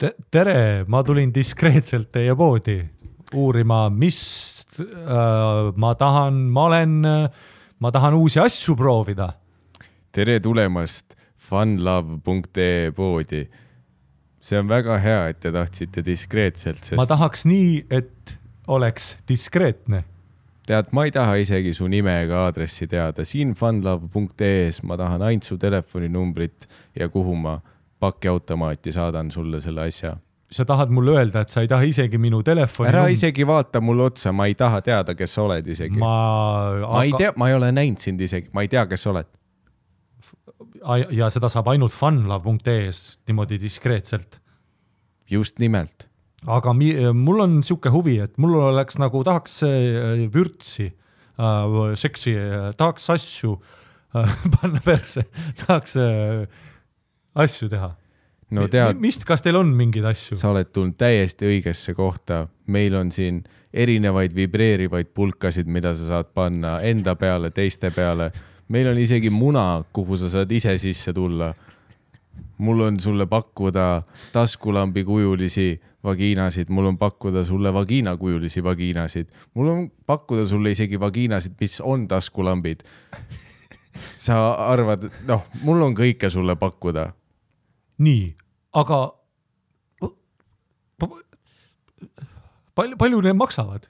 Tere, ma tulin diskreetselt teie poodi uurima, mis ma tahan uusi asju proovida. Tere tulemast funlove.ee poodi. See on väga hea, et te tahtsite diskreetselt. Ma tahaks nii, et oleks diskreetne. Tead, ma ei taha isegi su nime ega aadressi teada. Siin funlove.ee-s ma tahan ainult su telefoninumbrit ja kuhu ma pakiautomaati saadan sulle selle asja. Sa tahad mulle öelda, et sa ei taha isegi minu telefoni... Ära isegi vaata mulle otsa, ma ei taha teada, kes sa oled isegi. Ma ei ole näinud sind isegi, ma ei tea, kes sa oled. Ja seda saab ainult funlove.ee-s niimoodi diskreetselt. Just nimelt. Aga mul on siuke huvi, et mul oleks nagu tahaks vürtsi, seksi, tahaks asju panna perse, tahaks asju teha. No tead, kas teil on mingeid asju? Sa oled tulnud täiesti õigesse kohta. Meil on siin erinevaid vibreerivaid pulkasid, mida sa saad panna enda peale, teiste peale. Meil on isegi muna, kuhu sa saad ise sisse tulla. Mul on sulle pakkuda taskulambi kujulisi vagiinasid, mul on pakkuda sulle vagiina kujulisi vagiinasid. Mul on pakkuda sulle isegi vagiinasid, mis on taskulambid. Sa arvad, mul on kõike sulle pakkuda. Nii, aga palju need maksavad?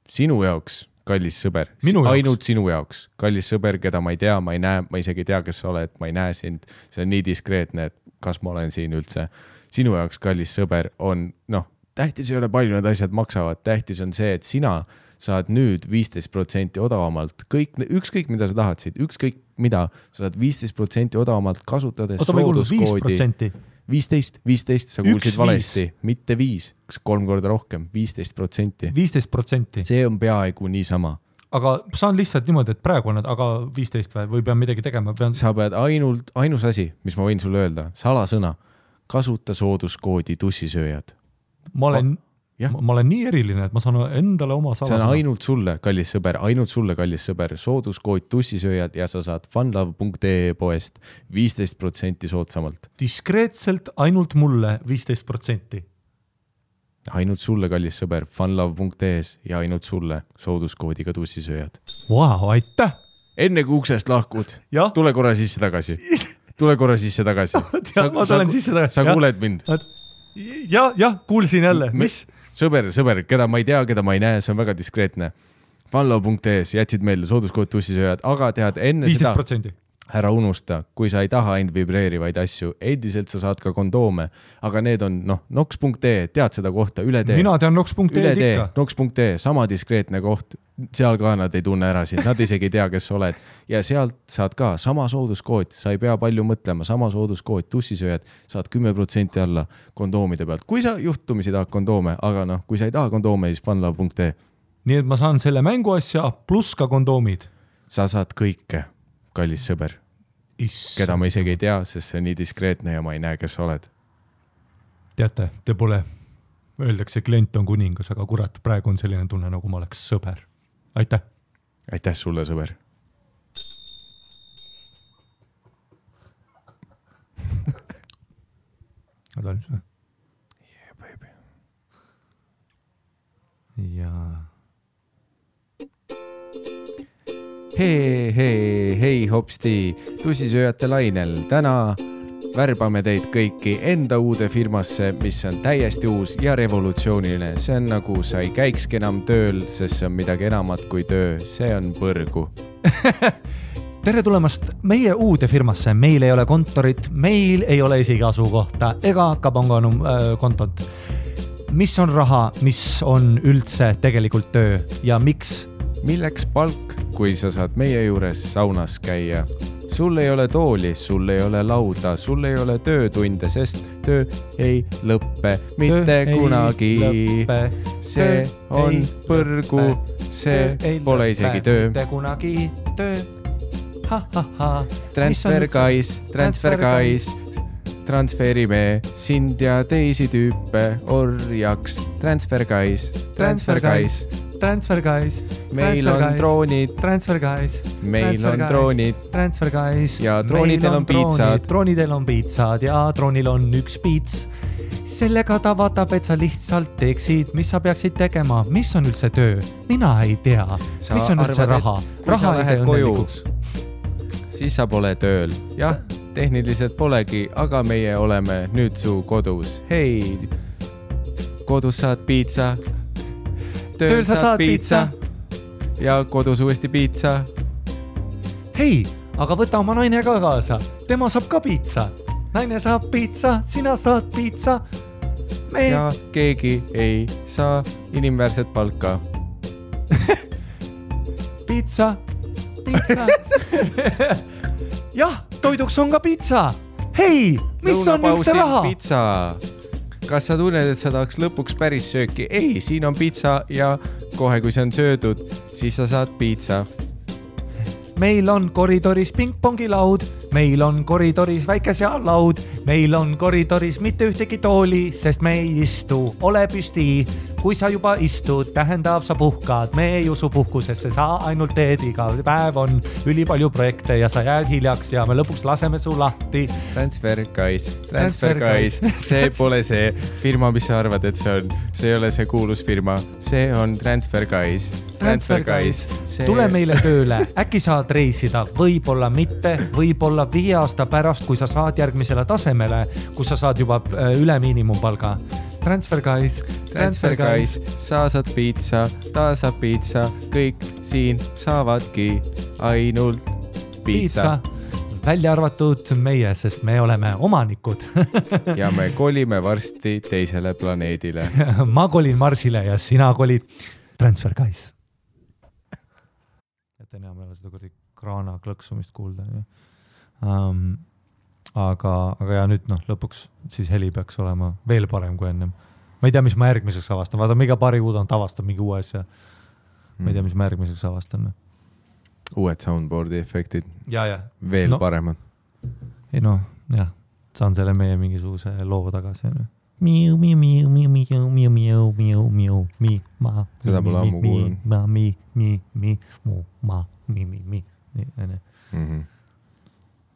Sinu jaoks, kallis sõber. Ainult sinu jaoks. Kallis sõber, keda ma ei tea, ma ei näe, ma isegi tea, kes sa oled, ma ei näe sind. See on nii diskreetne, et kas ma olen siin üldse. Sinu jaoks, kallis sõber, on, tähtis ei ole palju need asjad maksavad. Tähtis on see, et sina saad nüüd 15% odavamalt. Ükskõik, mida sa tahad siit, ükskõik mida, sa saad 15% odavamalt kasutades sooduskoodi. 15, sa kuulsid valesti, mitte 5, 3 korda rohkem, 15%. 15%. See on peaaegu niisama. Aga saan lihtsalt niimoodi, et praegu on, aga 15 või pean midagi tegema? Sa pead ainus asi, mis ma võin sulle öelda, salasõna, kasuta sooduskoodi tussisööjad. Ma olen nii eriline, et ma saan endale oma salasõna. See on ainult sulle, kallis sõber, sooduskood tussisööjad ja sa saad funlove.ee poest 15% soodsamalt. Diskreetselt ainult mulle 15%. Ainult sulle, kallis sõber, funlove.ee-s ja ainult sulle sooduskoodiga tussisööjad. Wow, aitäh! Enne kui uksest lahkud, tule korra sisse tagasi. Ma tulen sisse tagasi. Sa kuuled mind? Jah, kuulsin jälle. Mis? Sõber, keda ma ei tea, keda ma ei näe, see on väga diskreetne. Funlove.ee-s jätsid meile sooduskood tussisööjad, aga tead enne 15%. Seda, ära unusta, kui sa ei taha ainult vibreerivaid asju, endiselt sa saad ka kondoome, aga need on, nox.ee, tead seda kohta, üle tee. Mina tean nox.ee ikka. Nox.ee, sama diskreetne koht, seal ka nad ei tunne ära sind, nad isegi ei tea, kes sa oled. Ja sealt saad ka sama sooduskood, sa ei pea palju mõtlema, sama sooduskood, tussisööjad, saad 10% alla kondoomide pealt. Kui sa juhtumisi tahad kondoome, aga kui sa ei taha kondoome, siis funlove.ee. Nii et ma saan selle mänguasja plus ka kondoomid. Sa saad kõike, kallis sõber. Keda ma isegi ei tea, sest see on nii diskreetne ja ma ei näe, kes sa oled. Teate, te pole, öeldakse, klient on kuningas, aga kurat, praegu on selline tunne, nagu ma oleks sõber. Aitäh! Aitäh sulle, sõber! Yeah, baby. Ja... Hei, hopsti, tussisööjate lainel. Täna värbame teid kõiki enda uude firmasse, mis on täiesti uus ja revolutsiooniline. See on nagu sa ei käikski enam tööl, sest see on midagi enamat kui töö. See on põrgu. Tere tulemast meie uude firmasse. Meil ei ole kontorit, meil ei ole isegi asukohta ega kabanganum kontot. Mis on raha, mis on üldse tegelikult töö ja miks? Milleks palk, kui sa saad meie juures saunas käia? Sul ei ole tooli, sul ei ole lauda, sul ei ole töötunde, sest töö ei lõppe mitte kunagi. See on põrgu, see pole isegi töö. Mitte kunagi töö. Transfer guys, transferime sind ja teisi tüüpe orjaks. Transfer guys. Transfer Guys. Meil on droonid. Transfer Guys. Meil on droonid. Transfer Guys. Ja droonidel on piitsad. Droonidel on piitsad ja droonil on üks piits. Sellega ta vaatab, et sa lihtsalt teeksid, mis sa peaksid tegema. Mis on üldse töö? Mina ei tea. Mis on üldse raha? Kui sa lähed koju, siis sa pole tööl. Jah, tehniliselt polegi, aga meie oleme nüüd su kodus. Hei, kodus saad piitsa. Tööl sa saad piitsa. Ja kodus uuesti piitsa. Hei, aga võta oma naine ka kaasa. Tema saab ka piitsa. Naine saab piitsa, sina saad piitsa. Ja keegi ei saa inimväärset palka. Piitsa. Jah, toiduks on ka piitsa. Hei, mis on üldse raha? Piitsa. Kas sa tunned, et sa tahaks lõpuks päris sööki? Ei, siin on piitsa ja kohe kui see on söödud, siis sa saad piitsa. Meil on koridoris pingpongilaud, meil on koridoris väike seallaud, meil on koridoris mitte ühtegi tooli, sest me ei istu, ole püsti. Kui sa juba istud, tähendab sa puhkad, me ei usu puhkusesse, sa ainult teed iga päev on ülipalju projekte ja sa jääd hiljaks ja me lõpuks laseme su lahti. Transfer Guys, see pole see firma, mis sa arvad, et see on, see ei ole see kuulus firma, see on Transfer Guys. Tule meile tööle, äkki saad reisida, võib-olla mitte, võib-olla 5 aasta pärast, kui sa saad järgmisele tasemele, kus sa saad juba üle miinimumpalga. Transfer Guys, sa saad piitsa, ta saab piitsa, kõik siin saavadki ainult piitsa. Välja arvatud meie, sest me oleme omanikud. Ja me kolime varsti teisele planeedile. Ma kolin Marsile ja sina kolid Transfer Guys. Et enam ei ole seda kraana klõksumist kuulda. Aga ja nüüd lõpuks siis heli peaks olema veel parem kui ennem. Ma ei tea, mis ma järgmiseks avastan. Vaata, iga paari kuud on tavastab mingi uue asja. Ma ei tea, mis ma järgmiseks avastan. Uued soundboardi efektid. Ja. Veel paremad. Ei saan selle meie mingisuguse loo tagasi. Seda pole ammu kuulnud.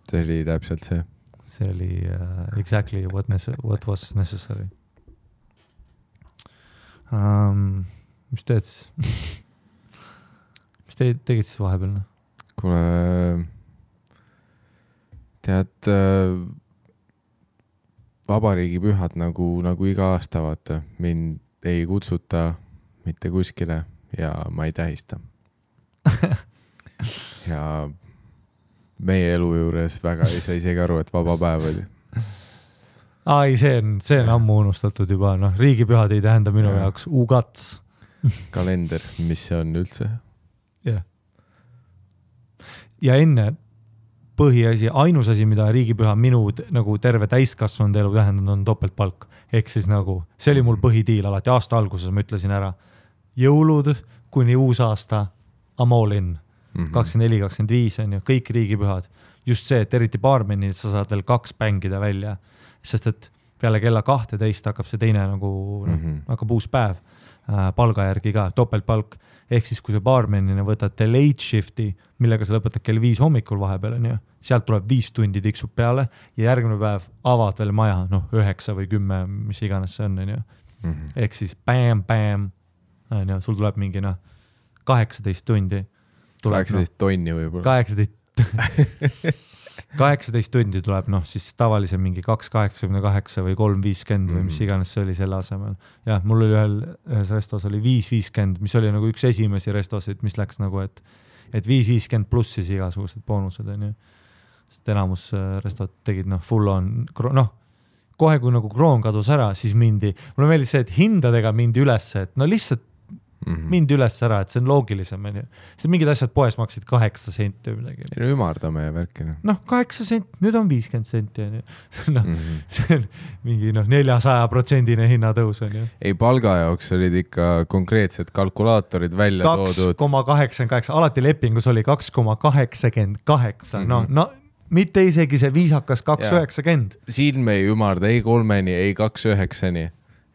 See oli täpselt see. See oli exactly what was necessary. Mis teed siis? Mis tegid siis vahepeal? Kuule, tead, vabariigi pühad nagu iga aasta, vaata, mind ei kutsuta mitte kuskile ja ma ei tähista. Ja meie elu juures väga ei saa isegi aru, et vaba päev oli. Ai, see on ammu unustatud juba. Riigipühad ei tähenda minu jaoks ugats. Kalender, mis see on üldse? Ja enne põhiasi, ainus asi, mida riigipüha minu nagu terve täiskasvanud elu tähendanud on topeltpalk. Ehk siis see oli mul põhitiil alati aasta alguses, ma ütlesin ära. Jõulud kuni uus aasta, I'm all in. 24-25 on ju, kõik riigipühad. Just see, et eriti baarmenil sa saad veel 2 pängida välja, sest et peale kella 12 hakkab see teine hakkab uus päev palga järgi ka, topeltpalk. Ehk siis, kui sa baarmenina võtad late shifti, millega sa lõpetad kell 5 hommikul vahepeal, on ju, sealt tuleb 5 tundi tiksub peale ja järgmine päev avad veel maja, 9 või 10, mis iganes see on ju. Ehk siis bam, on ju, sul tuleb mingi 18 tundi. 18 tonni võib-olla. 18 tundi tuleb, siis tavalise mingi 2,88 või 3,50 või mis iganes see oli selle asemel. Jah, mul oli ühes restos oli 5,50, mis oli nagu üks esimesi restosid, mis läks nagu, et 5,50 pluss siis igasugused boonused, on ju. Sest enamus restot tegid, full on, kohe kui nagu kroon kadus ära, siis mindi, mulle meeldis see, et hindadega mindi üles, et lihtsalt mindi üles ära, et see on loogilisem. Sest mingid asjad poes maksid 8 senti või midagi. No ümardame värkina. 8 senti, nüüd on 50 senti. See on mingi 400% hinnatõus. Ei, palga jaoks olid ikka konkreetsed kalkulaatorid välja toodud. 2,88, alati lepingus oli 2,88. Mitte isegi see viisakas 2,90. Siin me ei ümarda ei 3-ni, ei 2,9-ni.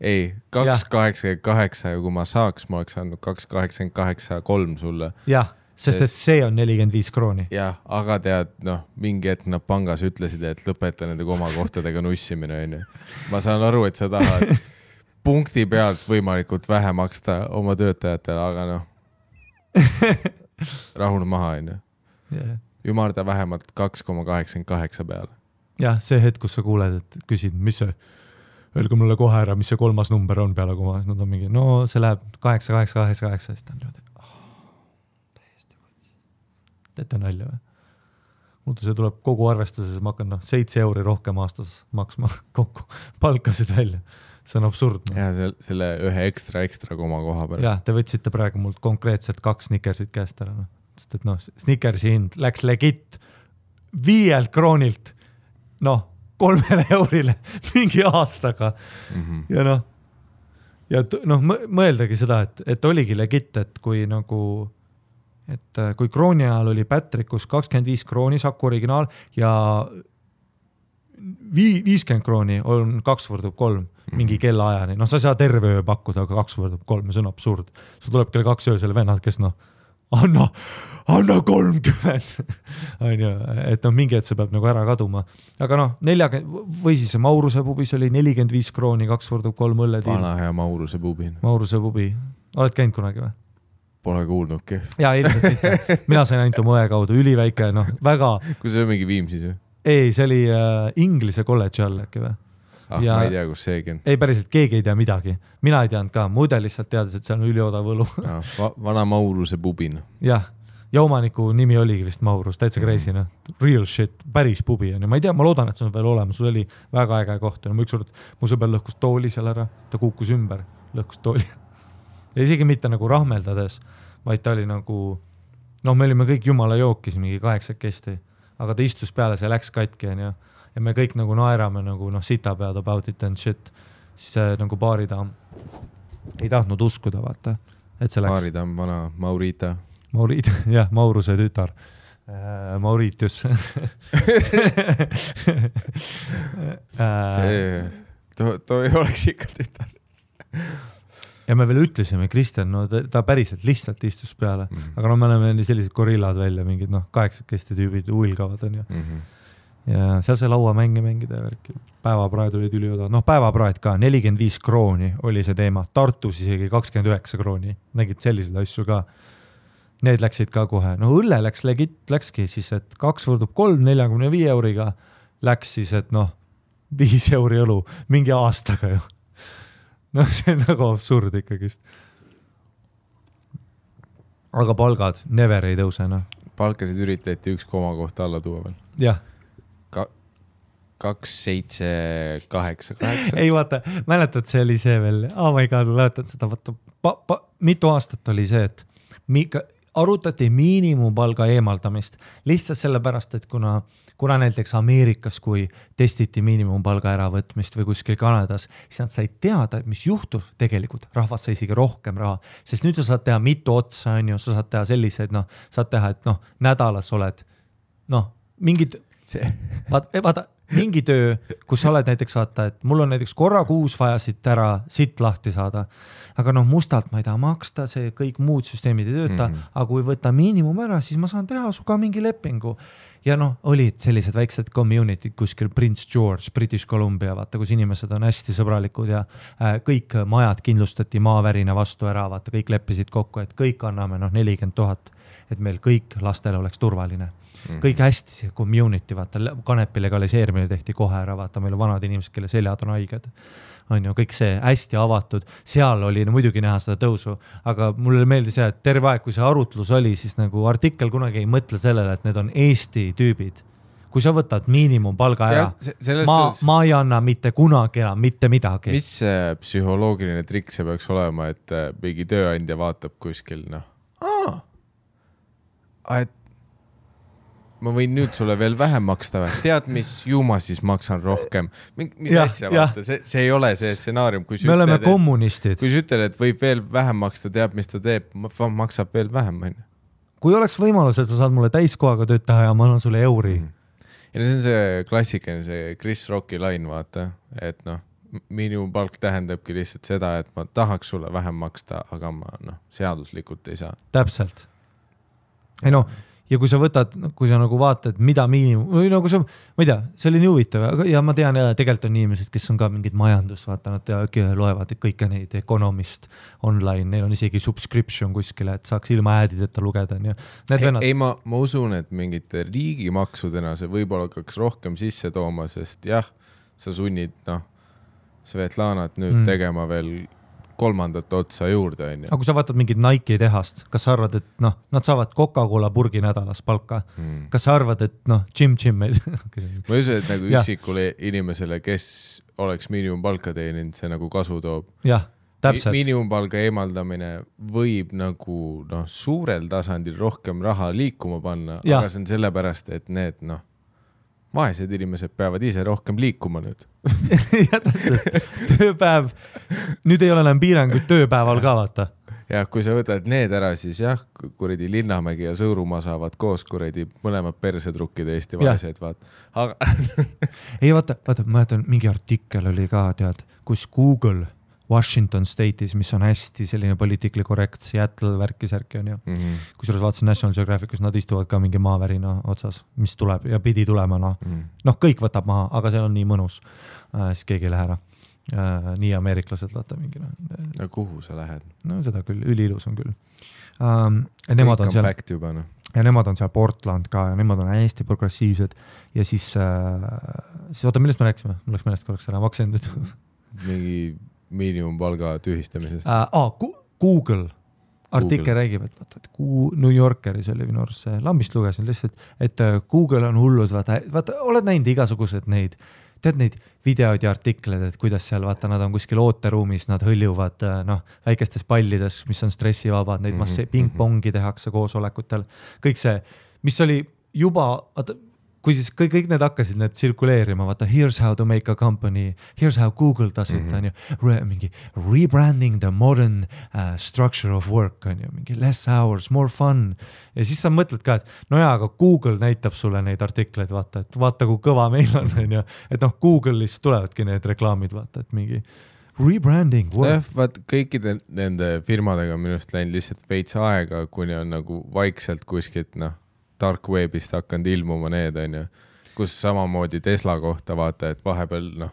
ei, 2,88 ja kui ma saaks, ma oleks andnud 2,88,3 sulle. Jah, sest et see on 45 krooni. Jah, aga tead, mingi hetk nad pangas ütlesid, et lõpeta nende komakohtadega nussimine. Ma saan aru, et sa tahad punkti pealt võimalikult vähe maksta oma töötajatele, aga rahune maha, Ümarda vähemalt 2,88 peale. Jah, see hetk, kus sa kuuled, et küsid, mis see, öelge mulle kohe ära, mis see 3. number on peale komas, nad on mingi, see läheb 8,8,8,8, siis ta on niimoodi, täiesti võtsi. Teete nalja või? Muidu see tuleb kogu arvestuses, ma hakkan 7 euri rohkem aastas maksma kokku palkasid välja. See on absurdne. Ja selle ühe ekstra koma koha peale. Jah, te võtsite praegu mult konkreetselt 2 Snickersit käest ära. Sest et Snickersi hind läks legit 5 kroonilt 3 eurile mingi aastaga. Ja mõeldagi seda, et oligi legit, et kui kui krooni ajal oli Patrickus 25 krooni Saku originaal ja 50 krooni on 2x3 mingi kellaajani. Sa ei saa terve öö pakkuda, aga 2x3, see on absurd. Sul tuleb kell 2 öösel vennad, kes anna 30. Et mingi hetk see peab ära kaduma. Aga 40, või siis Mauruse pubis oli 45 krooni, 2x3 õlletiim. Vana hea Mauruse pubi. Mauruse pubi. Oled käinud kunagi või? Pole kuulnudki. Jaa, ilmselt mitte. Mina sain ainult oma õe kaudu, üliväike, väga... Kui see on mingi Viimsis või? Ei, see oli Inglise kolledži all äkki või? Ja, ma ei tea, kus seegi on. Ei, päriselt, keegi ei tea midagi. Mina ei teadnud ka, muide lihtsalt teades, et seal on üliodav võlu. Vana Mauruse pubin. Jah, ja omaniku nimi oligi vist Maurus, täitsa crazy, real shit, päris pubi on. Ma ei tea, ma loodan, et see on veel olemas, sul oli väga äge koht. Üks kord mu sõber lõhkus tooli seal ära, ta kuukus ümber, lõhkus tooli. Ja isegi mitte rahmeldades, vaid ta oli me olime kõik jumala jookis, mingi 8 kesti, aga ta istus peale, see läks katki ja me kõik naerame sita pead about it and shit. Siis see baaritaam ei tahtnud uskuda, vaata, et see läks. Baaritaam, vana Maurita. Jah, Mauruse tütar. Mauritius. See, too ei oleks ikka tütar. Ja me veel ütlesime, Kristjan, ta päriselt lihtsalt istus peale, aga me oleme sellised gorillad välja, mingid 8 kesti tüübid uilgavad on ju. Ja seal see laua mängida ja värki. Päevapraed olid ülioda. Päevapraed ka, 45 krooni oli see teema. Tartus isegi 29 krooni. Nägid selliseid asju ka. Need läksid ka kohe. Õlle läkski siis, et 2x3 45 euriga läks siis, et 5 euri õlu mingi aastaga ju. See on absurd ikkagist. Aga palgad never ei tõuse. Palkasid üritati 1 koma kohta alla tuua veel. Jah. 2,7,8. Ei vaata, mäletad, see oli see veel, ma ei mäletad seda, vaata, mitu aastat oli see, et arutati miinimumpalga eemaldamist lihtsalt sellepärast, et kuna näiteks Ameerikas, kui testiti miinimumpalga äravõtmist või kuskil Kanadas, siis nad said teada, mis juhtus tegelikult, rahvas sai isegi rohkem raha, sest nüüd sa saad teha mitu otsa, sa saad teha selliseid, saad teha, et nädalas oled, mingid, vaata, mingi töö, kus sa oled näiteks vaata, et mul on näiteks korra kuus vaja siit lahti saada, aga mustalt ma ei taha maksta, see kõik muud süsteemid ei tööta, aga kui võtta miinimum ära, siis ma saan teha su ka mingi lepingu. Ja olid sellised väiksed community kuskil Prince George, British Columbia, vaata, kus inimesed on hästi sõbralikud ja kõik majad kindlustati maavärina vastu ära, vaata, kõik leppisid kokku, et kõik anname 40 000, et meil kõik lastele oleks turvaline. Kõik hästi see community, vaata, kanepi legaliseerimine tehti kohe ära, vaata, meil on vanad inimesed, kelle seljad on haiged. On ju, kõik see hästi avatud, seal oli muidugi näha seda tõusu, aga mulle meeldis see, et terve aeg, kui see arutlus oli, siis artikkel kunagi ei mõtle sellele, et need on Eesti tüübid. Kui sa võtad miinimumpalga ära, ma ei anna mitte kunagi enam, mitte midagi. Mis psühholoogiline trikk see peaks olema, et mingi tööandja vaatab kuskil, et ma võin nüüd sulle veel vähem maksta või? Tead, mis ju ma siis maksan rohkem? Mis asja vaata? See ei ole see stsenaarium. Me oleme kommunistid. Kui sa ütled, et võib veel vähem maksta, teab, mis ta teeb, maksab veel vähem. Kui oleks võimalus, et sa saad mulle täiskohaga tööd teha ja ma annan sulle euri. Ja see on see klassikaline, see Chris Rocki lain, vaata, et miinimumpalk tähendabki lihtsalt seda, et ma tahaks sulle vähem maksta, aga ma seaduslikult ei saa. Täpselt. Ei ja kui sa võtad, kui sa nagu vaatad, mida või nagu sa, ma ei tea, see oli nii huvitav ja ma tean, tegelikult on inimesed, kes on ka mingid majandus, vaata, nad loevad kõike neid Economist online, neil on isegi subscription kuskile, et saaks ilma äädideta lugeda. Ei, ma usun, et mingite riigimaksudena see võib-olla hakkaks rohkem sisse tooma, sest jah, sa sunnid Svetlanat nüüd tegema veel 3. otsa juurde. Aga kui sa vaatad mingid Nike tehast, kas sa arvad, et nad saavad Coca-Cola purgi nädalas palka? Kas sa arvad, et Jim meid? Ma usun, et nagu üksikule inimesele, kes oleks miinimumpalka teeninud, see nagu kasu toob. Jah, täpselt. Miinimumpalga eemaldamine võib nagu suurel tasandil rohkem raha liikuma panna, aga see on sellepärast, et need vaesed inimesed peavad ise rohkem liikuma nüüd. Ja täpselt. Tööpäev. Nüüd ei ole enam piiranguid tööpäeval ka, vaata. Ja kui sa võtad need ära, siis jah, kuradi Linnamägi ja Sõõrumaa saavad koos kuradi mõlemad persetrukkide Eesti vaesed, vaat. Aga... ei, vaata, ma jätan, mingi artikkel oli ka, tead, kus Google Washington State'is, mis on hästi selline poliitikli korrekt, Seattle värki-särki on ju. Kusjuures vaatasin National Geographicus, nad istuvad ka mingi maavärina otsas, mis tuleb ja pidi tulema. Kõik võtab maha, aga see on nii mõnus. Siis keegi ei lähe ära. Nii ameeriklased vaata mingi. Kuhu sa lähed? Seda küll, üliilus on küll. Nemad on seal, ja nemad on seal Portland ka ja nemad on hästi progressiivsed ja siis oota, millest me rääksime? Mul läks meelest korraks ära, maksin nüüd. Mingi miinimumpalga tühistamisest. Google artikkel räägib, et New Yorkeris oli minu arust see, lambist lugesin lihtsalt, et Google on hullus, vaata, oled näinud igasugused neid videoid ja artikleid, et kuidas seal, vaata, nad on kuskil ooteruumis, nad hõljuvad väikestes pallides, mis on stressivabad, neid ping-pongi tehakse koosolekutel, kõik see, mis oli juba, kui siis kõik need hakkasid need tsirkuleerima, vaata, here's how to make a company, here's how Google does it, on ju, mingi rebranding the modern structure of work, on ju, mingi less hours, more fun. Ja siis sa mõtled ka, et aga Google näitab sulle neid artikleid, vaata, et vaata, kui kõva meil on, ju, et Google'is tulevadki need reklaamid, vaata, et mingi rebranding work. Vaat kõikide nende firmadega minust läinud lihtsalt veits aega, kuni on nagu vaikselt kuskilt, dark webist hakanud ilmuma need, on ju, kus samamoodi Tesla kohta vaata, et vahepeal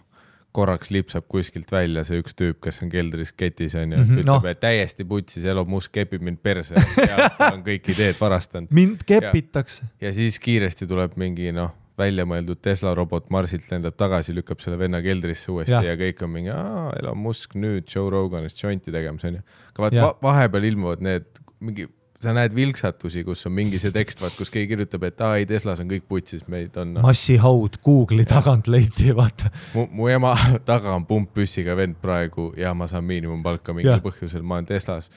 korraks lipsab kuskilt välja see üks tüüp, kes on keldris ketis, on ju, ütleb, et täiesti putsis, Elon Musk kepib mind perse, ja on kõik ideed varastanud. Mind kepitakse. Ja siis kiiresti tuleb mingi, välja mõeldud Tesla robot Marsilt lendab tagasi, lükkab selle venna keldrisse uuesti ja kõik on mingi, Elon Musk nüüd Joe Roganist jointi tegemas, on ju. Aga vahepeal ilmuvad need mingi sa näed vilksatusi, kus on mingi see tekst, kus keegi kirjutab, et ei, Teslas on kõik putsis, meid on... Massihaud Google'i tagant leiti, vaata. Mu ema taga on pumppüssiga vend praegu ja ma saan miinimumpalka mingil põhjusel, ma olen Teslas.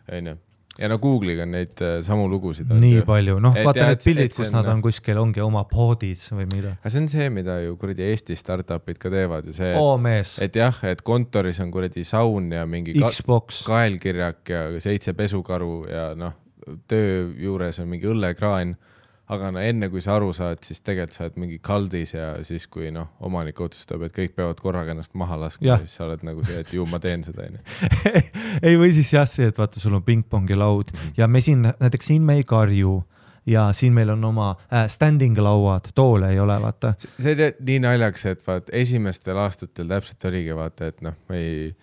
Ja Google'iga on neid samu lugusid. Nii palju, vaata need pildid, kus nad on kuskil, ongi oma podis või mida. Aga see on see, mida ju kuradi Eesti startupid ka teevad. Ju see, mees. Et jah, et kontoris on kuradi saun ja mingi kaelkirjak ja 7 pesukaru ja töö juures on mingi õllekraan, aga enne kui sa aru saad, siis tegelikult sa oled mingi kaldis ja siis kui omanik otsustab, et kõik peavad korraga ennast maha laskma, siis sa oled nagu see, et ju ma teen seda. Ei või siis jah see, et vaata, sul on ping-pongi laud ja me näiteks siin me ei karju ja siin meil on oma standing lauad, toole ei ole, vaata. See on nii naljaks, et vaat esimestel aastatel täpselt oligi, vaata, et me ei...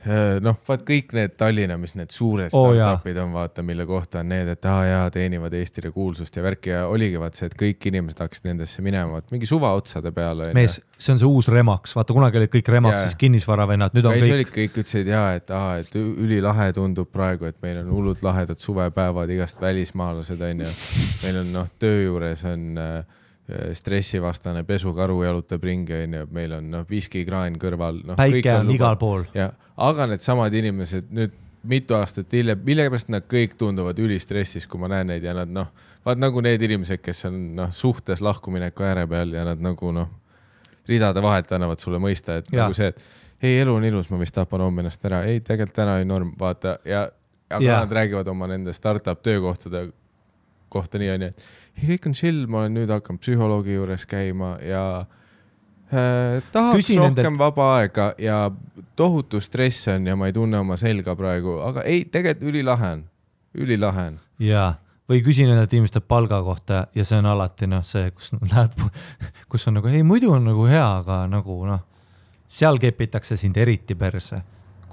vaat kõik need Tallinna, mis need suured startupid on, vaata, mille kohta on need, et teenivad Eestile kuulsust ja värki ja oligi vaat see, et kõik inimesed hakkasid nendesse minema, et mingi suva otsade peale. Mees, see on see uus Remax, vaata kunagi olid kõik Remaxis kinnisvaravennad, nüüd on kõik... olid kõik ütlesid et ülilahe tundub praegu, et meil on hullud lahedad suvepäevad, igast välismaalased on ja meil on töö juures on... stressivastane pesukaru jalutab ringi, meil on viskikraan kõrval. Päike on igal pool. Aga need samad inimesed nüüd mitu aastat hiljem, millegipärast nad kõik tunduvad ülistressis, kui ma näen neid ja nad vaat nagu need inimesed, kes on suhtes lahkumineku ääre peal ja nad nagu ridade vahelt annavad sulle mõista, et nagu see, et ei, elu on ilus, ma vist tapan homme ennast ära, ei, tegelikult täna ei norm, vaata aga nad räägivad oma nende startup töökohtade kohta nii on, et kõik on chill, ma olen nüüd hakanud psühholoogi juures käima ja tahaks rohkem vaba aega ja tohutu stress on ja ma ei tunne oma selga praegu, aga ei, tegelikult ülilahe on. Jaa, või küsin nendelt inimeste palga kohta ja see on alati see, kus on nagu, ei muidu on nagu hea, aga nagu seal kepitakse sind eriti perse,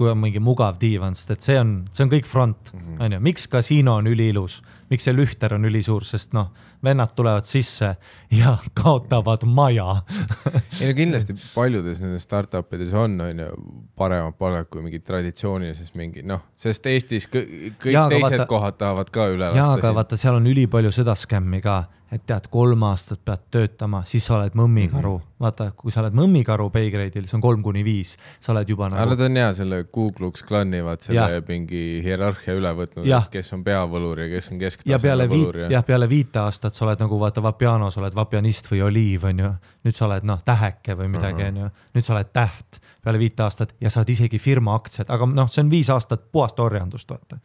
kui on mingi mugav diivan, sest et see on kõik front. Miks kasiino on üliilus, miks see lühter on ülisuur, sest vennad tulevad sisse ja kaotavad maja. Ei no kindlasti paljudes nendes startupides on paremad palgad kui mingi traditsioonilises mingi, sest Eestis kõik teised kohad tahavad ka üle lasta. Jaa, aga vaata, seal on ülipalju seda skämmi ka, et tead, 3 aastat pead töötama, siis sa oled mõmmikaru. Vaata, kui sa oled mõmmikaru paygrade'il, see on 3-5, sa oled juba nagu... Aga ta on hea, selle Kuklux Klani vaat selle mingi hierarhia üle võtnud, kes on peavõlur ja kes on kesktaseme võlur. Ja peale 5 aastat sa oled nagu, vaata, vapianos oled vapianist või oliiv, on ju. Nüüd sa oled täheke või midagi, on ju. Nüüd sa oled täht peale 5 aastat ja saad isegi firma aktsiad, aga see on 5 aastat puhast orjandust, vaata.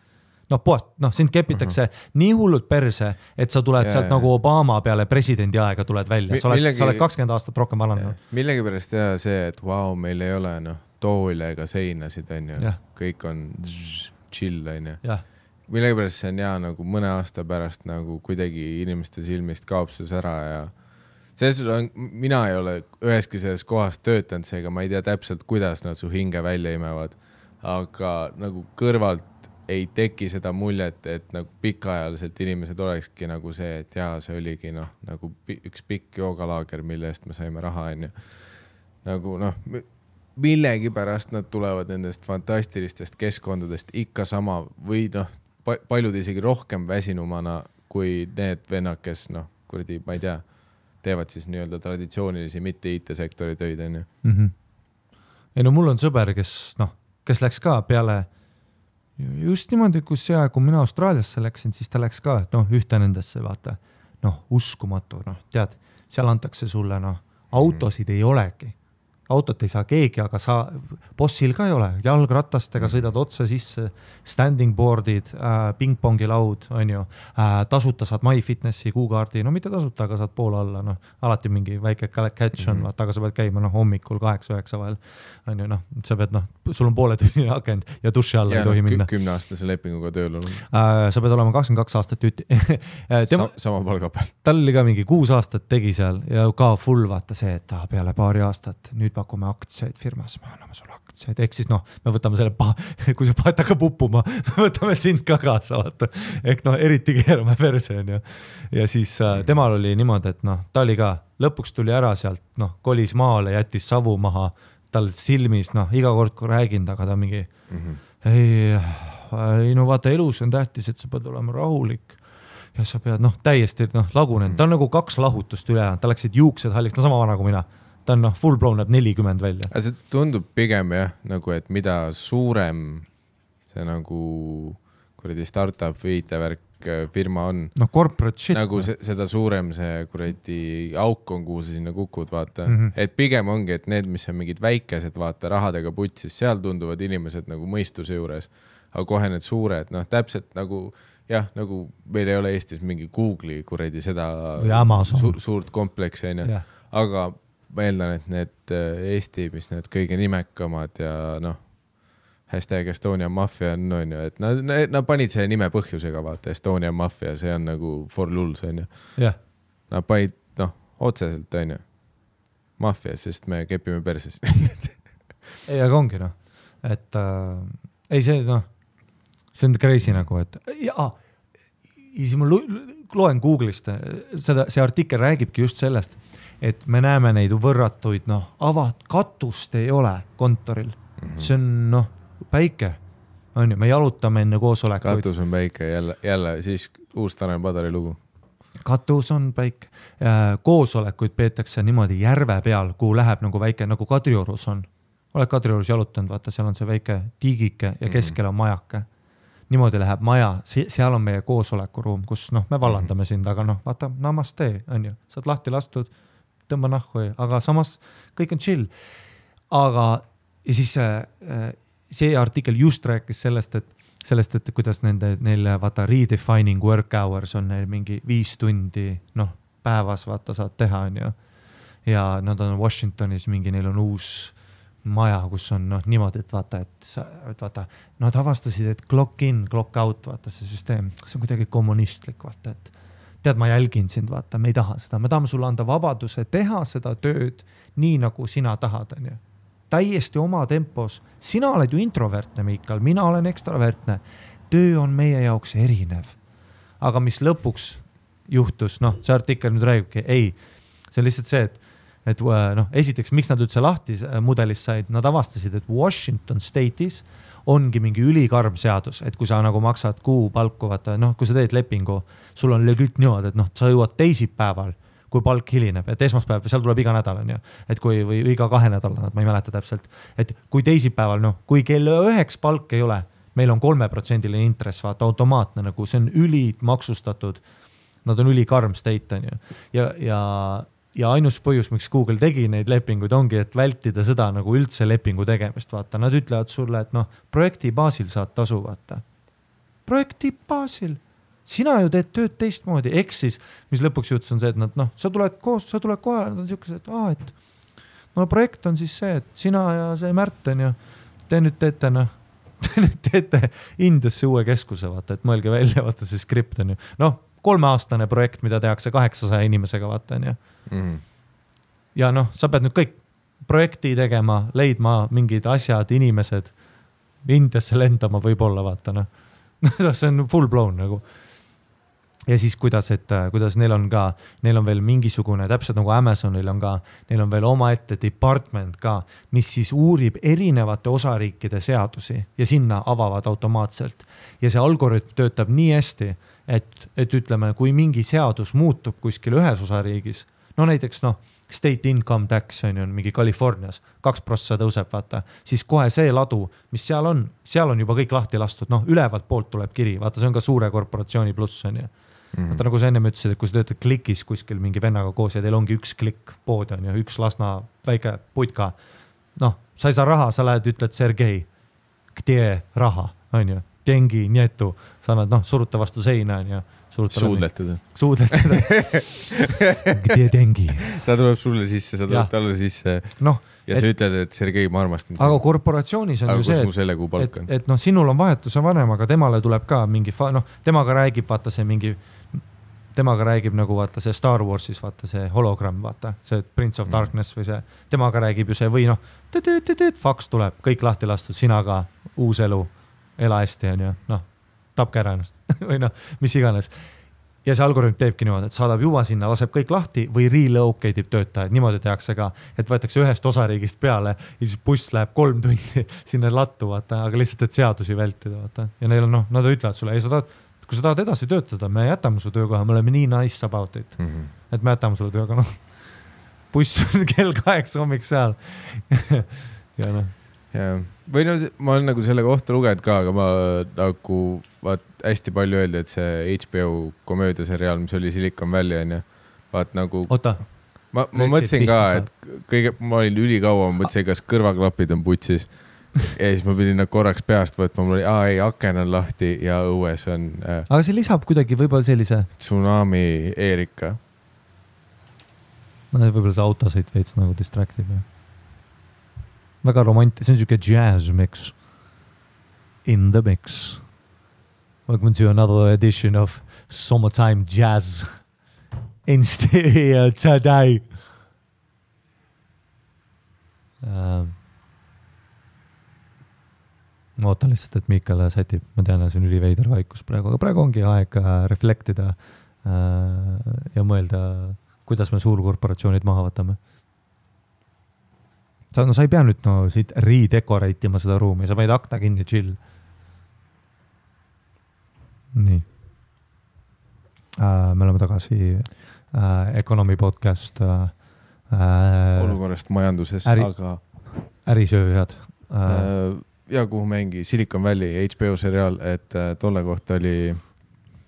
Sind kepitakse nii hullult perse, et sa tuled sealt nagu Obama peale presidendi aega tuled välja. Sa oled 20 aastat rohkem vananud. Millegi pärast teha see, et meil ei ole toole ega seinasid, on ju. Kõik on chill, on ju. Millegi pärast see on hea nagu mõne aasta pärast nagu kuidagi inimeste silmist kaob see ära ja mina ei ole üheski selles kohas töötanud, seega ma ei tea täpselt, kuidas nad su hinge välja imevad, aga nagu kõrvalt ei teki seda muljet, et nagu pikaajaliselt inimesed olekski nagu see, et see oligi nagu üks pikk joogalaager, mille eest me saime raha, on ju. Nagu millegi pärast nad tulevad nendest fantastilistest keskkondadest ikka sama või paljud isegi rohkem väsinumana kui need vennad, kes kuradi, ma ei tea, teevad siis nii-öelda traditsioonilisi mitte IT-sektori töid, on ju. Ei mul on sõber, kes läks ka peale just niimoodi, kui mina Austraaliasse läksin, siis ta läks ka, ühte nendesse, vaata, uskumatu, tead, seal antakse sulle, autosid ei olegi. Autot ei saa keegi, aga bossil ka ei ole. Jalgratastega sõidad otse sisse, standing boardid, pingpongi laud, on ju, tasuta saad MyFitnessi kuukaardi, mitte tasuta, aga saad poole alla, alati mingi väike catch on, vaata, aga sa pead käima hommikul 8-9 vahel, on ju, sa pead, sul on poole tunni akend ja duši alla ei tohi minna. 10-aastase lepinguga tööl on. Sa pead olema 22 aastat tüüti. Sama palga peal. Tal oli ka mingi 6 aastat tegi seal ja ka full vaata see, et peale paari aastat nüüd pakume aktsiaid firmas, me anname sulle aktsiaid, ehk siis me võtame selle, kui see paet hakkab uppuma, me võtame sind ka kaasa, vaata. Ehk eriti keerame perse, on ju. Ja siis temal oli niimoodi, et ta oli ka, lõpuks tuli ära sealt, kolis maale, jättis savu maha, tal silmis, iga kord kui räägind, aga ta mingi, ei, vaata, elus on tähtis, et sa pead olema rahulik ja sa pead, täiesti lagunenud. Ta on nagu 2 lahutust üle, ta läksid juuksed halliks, sama vana kui mina. Ta on full blown näeb 40 välja. See tundub pigem nagu, et mida suurem see nagu kuradi startup või IT-värk firma on. Corporate shit. Nagu seda suurem see kuradi auk on, kuhu sa sinna kukud, vaata. Et pigem ongi, et need, mis on mingid väikesed, vaata, rahadega putsis, seal tunduvad inimesed nagu mõistuse juures. Aga kohe need suured, täpselt nagu, nagu meil ei ole Eestis mingi Google'i kuradi seda suurt kompleksi, aga ma eeldan, et need Eesti, mis need kõige nimekamad ja hashtag Estonia Mafia on ju, et nad panid selle nime põhjusega, vaata, Estonia Mafia, see on nagu for lulls, on ju. Nad panid, otseselt, on ju, Mafia, sest me kepime perses. Ei, aga ongi, et ei see, see on crazy nagu, et siis ma loen Google'ist, see artikkel räägibki just sellest, et me näeme neid võrratuid, katust ei ole kontoril. See on, päike. On ju, me jalutame enne koosolekuid. Katus on päike, jälle siis uus Tanel Padari lugu. Katus on päike. Koosolekuid peetakse niimoodi järve peal, kuhu läheb nagu väike, nagu Kadriorus on. Oled Kadriorus jalutanud, vaata, seal on see väike tiigike ja keskel on majake. Niimoodi läheb maja, seal on meie koosolekuruum, kus me vallandame sind, aga vaata, namaste, on ju. Saad lahti lastud, tõmba nahku, aga samas kõik on chill. Aga ja siis see artikkel just rääkis sellest, et kuidas neile vaata redefining work hours on neil mingi 5 tundi päevas vaata saad teha, on ju. ja nad on Washingtonis mingi, neil on uus maja, kus on niimoodi, et vaata, nad avastasid, et clock in, clock out, vaata see süsteem, see on kuidagi kommunistlik, vaata, et tead, ma jälgin sind, vaata, me ei taha seda, me tahame sulle anda vabaduse teha seda tööd nii, nagu sina tahad, on ju. Täiesti oma tempos. Sina oled ju introvertne, Miikal, mina olen ekstravertne. Töö on meie jaoks erinev. Aga mis lõpuks juhtus, see artikkel nüüd räägibki, ei, see on lihtsalt see, et esiteks, miks nad üldse lahti mudelist said, nad avastasid, et Washington State'is ongi mingi ülikarm seadus, et kui sa nagu maksad kuupalku, vaata, kui sa teed lepingu, sul on legit niimoodi, et sa jõuad teisipäeval, kui palk hilineb, et esmaspäev, seal tuleb iga nädal, on ju, et või iga 2 nädala, ma ei mäleta täpselt, et kui teisipäeval, kui kell 9 palk ei ole, meil on 3% intress, vaata, automaatne, nagu see on maksustatud, nad on ülikarm state, on ju, ja ainus põhjus, miks Google tegi neid lepinguid, ongi, et vältida seda nagu üldse lepingu tegemist, vaata, nad ütlevad sulle, et projekti baasil saad tasu, vaata. Projekti baasil. Sina ju teed tööd teistmoodi, siis, mis lõpuks juhtus on see, et nad, sa tuled kohale, nad on siukesed, et projekt on siis see, et sina ja see Märten ja te nüüd teete Indiasse uue keskuse, vaata, et mõelge välja, vaata see skript on ju. 3-aastane projekt, mida tehakse 800 inimesega, vaata on ju. Ja sa pead nüüd kõik projekti tegema, leidma mingid asjad, inimesed, Indiasse lendama võib-olla, vaata, see on full blown nagu. Ja siis kuidas neil on veel mingisugune, täpselt nagu Amazonil on ka, neil on veel omaette department ka, mis siis uurib erinevate osariikide seadusi ja sinna avavad automaatselt. Ja see algoritm töötab nii hästi, et ütleme, kui mingi seadus muutub kuskil ühes osariigis, näiteks state income tax on mingi Californias, 2% tõuseb, vaata, siis kohe see ladu, mis seal on juba kõik lahti lastud, ülevalt poolt tuleb kiri, vaata, see on ka suure korporatsiooni pluss on ju. Vaata, nagu sa enne ütlesid, et kui sa töötad klikis kuskil mingi vennaga koos ja teil ongi üks klikk pood on ju, üks Lasna väike putka, sa ei saa raha, sa lähed, ütled Sergei, kde raha, on ju, tengi, nietu, sa annad, suruta vastu seina on ju. Suudletada. Kde tengi. Ta tuleb sulle sisse, sa tuleb talle sisse ja sa ütled, et Sergei, ma armastan. Aga korporatsioonis on ju see, et sinul on vahetuse vanem, aga temale tuleb ka mingi, temaga räägib, vaata see mingi, temaga räägib nagu vaata see Star Warsis, vaata see hologramm, vaata see Prince of Darkness või see, temaga räägib ju see või faks tuleb, kõik lahti lastud, sina ka, uus elu, ela hästi on ju, tapke ära ennast või mis iganes. Ja see algoritm teebki niimoodi, et saadab juba sinna, laseb kõik lahti või relocate ib töötajaid, niimoodi tehakse ka, et võetakse ühest osariigist peale ja siis buss läheb 3 tundi sinna lattu, vaata, aga lihtsalt, et seadusi vältida, vaata. Ja neil on, nad ütlevad sulle, kui sa tahad edasi töötada, me jätame su töökoha, me oleme nii nice about it, et me jätame sulle tööga, buss on kell 8 hommik seal. Ja või ma olen nagu selle kohta lugenud ka, aga ma nagu hästi palju öeldi, et see HBO komöödiaseriaal, mis oli Silicon Valley on ju, nagu ma mõtlesin ka, et ma olin ülikaua, ma mõtlesin, kas kõrvaklapid on putsis ja siis ma pidin korraks peast võtma, mul oli, aken on lahti ja õues on aga see lisab kuidagi võib-olla sellise tsunami Erika. Võib-olla see autosõit veits nagu distractib väga romantiline, see on siuke jazz mix in the mix. Welcome to another edition of Summertime Jazz in stereo today. Ma ootan lihtsalt, et Miikal sätib, ma tean, see on üliveider vaikus praegu, aga praegu ongi aeg reflektida ja mõelda, kuidas me suurkorporatsioonid maha võtame. Sa ei pea nüüd siit redecorate'ima seda ruumi, sa panid akna kinni, chill. Nii. Me oleme tagasi Economy podcast. Olukorrast majanduses, aga ärisööjad. Ja kuhu mängi Silicon Valley HBO seriaal, et tolle kohta oli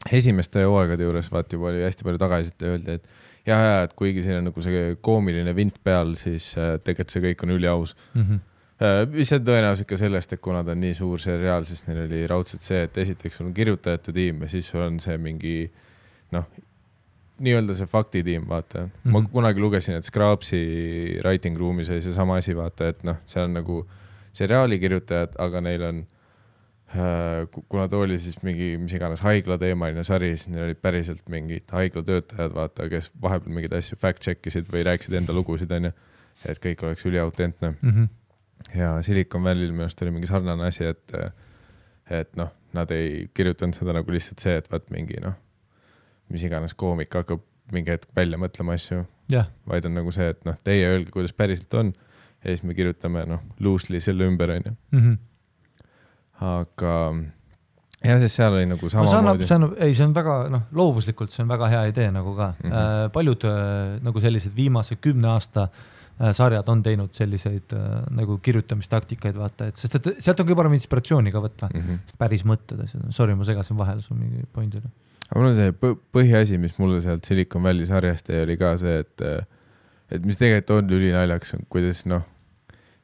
esimeste hooaegade juures, juba oli hästi palju tagasiselt ja öeldi, et et kuigi siin on nagu see koomiline vint peal, siis tegelikult see kõik on üliaus. Mis on tõenäoliselt ka sellest, et kuna ta on nii suur seriaal, siis neil oli raudselt see, et esiteks on kirjutajate tiim ja siis on see mingi nii-öelda see faktitiim, vaata. Ma kunagi lugesin, et Scrapsi writing room'is oli see sama asi, vaata, et noh, see on nagu seriaali kirjutajad, aga neil on, kuna ta oli siis mingi, mis iganes haiglateemaline sari, siis neil olid päriselt mingid haiglatöötajad, vaata, kes vahepeal mingid asju fact-checkisid või rääkisid enda lugusid, on ju, et kõik oleks üliautentne. Ja Silicon Valley'l minu arust oli mingi sarnane asi, et noh, nad ei kirjutanud seda nagu lihtsalt see, et vaat mingi noh, mis iganes koomik hakkab mingi hetk välja mõtlema asju, vaid on nagu see, et noh, teie öelge, kuidas päriselt on ja siis me kirjutame noh, loosely selle ümber, on ju. Aga ja siis seal oli nagu samamoodi. See on väga, noh, loovuslikult see on väga hea idee nagu ka. Paljud nagu sellised viimase 10 aasta sarjad on teinud selliseid nagu kirjutamistaktikaid, vaata, et sest et sealt on kõige parem inspiratsiooni ka võtta. Päris mõtted. Sorry, ma segasin vahel sul mingi pointile. Aga mul on see põhiasi, mis mulle sealt Silicon Valley sarjast oli ka see, et mis tegelikult on ülinaljaks, kuidas noh,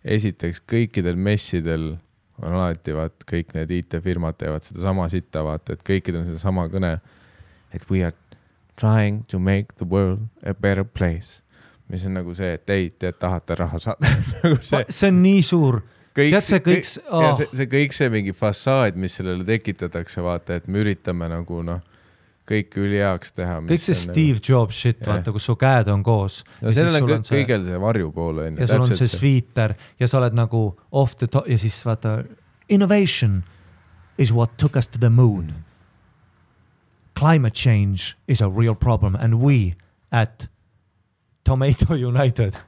esiteks kõikidel messidel on alati vaat kõik need IT-firmad teevad seda sama sitta, vaata, et kõikidel on seda sama kõne, et we are trying to make the world a better place. Mis on nagu see, et te tahate raha saada. See on nii suur. See kõik see mingi fassaad, mis sellele tekitatakse, vaata, et me üritame nagu noh, kõik üliheaks teha. Kõik see Steve Jobs shit, vaata, kus su käed on koos. No sellel on kõigel see varjupool. Ja sul on see sweeter ja sa oled nagu off the top ja siis vaata, innovation is what took us to the moon. Climate change is a real problem and we at Tomato United.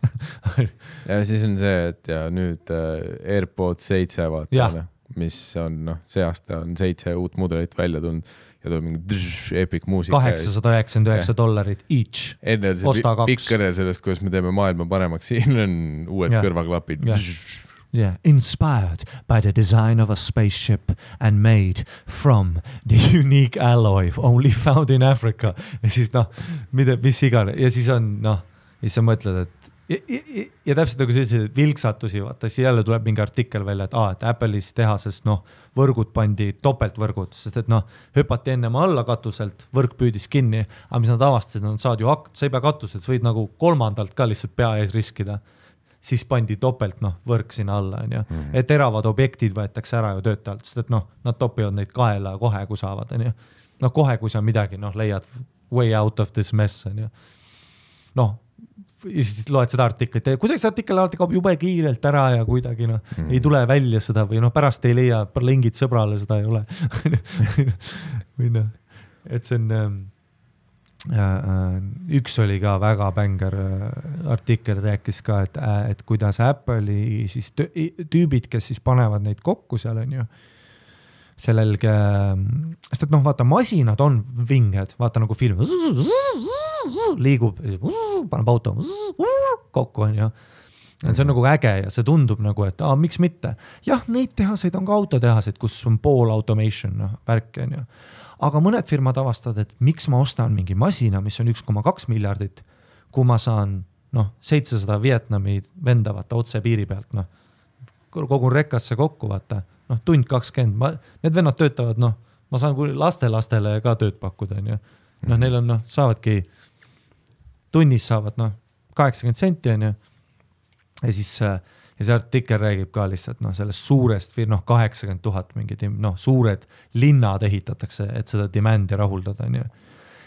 Ja siis on see, et ja nüüd AirPods 7 vaata, mis on, noh, see aasta on 7 uut mudelit välja tulnud ja tuleb mingi epic muusika. $899 each. Enne see pikk kõne sellest, kuidas me teeme maailma paremaks, siin on uued kõrvaklapid. Yeah. Inspired by the design of a spaceship and made from the unique alloy only found in Africa. Ja siis noh, mis igane. Ja siis on, noh, ja siis sa mõtled, et ja täpselt nagu sa ütlesid, et vilksatusi, vaata, siis jälle tuleb mingi artikkel välja, et Apple'is tehases, noh, võrgud pandi topeltvõrgud, sest et noh, hüpati ennem alla katuselt, võrk püüdis kinni, aga mis nad avastasid, sa ei pea katuselt, sa võid nagu kolmandalt ka lihtsalt pea ees riskida, siis pandi topelt, noh, võrk sinna alla, on ju, et teravad objektid võetakse ära ju töötajalt, sest et noh, nad topivad neid kaela kohe, kui saavad, on ju, noh, kohe, kui sa midagi, noh, leiad way out of this mess, on ju, noh, ja siis loed seda artiklit ja kuidagi see artikkel alati kaob jube kiirelt ära ja kuidagi noh, ei tule välja seda või noh, pärast ei leia, lingid sõbrale seda ei ole. Või noh, et see on, üks oli ka väga bänger artikkel, rääkis ka, et kuidas Apple'i siis tüübid, kes siis panevad neid kokku seal on ju, sellelge, sest et noh, vaata, masinad on vinged, vaata nagu film, liigub, paneb auto kokku on ju. See on nagu äge ja see tundub nagu, et miks mitte. Jah, neid tehaseid on ka autotehaseid, kus on pool automation, noh, värk on ju. Aga mõned firmad avastavad, et miks ma ostan mingi masina, mis on 1,2 miljardit, kui ma saan, noh, 700 Vietnami venda, vaata, otse piiri pealt, noh, kogun rekkasse kokku, vaata, noh, tund 20, need vennad töötavad, noh, ma saan lastele ka tööd pakkuda, on ju. Noh, neil on, noh, saavadki, tunnis saavad, noh, 80 senti, on ju. Ja siis ja see artikkel räägib ka lihtsalt, noh, sellest suurest, noh, 80 000 mingid, noh, suured linnad ehitatakse, et seda demandi rahuldada, on ju.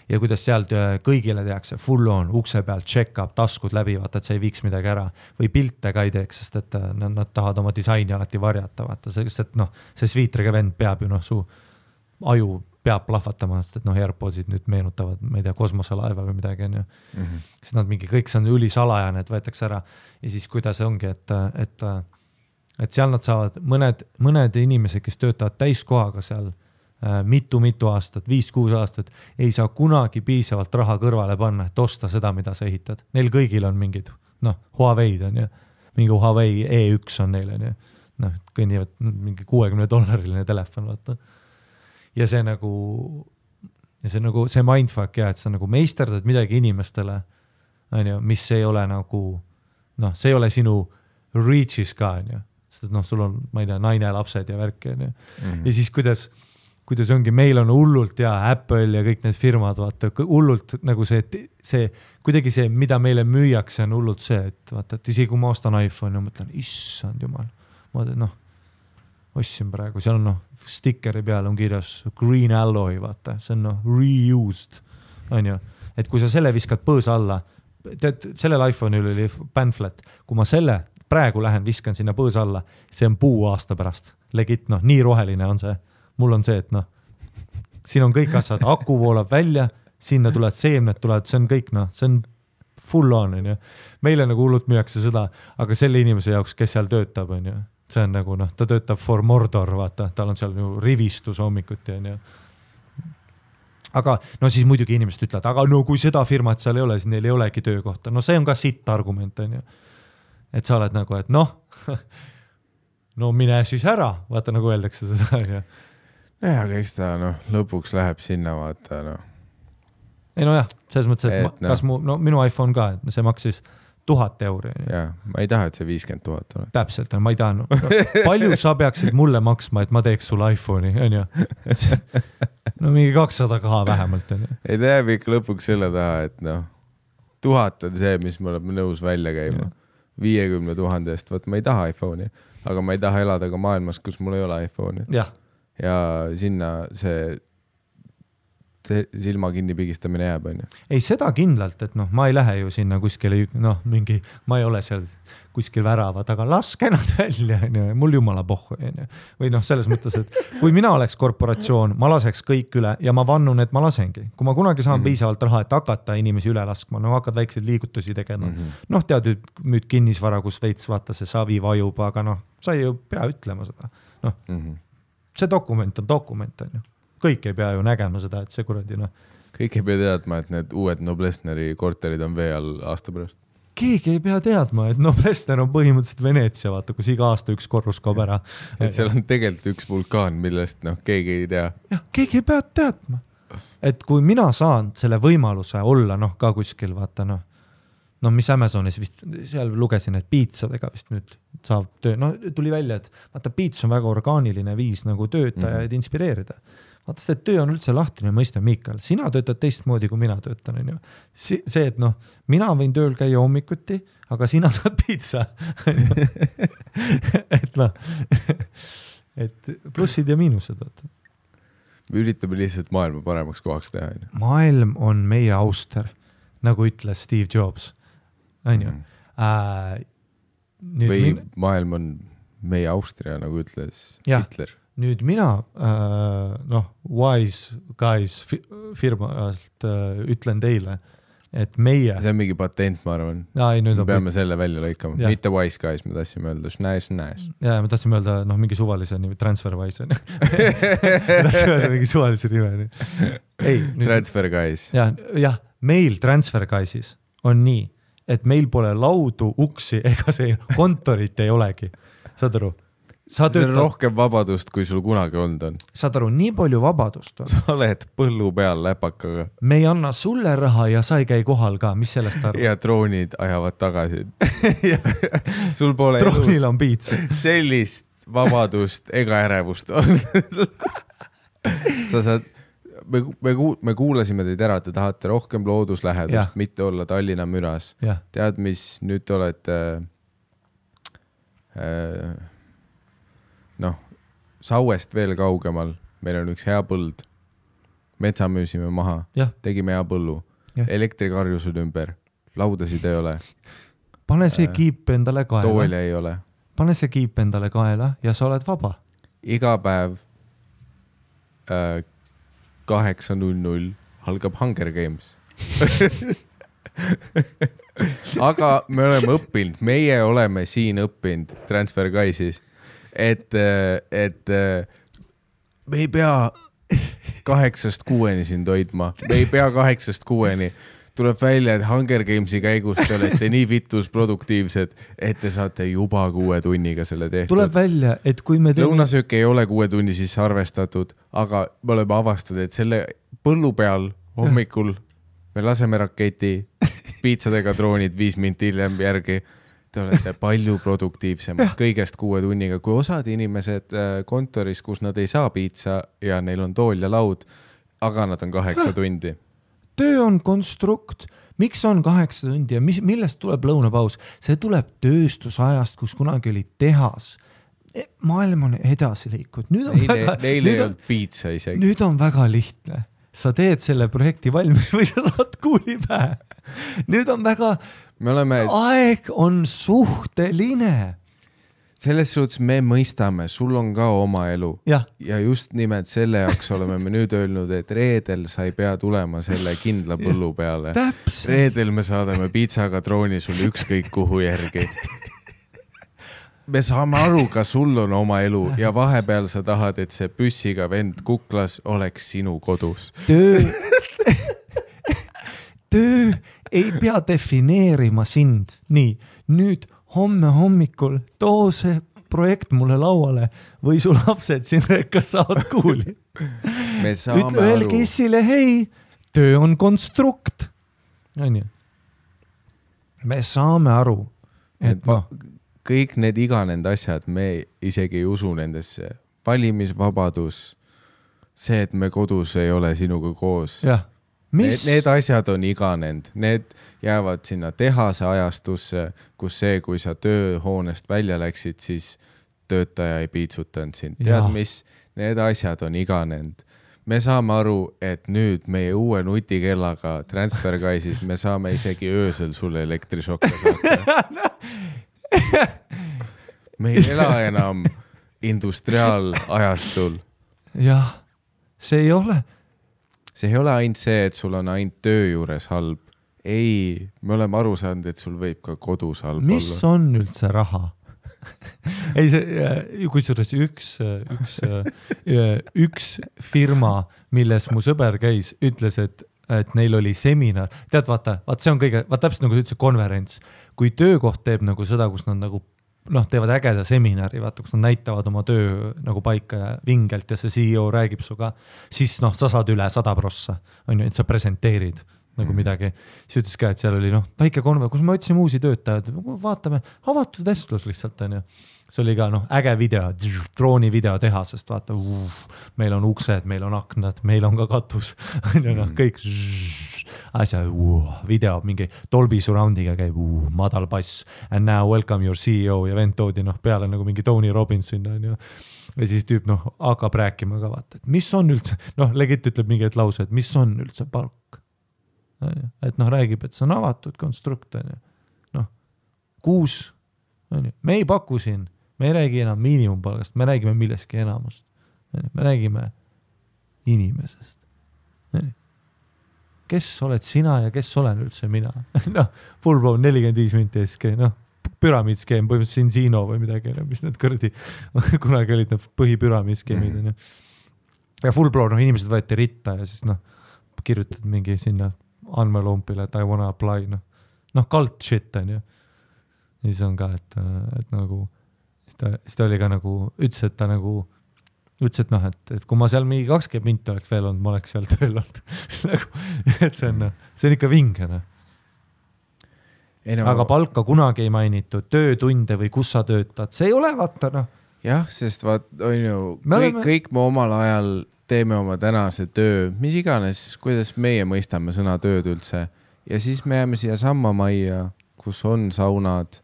Ja kuidas sealt kõigile tehakse full on, ukse pealt check-up, taskud läbi, vaata, et sa ei viiks midagi ära või pilte ka ei teeks, sest et nad tahavad oma disaini alati varjata, vaata, sest et noh, see sviitriga vend peab ju, noh, su aju peab plahvatama, sest et noh, AirPodsid nüüd meenutavad, ma ei tea, kosmoselaeva või midagi, on ju. Sest nad mingi, kõik see on ülisalajane, et võetakse ära ja siis kuidas ongi, et seal nad saavad mõned inimesed, kes töötavad täiskohaga seal mitu aastat, 5-6 aastat, ei saa kunagi piisavalt raha kõrvale panna, et osta seda, mida sa ehitad. Neil kõigil on mingid, noh, Huawei'd on ju, mingi Huawei E1 on neil, on ju, noh, kõnnivad mingi $60 telefon, vaata. Ja see nagu, see mindfuck ja, et sa nagu meisterdad midagi inimestele, on ju, mis ei ole nagu, noh, see ei ole sinu reach'is ka, on ju, sest et noh, sul on, ma ei tea, naine, lapsed ja värki, on ju. Ja siis kuidas kuidas ongi, meil on hullult ja Apple ja kõik need firmad, vaata, hullult nagu see, kuidagi see, mida meile müüakse, on hullult see, et vaata, et isegi kui ma ostan iPhone ja mõtlen, issand jumal, ma tean, ostsin praegu, seal on stickeri peal on kirjas green alloy, vaata, see on reused, on ju, et kui sa selle viskad põõsa alla, tead, sellel iPhone'il oli pamphlet, kui ma selle praegu lähen, viskan sinna põõsa alla, see on puu aasta pärast, legit, nii roheline on see, mul on see, et siin on kõik asjad, aku voolab välja, sinna tulevad seemned, see on kõik, see on full on, on ju, meile nagu hullult müüakse seda, aga selle inimese jaoks, kes seal töötab, on ju, see on nagu, ta töötab for Mordor, vaata, tal on seal ju rivistus hommikuti, on ju. Aga, siis muidugi inimesed ütlevad, aga kui seda firmat seal ei ole, siis neil ei olegi töökohta. See on ka sitt argument, on ju. Et sa oled nagu, et mine siis ära, vaata, nagu öeldakse seda, on ju. Aga eks ta, lõpuks läheb sinna, vaata, Ei jah, selles mõttes, et kas minu iPhone ka, et see maksis 1000 €. Jaa, ma ei taha, et see 50 000 ole. Täpselt, ma ei taha. Palju sa peaksid mulle maksma, et ma teeks sulle iPhone'i, on ju? Mingi 200 ka vähemalt, on ju. Ei, ta jääb ikka lõpuks selle taha, et 1000 on see, mis me oleme nõus välja käima. 50 000 eest, võt ma ei taha iPhone'i, aga ma ei taha elada ka maailmas, kus mul ei ole iPhone'i. Ja sinna see silma kinni pigistamine jääb, on ju. Ei, seda kindlalt, et ma ei lähe ju sinna kuskile, ma ei ole seal kuskil väravad, aga laske nad välja, on ju, mul jumala pohhu, on ju. Või selles mõttes, et kui mina oleks korporatsioon, ma laseks kõik üle ja ma vannun, et ma lasengi. Kui ma kunagi saan piisavalt raha, et hakata inimesi üle laskma, hakkad väikseid liigutusi tegema. Tead, müüd kinnisvara, kus veits vaata see savi vajub, aga sa ei ju pea ütlema seda. See dokument on dokument, on ju. Kõik ei pea ju nägema seda, et see kuradi, Kõik ei pea teadma, et need uued Noblessneri korterid on vee all aasta pärast. Keegi ei pea teadma, et Noblessner on põhimõtteliselt Veneetsia, vaata, kus iga aasta üks korrus kaob ära. Et seal on tegelikult üks vulkaan, millest keegi ei tea. Jah, keegi ei pea teadma. Et kui mina saan selle võimaluse olla, ka kuskil, vaata, mis Amazonis vist, seal lugesin, et piitsadega vist nüüd saab töö, tuli välja, et vaata, piits on väga orgaaniline viis nagu töötajaid inspireerida. Vaata, see töö on üldse lahtine, mõista, Miikal, sina töötad teistmoodi, kui mina töötan, on ju. See, et mina võin tööl käia hommikuti, aga sina saad piitsa. et plussid ja miinused, vaata. Me üritame lihtsalt maailma paremaks kohaks teha. Maailm on meie auster, nagu ütles Steve Jobs. On ju? Või maailm on meie Austria, nagu ütles Hitler. Nüüd mina, Wise Guys firmalt ütlen teile, et meie... See on mingi patent, ma arvan. Me peame selle välja lõikama. Mitte Wise Guys, me tahtsime öelda nice. Ja me tahtsime öelda mingi suvalise nimi, TransferWise. Me tahtsime öelda mingi suvalise nime. Transfer Guys. Jah, meil Transfer Guysis on nii, et meil pole laudu, uksi ega see kontorit ei olegi. Saad aru? See on rohkem vabadust, kui sul kunagi olnud on. Saad aru, nii palju vabadust on. Sa oled põllu peal läpakaga. Me ei anna sulle raha ja sa ei käi kohal ka, mis sellest aru? Ja droonid ajavad tagasi. Sul pole droonil on piits. Sellist vabadust ega ärevust on. Sa saad, me kuulasime teid ära, te tahate rohkem looduslähedust, mitte olla Tallinna müras. Tead, mis nüüd olete... Sauest veel kaugemal, meil on üks hea põld, metsa müüsime maha, tegime hea põllu, elektrikarjused ümber, laudasid ei ole. Pane see kiip endale kaela. Tooli ei ole. Pane see kiip endale kaela ja sa oled vaba. Iga päev 8:00 algab Hunger Games. Aga me oleme õppinud, meie oleme siin õppinud Transfer Guysis. Et me ei pea 8-6 siin toidma, me ei pea 8-6. Tuleb välja, et Hunger Gamesi käigus te olete nii vitus produktiivsed, et te saate juba 6 tunniga selle tehtud. Tuleb välja, et kui me lõunasöök ei ole 6 tunni sisse arvestatud, aga me oleme avastanud, et selle põllu peal hommikul me laseme raketi, piitsadega droonid 5 minti hiljem järgi te olete palju produktiivsemad kõigest 6 tunniga, kui osad inimesed kontoris, kus nad ei saa piitsa ja neil on tool ja laud, aga nad on 8 tundi. Töö on konstrukt. Miks on 8 tundi ja millest tuleb lõunapaus? See tuleb tööstusajast, kus kunagi oli tehas. Maailm on edasi liikud. Neil ei olnud piitsa isegi. Nüüd on väga lihtne. Sa teed selle projekti valmis või sa saad kuuli pähe. Nüüd on väga... Aeg on suhteline. Selles suhtes me mõistame, sul on ka oma elu. Ja just nimelt selle jaoks oleme me nüüd öelnud, et reedel sa ei pea tulema selle kindla põllu peale. Reedel me saadame piitsaga drooni sulle ükskõik kuhu järgi. Me saame aru, ka sul on oma elu ja vahepeal sa tahad, et see püssiga vend kuklas oleks sinu kodus. Töö ei pea defineerima sind. Nii, nüüd homme hommikul too see projekt mulle lauale või su lapsed siin rekkas saavad kuuli. Ütle öelge issile, hei, töö on konstrukt. Me saame aru, et kõik need iganend asjad, me isegi ei usu nendesse. Valimisvabadus, see, et me kodus ei ole sinuga koos. Need asjad on iganend. Need jäävad sinna tehase ajastusse, kus see, kui sa tööhoonest välja läksid, siis töötaja ei piitsutanud sind. Tead, mis? Need asjad on iganend. Me saame aru, et nüüd meie uue nutikellaga TransferWise'is me saame isegi öösel sulle elektrišokke saada. Me ei ela enam industriaalajastul. Jah, see ei ole. See ei ole ainult see, et sul on ainult töö juures halb. Ei, me oleme aru saanud, et sul võib ka kodus halb olla. Mis on üldse raha? Ei, kusjuures üks firma, milles mu sõber käis, ütles, et neil oli seminar. Tead, vaata, see on kõige, täpselt nagu üldse konverents. Kui töökoht teeb nagu seda, kus nad nagu, teevad ägeda seminari, vaata, kus nad näitavad oma töö nagu paika ja vingelt ja see CEO räägib suga, siis sa saad üle 100%, et sa presenteerid nagu midagi. Siis ütles ka, et seal oli väike konverents, kus me otsime uusi töötajad, vaatame, avatud vestlus lihtsalt on ju. See oli ka äge video, drooni video tehasest, vaata, meil on uksed, meil on aknad, meil on ka katus, kõik asja, video, mingi Dolby Surroundiga käib, madal bass, and now welcome your CEO ja vend toodi peale nagu mingi Tony Robbins sinna, ja siis tüüp hakkab rääkima ka, vaata, et mis on üldse, legit ütleb mingi lause, et mis on üldse palk. Et räägib, et see on avatud konstrukt, 6, me ei paku siin, me ei räägi enam miinimumpalgast, me räägime millestki enamust, me räägime inimesest. Kes oled sina ja kes olen üldse mina? Full blown 45 minti SK, püramiidskeem, põhimõtteliselt Sinsino või midagi, mis need kõrdi, kunagi olid need põhipüramiidskeemid. Ja full blown, inimesed võeti ritta ja siis kirjutad mingi sinna andmelumpile, et I wanna apply, cult shit on ju. Ja siis on ka, et nagu, siis ta oli ka nagu, ütles, et ta nagu, ütles, et kui ma seal mingi 20 minti oleks veel olnud, ma oleks seal tööl olnud. Et see on ikka vingene. Aga palka kunagi ei mainitud, töötunde või kus sa töötad, see ei ole vaata, Jah, sest on ju, kõik me omal ajal teeme oma tänase töö, mis iganes, kuidas meie mõistame sõna tööd üldse. Ja siis me jääme siia samma majja, kus on saunad,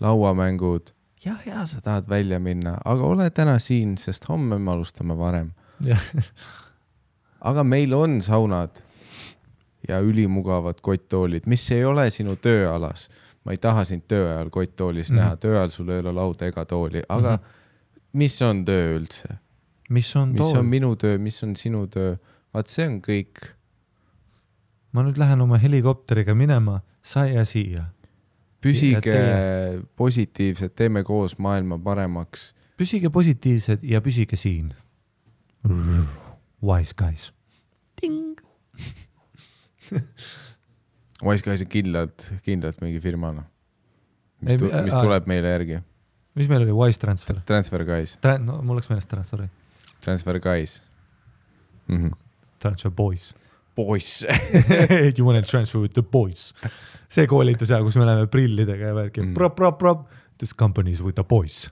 lauamängud. Ja, sa tahad välja minna, aga ole täna siin, sest homme me alustame varem. Aga meil on saunad ja ülimugavad kotttoolid, mis ei ole sinu tööalas. Ma ei taha sind tööajal kotttoolis näha, tööajal sul ei ole lauda ega tooli, aga mis on töö üldse? Mis on minu töö, mis on sinu töö? Vaat see on kõik. Ma nüüd lähen oma helikopteriga minema, sa ja siia. Püsige positiivsed, teeme koos maailma paremaks. Püsige positiivsed ja püsige siin. Wise guys. Ting! Wise guys on kindlalt mingi firmana, mis tuleb meile järgi. Mis meil oli? Wise Transfer? Transfer guys. Mul oleks meelest ära, sorry. Transfer guys. Transfer boys. boys. You want to transfer with the boys. See koolitus ja, kus me oleme prillidega ja värki. Prop. This company is with the boys.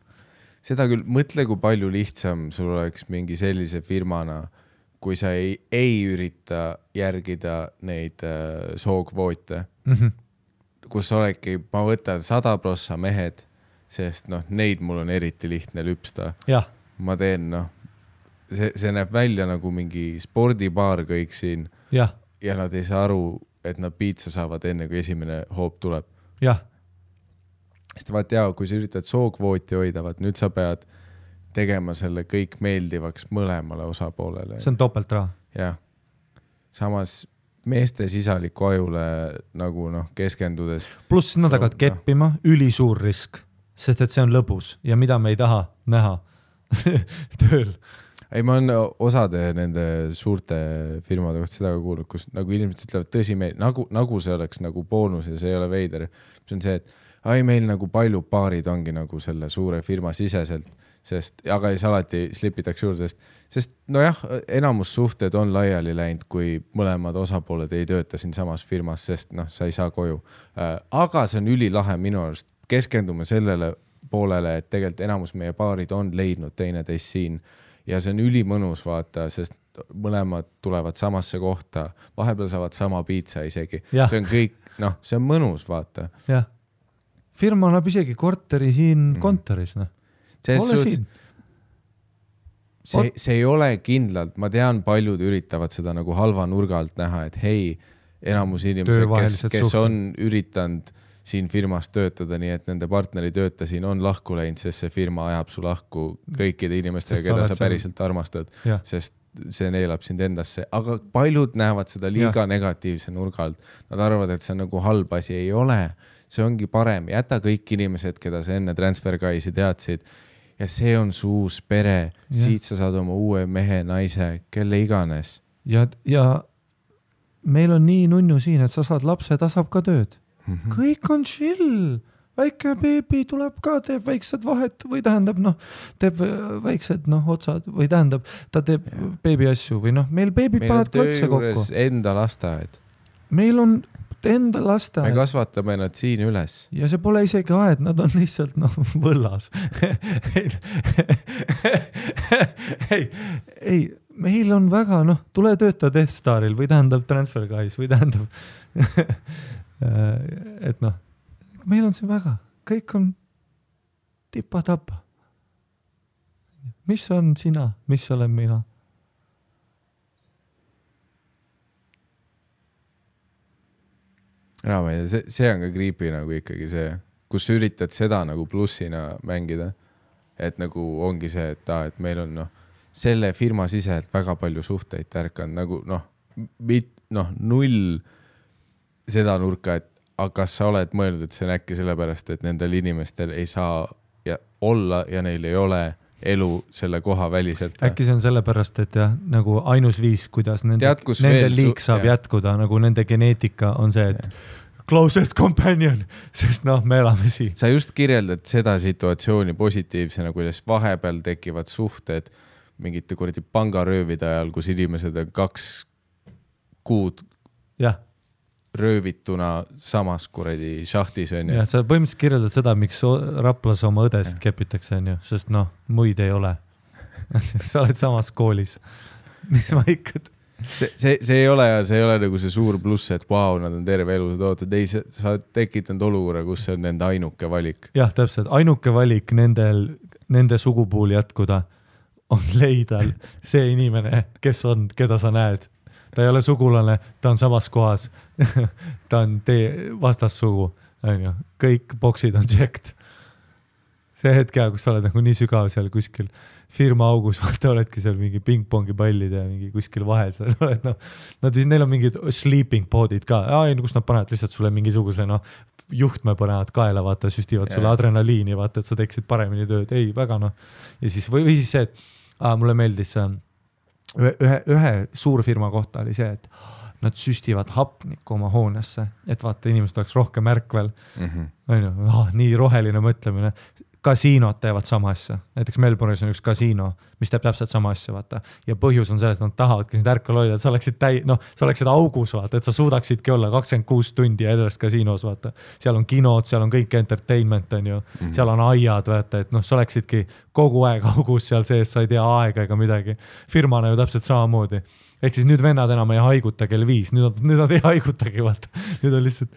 Seda küll, mõtle, kui palju lihtsam sul oleks mingi sellise firmana, kui sa ei ürita järgida neid sookvoote, kus olegi, ma võtan 100% mehed, sest neid mul on eriti lihtne lüpsta. Ja. Ma teen, see näeb välja nagu mingi spordibaar kõik siin ja nad ei saa aru, et nad piitsa saavad enne, kui esimene hoop tuleb. Jah. Sest vaat jaa, kui sa üritad sookvooti hoida, nüüd sa pead tegema selle kõik meeldivaks mõlemale osapoolele. See on topelt raha. Jah. Samas meeste sisaliku ajule nagu keskendudes. Pluss nad hakkavad keppima, ülisuur risk, sest et see on lõbus ja mida me ei taha näha tööl. Ei, ma olen osade nende suurte firmade kohta seda ka kuulnud, kus nagu inimesed ütlevad tõsi meil, nagu see oleks nagu boonus ja see ei ole veider. See on see, et meil nagu palju paarid ongi nagu selle suure firma siseselt, sest, aga siis alati slipitakse juurde, sest enamus suhted on laiali läinud, kui mõlemad osapooled ei tööta siin samas firmas, sest sa ei saa koju. Aga see on ülilahe minu arust. Keskendume sellele poolele, et tegelikult enamus meie paarid on leidnud teineteist siin ja see on ülimõnus vaata, sest mõlemad tulevad samasse kohta, vahepeal saavad sama piitsa isegi. Ja. See on kõik, see on mõnus vaata. Jah. Firma annab isegi korteri siin kontoris. See ei ole kindlalt, ma tean, paljud üritavad seda nagu halva nurga alt näha, et hei, enamus inimesed, kes on üritanud siin firmas töötada, nii et nende partneri tööta siin on lahku läinud, sest see firma ajab su lahku kõikide inimestega, keda sa päriselt armastad, sest see neelab sind endasse. Aga paljud näevad seda liiga negatiivse nurga alt. Nad arvavad, et see on nagu halb asi. Ei ole. See ongi parem. Jäta kõik inimesed, keda sa enne TransferGuysi teadsid. Ja see on su uus pere. Siit sa saad oma uue mehe, naise, kelle iganes. Ja meil on nii nunnu siin, et sa saad lapse, ta saab ka tööd. Kõik on chill. Väike beebi tuleb ka, teeb väiksed vahet või tähendab, teeb väiksed otsad või tähendab, ta teeb beebi asju või meil beebid paned klotse kokku. Meil on töö juures enda lasteaed. Meil on enda lasteaed. Me kasvatame nad siin üles. Ja see pole isegi aed, nad on lihtsalt võllas. ei, meil on väga, tule tööta Death Staril või tähendab TransferGuys või tähendab, et meil on see väga, kõik on tipa-tapa. Mis on sina, mis olen mina? See on ka creepy nagu ikkagi see, kus sa üritad seda nagu plussina mängida, et nagu ongi see, et meil on selle firma siselt väga palju suhteid tärkanud, nagu null seda nurka, et aga kas sa oled mõelnud, et see on äkki sellepärast, et nendel inimestel ei saa olla ja neil ei ole elu selle koha väliselt? Äkki see on sellepärast, et nagu ainus viis, kuidas nende liik saab jätkuda, nagu nende geneetika on see, et closest companion, sest me elame siin. Sa just kirjeldad seda situatsiooni positiivsena, kuidas vahepeal tekivad suhted mingite kuradi pangaröövide ajal, kus inimesed on 2 kuud röövituna samas kuradi šahtis on. Ja sa põhimõtteliselt kirjeldad seda, miks Raplas oma õdesid kepitakse, sest muid ei ole. Sa oled samas koolis. Mis ma ikka... See ei ole nagu see suur pluss, et nad on terve elu ootad. Ei, sa tekitanud olukorra, kus see on nende ainuke valik. Jah, täpselt. Ainuke valik nende sugupuul jätkuda on leida see inimene, keda sa näed. Ta ei ole sugulane, ta on samas kohas. Ta on vastassugu. Kõik boksid on checked. See hetk, kus sa oled nagu nii sügav seal kuskil firma augus, vaata oledki seal mingi pingpongi pallid ja mingi kuskil vahel seal oled, neil on mingid sleeping podid ka, kus nad panevad lihtsalt sulle mingisuguse juhtme panevad kaela, vaata, süstivad sulle adrenaliini, vaata, et sa teeksid paremini tööd, ei, väga ja siis, või siis see, et mulle meeldis ühe suurfirma kohta oli see, et nad süstivad hapnikku oma hoonesse, et vaata, inimesed oleks rohkem ärkvel. Nii roheline mõtlemine. kasiinod teevad sama asja, näiteks Melbourne'is on üks kasiino, mis teeb täpselt sama asja, vaata. Ja põhjus on selles, et nad tahavadki sind ärkvel hoida, et sa oleksid augus, vaata, et sa suudaksidki olla 26 tundi edest kasiinos, vaata. Seal on kinod, seal on kõik entertainment, on ju, seal on aiad, vaata, et sa oleksidki kogu aeg augus seal sees, sa ei tea aega ega midagi. Firmana ju täpselt samamoodi. Ehk siis nüüd vennad enam ei haiguta kell 5, nüüd nad ei haigutagi, vaata. Nüüd on lihtsalt...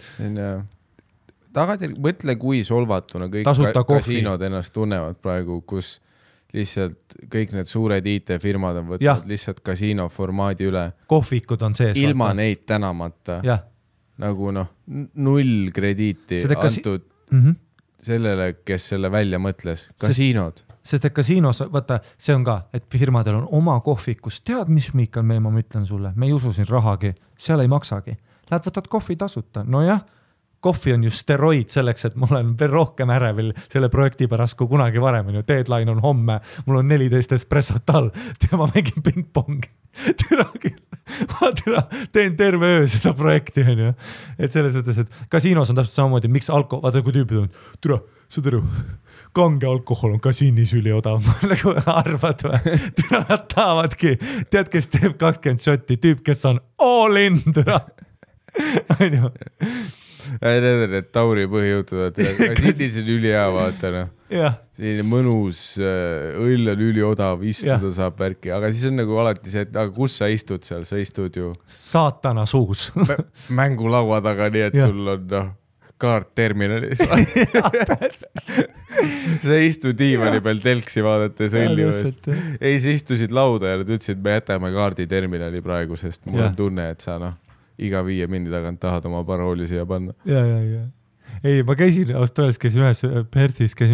Mõtle, kui solvatuna kõik kasiinod ennast tunnevad praegu, kus lihtsalt kõik need suured IT-firmad on võtnud lihtsalt kasiino formaadi üle. Kohvikud on sees. Ilma neid tänamata. Nagu null krediiti antud sellele, kes selle välja mõtles. Kasiinod. Sest et kasiinos, vaata, see on ka, et firmadel on oma kohvikus. Tead, mis, Miikal, ma ütlen sulle? Me ei usu siin rahagi. Seal ei maksagi. Lähed võtad kohvi tasuta. No jah. Kohvi on ju steroid selleks, et mul on veel rohkem ärevil selle projekti pärast kui kunagi varem. Deadline on homme, mul on 14 espressot all, ma mängin ping-pongi. Teen terve öö seda projekti. Et selles mõttes, et kasiinos on täpselt samamoodi, miks vaata kui tüübid on, saad aru, kange alkohol on kasiinis üliodav, nagu arvad või? Nad tahavadki, tead, kes teeb 20 šotti, tüüp, kes on all in, on ju. Need Tauri põhijõutud, kasiinis on üli hea, vaata, selline mõnus, õll on üli odav, istuda saab värki, aga siis on nagu alati see, et aga kus sa istud seal, sa istud ju saatana suus mängulaua taga, nii et sul on kaart terminalis sa istud diivani peal telksi vaadates õlliust. Ei, sa istusid lauda ja nad ütlesid, me jätame kaardi terminali praegu, sest mul on tunne, et sa iga 5 mindi tagant tahad oma parooli siia panna. Ja. Ei, ma käisin Austraalias, käisin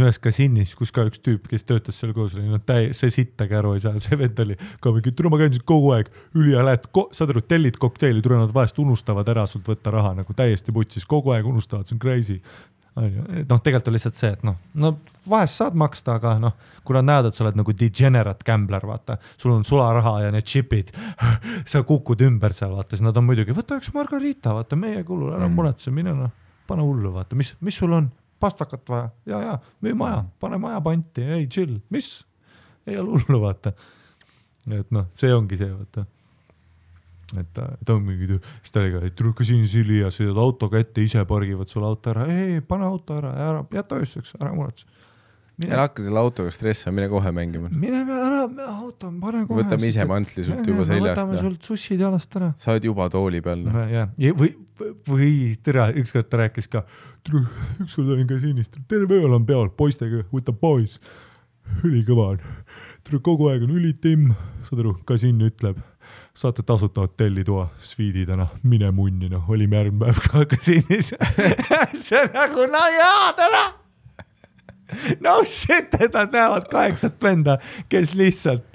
ühes kasiinis, kus ka üks tüüp, kes töötas seal koos, see sittagi aru ei saa, see vend oli ka mingi, ma käin kogu aeg üli ja lähed, saad aru, tellid kokteili, nad vahest unustavad ära sult võtta raha, nagu täiesti putsis, kogu aeg unustavad, see on crazy. Tegelikult on lihtsalt see, et vahest saad maksta, aga kui nad näevad, et sa oled nagu degenerate gambler, vaata, sul on sularaha ja need chipid, sa kukud ümber seal, vaata, siis nad on muidugi, võta üks margarita, vaata, meie kulul, ära muretse, mine pane hullu, vaata, mis sul on, pastakat vaja, ja, müü maja, pane maja panti, ei, chill, mis, ei ole hullu, vaata. Et see ongi see, vaata. Et on mingi, siis ta oli ka, et trukka siin sili ja sõidad autoga ette, ise pargivad sul auto ära, ei, pane auto ära, jäta ööseks, ära muretse. Ja hakka selle autoga stressa, mine kohe mängima. Mine ära, auto, pane kohe. Võtame ise mantli sult juba seljast. Võtame sult sussid jalast ära. Sa oled juba tooli peal. Või tere, ükskord ta rääkis ka, ükskord olin kasiinist, terve ööl on peol, poistega, võta pois, ülikõva on. Kogu aeg on ülitimm, saad aru, kasiin ütleb, saate tasuta hotellitoa, sviididena, mine munnina, olime järgmine päev ka kasiinis. See on nagu, täna. No shit, et nad näevad 8 venda, kes lihtsalt,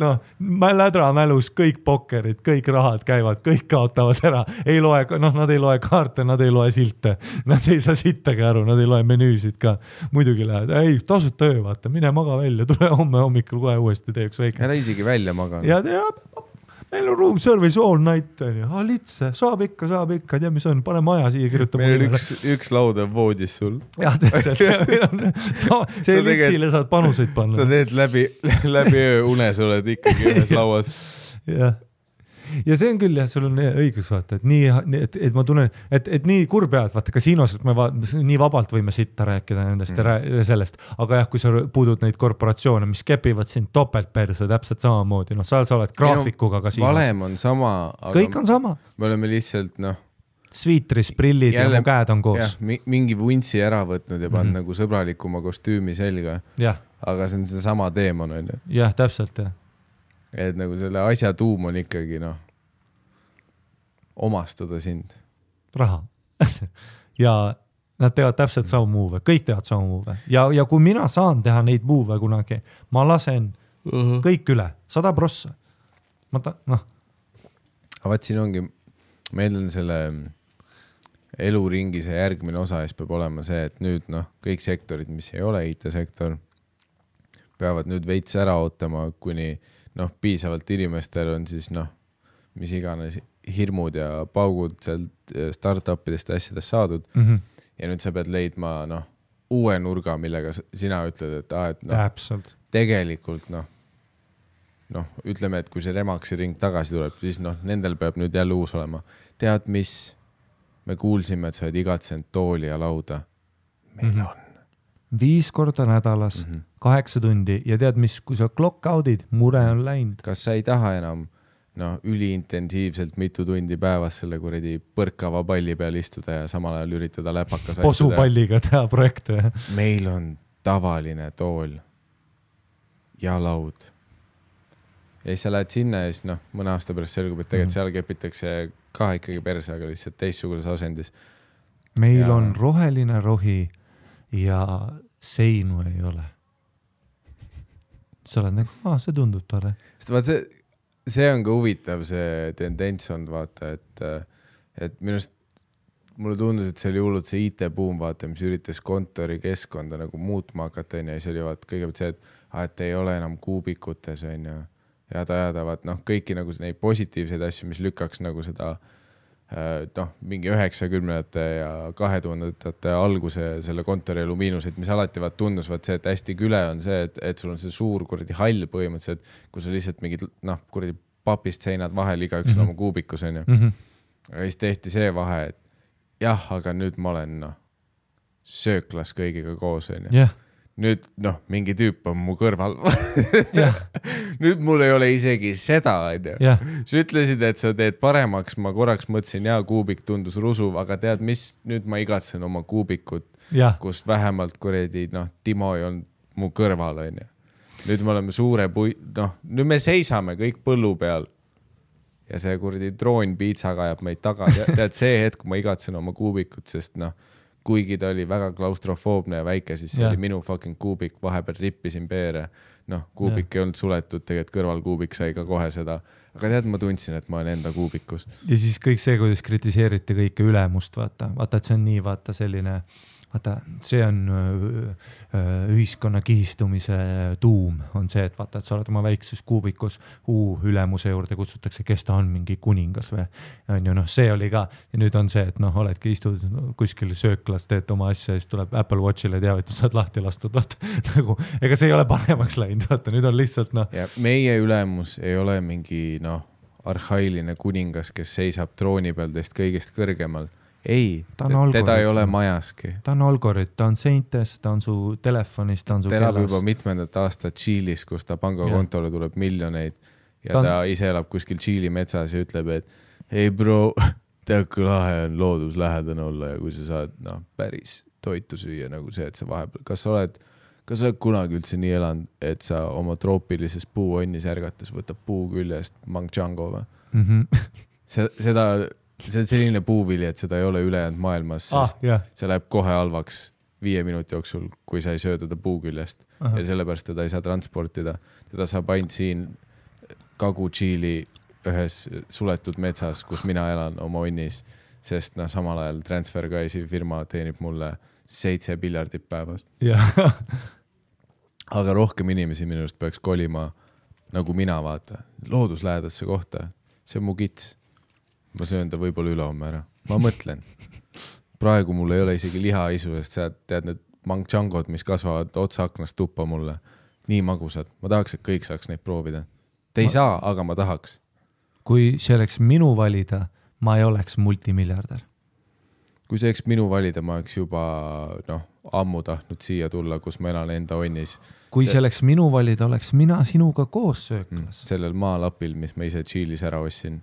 lädra mälus, kõik pokkerid, kõik rahad käivad, kõik kaotavad ära. Nad ei loe kaarte, nad ei loe silte, nad ei saa sittagi aru, nad ei loe menüüsid ka. Muidugi lähed, ei, tasuta öö, vaata, mine maga välja, tule homme hommikul kohe uuesti teeks väike. Ära isegi välja maga. Ja meil on room service all night, litse, saab ikka, tea mis on, pane maja siia, kirjuta. Meil on üks laud on voodis sul. Jah, täpselt, see litsile saad panuseid panna. Sa teed läbi öö unes oled ikkagi ühes lauas. Jah. Ja see on küll, sul on õigus vaata, et ma tunnen, et nii kurb pead, vaata kasiinos, et me nii vabalt võime sitta rääkida nendest ja sellest, aga jah, kui sa puudud neid korporatsioone, mis kepivad sind topeltperse täpselt samamoodi, sa oled graafikuga kasiinos. Valem on sama. Kõik on sama. Me oleme lihtsalt, Sviitris, prillid ja mu käed on koos. Jah, mingi vuntsi ära võtnud ja pannud nagu sõbralikuma kostüümi selga. Aga see on see sama teemon, on ju. Jah, täpselt, jah. Et nagu selle asja tuum on ikkagi, omastada sind. Raha. Ja nad teevad täpselt sama muove, kõik teevad sama muove. Ja kui mina saan teha neid muove kunagi, ma lasen kõik üle, 100%. Aga vaat siin ongi, meil on selle eluringi see järgmine osa, siis peab olema see, et nüüd kõik sektorid, mis ei ole IT-sektor, peavad nüüd veits ära ootama, kuni piisavalt inimestel on siis mis iganes hirmud ja paugud sealt startupidest asjadest saadud. Ja nüüd sa pead leidma uue nurga, millega sina ütled, et täpselt. Tegelikult ütleme, et kui see Remaxi ring tagasi tuleb, siis nendel peab nüüd jälle uus olema. Tead, mis? Me kuulsime, et sa oled igatsenud tooli ja lauda. Meil on. 5 korda nädalas, 8 tundi ja tead, mis, kui sa clock out'id, mure on läinud. Kas sa ei taha enam üliintensiivselt mitu tundi päevas selle kuradi põrkava palli peal istuda ja samal ajal üritada läpakas asjada? Posupalliga teha projekte. Meil on tavaline tool ja laud. Ja siis sa lähed sinna ja siis mõne aasta pärast selgub, et tegelikult seal kepitakse ka ikkagi perse, aga lihtsalt teistsuguses asendis. Meil on roheline rohi ja seinu ei ole. Sa oled nagu, see tundub tore. See on ka huvitav, see tendents on, vaata, et minust mulle tundus, et see oli hullult see IT-buum, vaata, mis üritas kontori keskkonda nagu muutma hakata, ja see oli kõigepealt see, et ei ole enam kuubikutes, jada, vaat kõiki nagu neid positiivseid asju, mis lükkaks nagu seda mingi 90-ndate ja 2000-ndate alguse selle kontori elu miinuseid, mis alati tundus see, et hästi küle on see, et sul on see suur kuradi hall põhimõtteliselt, kui sa lihtsalt mingid kuradi papist seinad vahel igaüks oma kuubikus on ju. Ja siis tehti see vahe, et jah, aga nüüd ma olen sööklas kõigiga koos on ju. Nüüd mingi tüüp on mu kõrval. Nüüd mul ei ole isegi seda, on ju. Sa ütlesid, et sa teed paremaks, ma korraks mõtlesin, kuubik tundus rusuv, aga tead, mis nüüd ma igatsen oma kuubikut, kus vähemalt kuredi, Timo ei olnud mu kõrval, on ju. Nüüd me oleme suure nüüd me seisame kõik põllu peal ja see kuradi droon piitsaga ajab meid taga. Tead, see hetk ma igatsen oma kuubikut, sest kuigi ta oli väga klaustrofoobne ja väike, siis see oli minu fucking kuubik, vahepeal rippisin peere. Kuubik ei olnud suletud, tegelikult kõrvalkuubik sai ka kohe seda. Aga tead, ma tundsin, et ma olen enda kuubikus. Ja siis kõik see, kuidas kritiseeriti kõike ülemust, vaata, et see on nii, vaata, selline, vaata, see on ühiskonna kihistumise tuum, on see, et vaata, et sa oled oma väikses kuubikus, ülemuse juurde kutsutakse, kes ta on, mingi kuningas või on ju, see oli ka, ja nüüd on see, et oledki istud kuskil sööklas, teed oma asja, siis tuleb Apple Watchile teavitus, saad lahti lastud, vaata, nagu, ega see ei ole paremaks läinud, vaata, nüüd on lihtsalt, Ja meie ülemus ei ole mingi, arhailine kuningas, kes seisab trooni peal teist kõigest kõrgemal. Ei, teda ei ole majaski. Ta on algorit, ta on seintes, ta on su telefonis, ta on su kellas. Ta elab juba mitmendat aastat Tšiilis, kus ta pangakontole tuleb miljoneid ja ta ise elab kuskil Tšiili metsas ja ütleb, et hei bro, tead kui lahe on looduslähedane olla ja kui sa saad päris toitu süüa nagu see, et sa vahepeal, kas sa oled kunagi üldse nii elanud, et sa oma troopilises puuonnis ärgates võtab puu küljest mangjango või? See on selline puuvili, et seda ei ole ülejäänud maailmas, sest see läheb kohe halvaks 5 minuti jooksul, kui sa ei söö teda puu küljest. Ja sellepärast teda ei saa transportida. Teda saab ainult siin Kagu-Tšiili ühes suletud metsas, kus mina elan oma onnis, sest samal ajal TransferWise firma teenib mulle 7 miljardit päevas. Aga rohkem inimesi minust peaks kolima nagu mina, vaata, looduslähedasse kohta. See on mu kits. Ma söön ta võib-olla ülehomme ära. Ma mõtlen. Praegu mul ei ole isegi lihaisu, sest sa tead need mangchangod, mis kasvavad otsa aknast tuppa mulle. Nii magusad. Ma tahaks, et kõik saaks neid proovida. Te ei saa, aga ma tahaks. Kui see oleks minu valida, ma ei oleks multimiljardär. Kui see oleks minu valida, ma oleks juba ammu tahtnud siia tulla, kus ma elan enda onnis. Kui see oleks minu valida, oleks mina sinuga koos sööklas. Sellel maalapil, mis ma ise Tšiilis ära ossin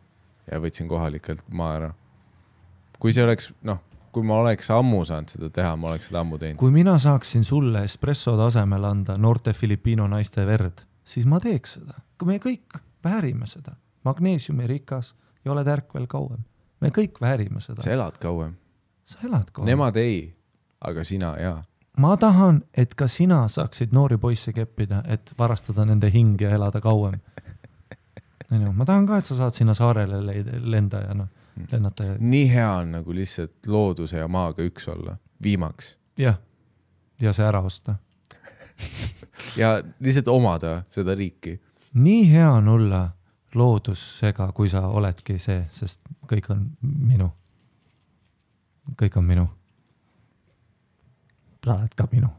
ja võtsin kohalikelt maa ära. Kui see oleks, kui ma oleks ammu saanud seda teha, ma oleks seda ammu teinud. Kui mina saaksin sulle espresso tasemel anda noorte Filipiino naiste verd, siis ma teeks seda. Kui me kõik väärime seda. Magneesiumi rikas ja oled ärkvel kauem. Me kõik väärime seda. Sa elad kauem. Sa elad kauem. Nemad ei, aga sina jaa. Ma tahan, et ka sina saaksid noori poisse keppida, et varastada nende hing ja elada kauem. Ma tahan ka, et sa saad sinna saarele lenda ja lennata. Nii hea on nagu lihtsalt looduse ja maaga üks olla, viimaks. Ja see ära osta. Ja lihtsalt omada seda riiki. Nii hea on olla loodusega, kui sa oledki see, sest kõik on minu. Kõik on minu. sa oled ka minu.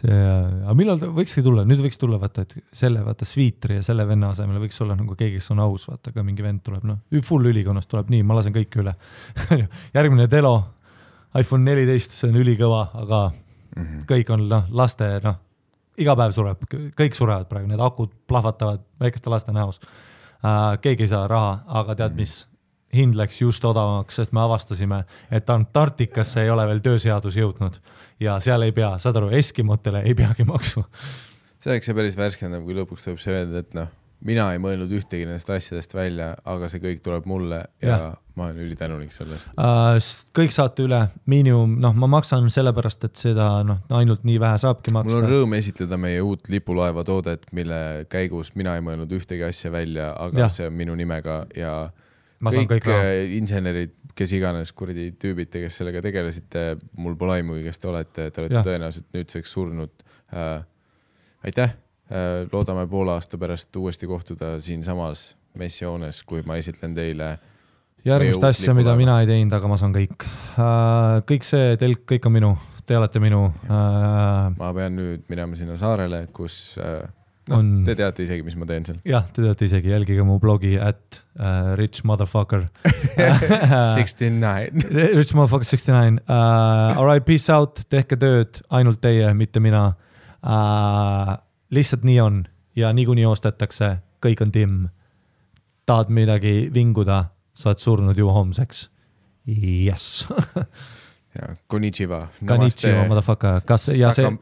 Aga millal võikski tulla? Nüüd võiks tulla, vaata, et vaata Sviitri ja selle venna asemel võiks olla nagu keegi, kes on aus, vaata, ka mingi vend tuleb, full ülikonnast tuleb nii, ma lasen kõik üle. Järgmine Delo, iPhone 14, see on ülikõva, aga kõik on laste, iga päev sureb, kõik surevad praegu, need akud plahvatavad väikeste laste näos. Keegi ei saa raha, aga tead mis? Hind läks just odavamaks, sest me avastasime, et Antarktikasse ei ole veel tööseadus jõudnud ja seal ei pea, saad aru, Eskimotele ei peagi maksma. See oleks see päris värskendab, kui lõpuks tuleb see öelda, et mina ei mõelnud ühtegi nendest asjadest välja, aga see kõik tuleb mulle ja ma olen ülitänulik sellest. Kõik saate üle, miinimum, ma maksan sellepärast, et seda ainult nii vähe saabki maksta. Mul on rõõm esitleda meie uut lipulaeva toodet, mille käigus mina ei mõelnud ühtegi asja välja, aga see on minu nimega ja kõik insenerid, kes iganes kuradi tüübite, kes sellega tegelesite, mul pole aimugi, kes te olete tõenäoliselt nüüdseks surnud. Aitäh, loodame poole aasta pärast uuesti kohtuda siin samas messioones, kui ma esitlen teile järgmist asja, mida mina ei teinud, aga ma saan kõik. Kõik see telk, kõik on minu, te olete minu. Ma pean nüüd minema sinna saarele, kus te teate isegi, mis ma teen seal. Jah, te teate isegi, jälgige mu blogi @rich motherfucker 69 Rich motherfucker 69 Alright, peace out, tehke tööd, ainult teie, mitte mina. Lihtsalt nii on ja niikuinii ostetakse, kõik on timm. Tahad midagi vinguda, saad surnud juba homseks. Yes. Ja, konnichiwa. Konnichiwa, motherfucker.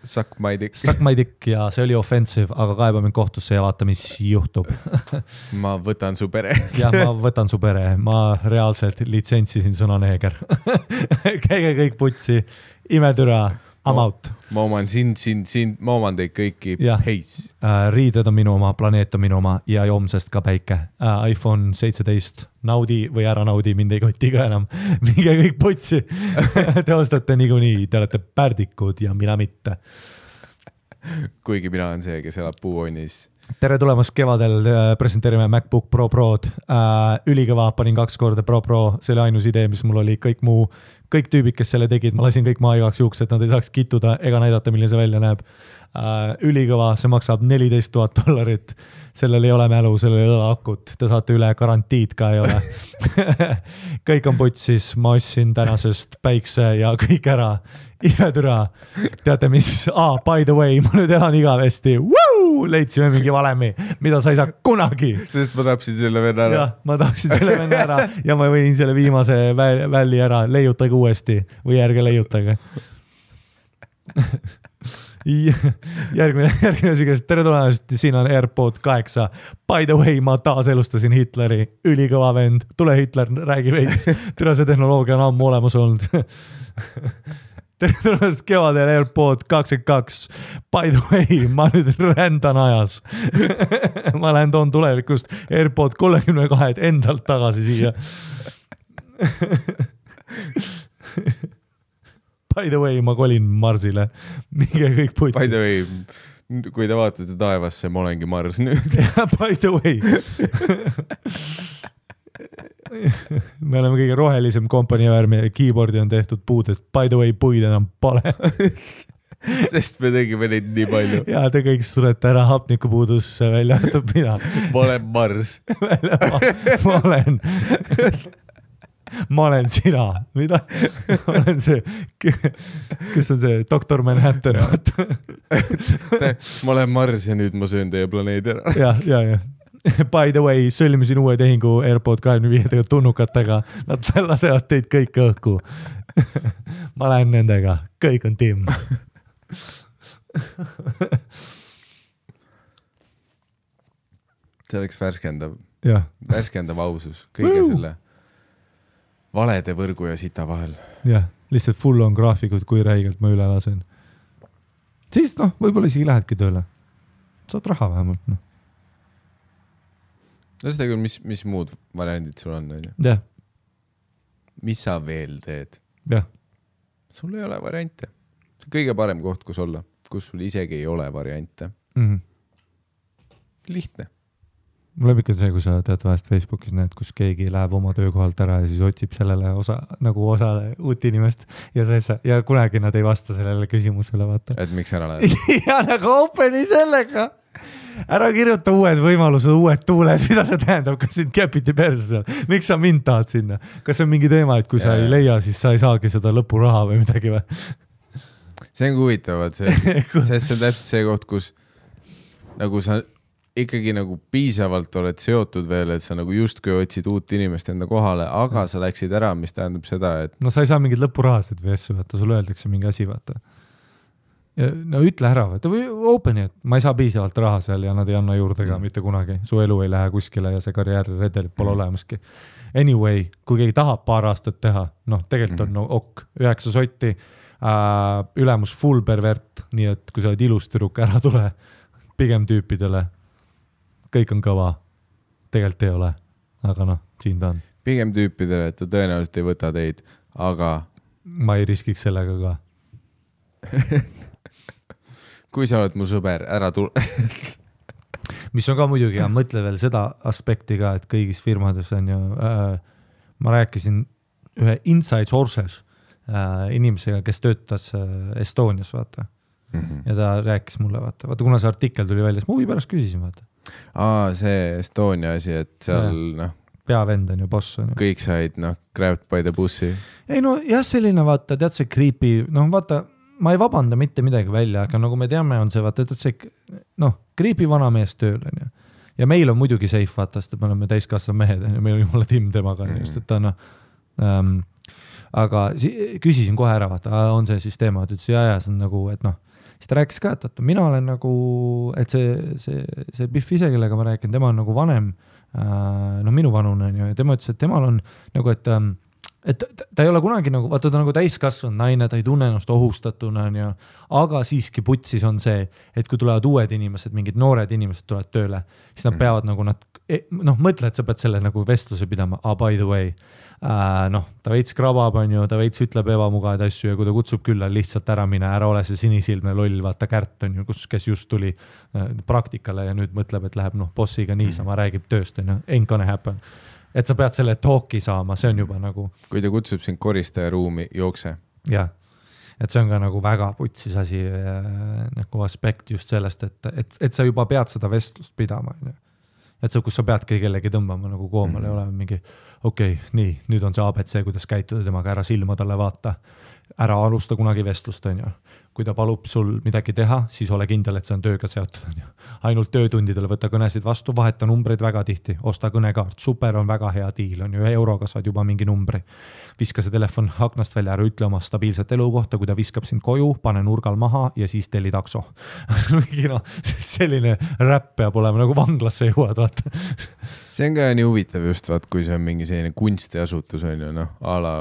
Suck my dick. Suck my dick ja see oli offensive, aga kaeba mind kohtusse ja vaata, mis juhtub. Ma võtan su pere. Ja, ma võtan su pere. Ma reaalselt litsentsisin sõna neeger. Käige kõik putsi, imetüra, I'm out. Ma oman sind, ma oman teid kõiki. Peace. Riided on minu oma, planeet on minu oma ja homsest ka päike. iPhone 17, naudi või ära naudi, mind ei koti ka enam. Minge kõik putsi. Te ostate niikuinii, te olete pärdikud ja mina mitte. Kuigi mina on see, kes elab puuonnis. Tere tulemast kevadel, presenteerime MacBook Pro Prod. Ülikõva, panin 2 korda Pro, see oli ainus idee, mis mul oli, kõik tüübid, kes selle tegid, ma lasin kõik maa igaks juhuks, et nad ei saaks kittuda ega näidata, milline see välja näeb. Ülikõva, see maksab $14,000, sellel ei ole mälu, sellel ei ole akut, te saate üle, garantiid ka ei ole. Kõik on putsis, ma ostsin tänasest päikse ja kõik ära, imetüra. Teate mis, by the way, ma nüüd elan igavesti, leidsime mingi valemi, mida sa ei saa kunagi. Sest ma tapsin selle venna ära. Jah, ma tapsin selle venna ära ja ma võin selle viimase välli ära, leiutage uuesti või ärge leiutage. Järgmine sügest, tere tulemast, siin on AirPod 8. By the way, ma taas elustasin Hitleri, ülikõva vend, tule Hitler, räägi veits, tere see tehnoloogia on ammu olemas olnud. Tere tulemast kevadel AirPod 22. By the way, ma nüüd rändan ajas. Ma lähen toon tulevikust AirPod 32 endalt tagasi siia. By the way, ma kolin Marsile. Minge kõik putsi. By the way, kui te vaatate taevasse, ma olengi Mars nüüd. By the way. Me oleme kõige rohelisem kompanii värmi ja keyboardi on tehtud puudest. By the way, puid enam pole. Sest me tegime neid nii palju. Ja te kõik surete ära hapnikupuudusse välja võtab mina. Ma olen Mars. Ma olen sina. Mida? Ma olen see, kes on see Dr. Manhattan. Ma olen Mars ja nüüd ma söön teie planeedi ära. Ja. By the way, sõlmisin uue tehingu AirPod 25 tunnukatega. Nad lasevad teid kõik õhku. Ma lähen nendega. Kõik on timm. See oleks värskendav. Ja. Värskendav ausus. Kõige selle valede võrgu ja sita vahel. Jah, lihtsalt full on graafikud, kui räigelt ma üle lasen. Siis võib-olla isegi lähedki tööle. Saad raha vähemalt. Seda küll, mis muud variandid sul on? Jah. Mis sa veel teed? Jah. Sul ei ole variante. See on kõige parem koht, kus olla, kus sul isegi ei ole variante. Mm-hmm. Lihtne. mul on ikka see, kui sa tead vahest Facebookis näed, kus keegi läheb oma töökohalt ära ja siis otsib sellele osale uut inimest ja kunagi nad ei vasta sellele küsimusele, vaata. Et miks ära läheb? ja nagu openi sellega. Ära kirjuta uued võimalused, uued tuuled, mida see tähendab, kas sind käpiti perse seal? Miks sa mind tahad sinna? Kas on mingi teema, et kui sa ei leia, siis sa ei saagi seda lõpuraha või midagi või? See on huvitavad, sest see on täpselt see koht, kus nagu sa ikkagi nagu piisavalt oled seotud veel, et sa nagu justkui otsid uut inimest enda kohale, aga sa läksid ära, mis tähendab seda, et... No sa ei saa mingid lõpurahasid või asju, vaata, sulle öeldakse mingi asi, vaata. Ja, no ütle ära, vaata, või openi, et ma ei saa piisavalt raha seal ja nad ei anna juurde ka mitte kunagi. Su elu ei lähe kuskile ja see karjääriredelit pole olemaski. Anyway, kui keegi tahab paar aastat teha, noh, tegelikult on no, 9 sotti, ülemus full pervert, nii et kui sa oled ilus tüdruk, ära tule pigem tüüpidele. Kõik on kõva. Tegelikult ei ole. Aga noh, siin ta on. Pigem tüüpidele, et ta tõenäoliselt ei võta teid, aga... Ma ei riskiks sellega ka. Kui sa oled mu sõber, ära tule. Mis on ka muidugi, ja mõtle veel seda aspekti ka, et kõigis firmades on ju... ma rääkisin ühe inside sources inimesega, kes töötas Estonias, vaata. Ja ta rääkis mulle, vaata, kuna see artikkel tuli välja, siis ma huvi pärast küsisin, vaata. See Estonia asi, et seal, noh... Peavend on ju, boss on ju. Kõik said, noh, grabbed by the bussi. Ei no, jah, selline, vaata, tead see creepy, noh, vaata, ma ei vabanda mitte midagi välja, aga nagu me teame, on see, vaata, tead see, noh, creepy vanamees tööl on ju. Ja meil on muidugi safe, vaata, sest me oleme täiskasvad mehed, meil on jumala timm temaga, just, et ta noh... aga küsisin kohe ära, vaata, on see siis teema, et ütles, ja, see on nagu, et noh, siis ta rääkis ka, et mina olen nagu, et see Biff ise, kellega ma rääkin, tema on nagu vanem, no minu vanune on ju, ja tema ütles, et temal on nagu, et ta ei ole kunagi nagu, vaata ta nagu täiskasvanud naine, ta ei tunne ennast ohustatuna, on ju, aga siiski putsis on see, et kui tulevad uued inimesed, mingid noored inimesed tulevad tööle, siis nad peavad nagu noh, mõtle, et sa pead selle nagu vestluse pidama, by the way, noh, ta veits krabab, on ju, ta veits ütleb ebamugavaid asju ja kui ta kutsub külla, lihtsalt ära mine, ära ole see sinisilmne loll, vaata Kärt on ju, kes just tuli praktikale ja nüüd mõtleb, et läheb noh, bossiga niisama, räägib tööst, on ju, ain't gonna happen. Et sa pead selle talki saama, see on juba nagu... Kui ta kutsub sind koristaja ruumi, jookse. Jah, et see on ka nagu väga putsis asi nagu aspekt just sellest, et sa juba pead seda vestlust pidama. Et see, kus sa peadki kellegi tõmbama nagu koomale, ei ole mingi, okei, nii, nüüd on see ABC, kuidas käituda temaga, ära silma talle vaata, ära alusta kunagi vestlust, on ju. Kui ta palub sul midagi teha, siis ole kindel, et see on tööga seotud. On ju. Ainult töötundidele võtta kõnesid vastu, vaheta numbreid väga tihti, osta kõnekaart, super on väga hea diil, on ju, 1 euroga saad juba mingi numbri. Viska see telefon aknast välja, ära ütle oma stabiilset elukohta, kui ta viskab sind koju, pane nurgal maha ja siis telli takso. no, selline räpp peab olema, nagu vanglasse jõuad, vaata. See on ka nii huvitav just, vaat, kui see on mingi selline kunstiasutus, on ju, noh, a la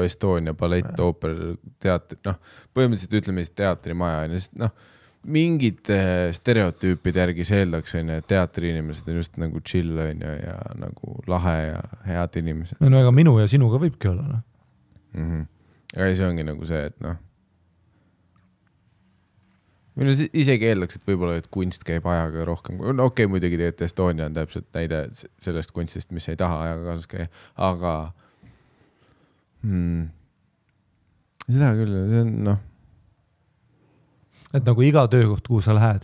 Estonia, ballett, ooper, teatri, noh, põhimõtteliselt ütleme teatrimaja, sest noh, mingid stereotüüpide järgi seeldaks, on ju, et teatriinimesed on just nagu chill, on ju, ja nagu lahe ja head inimesed. No ega minu ja sinuga võibki olla, noh. Aga see ongi nagu see, et noh, minu isegi eeldaks, et võib-olla, et kunst käib ajaga rohkem. No okei, muidugi teete Estonia on täpselt näide sellest kunstist, mis ei taha ajaga kaasas käia, aga seda küll, see on noh. Et nagu iga töökoht, kuhu sa lähed,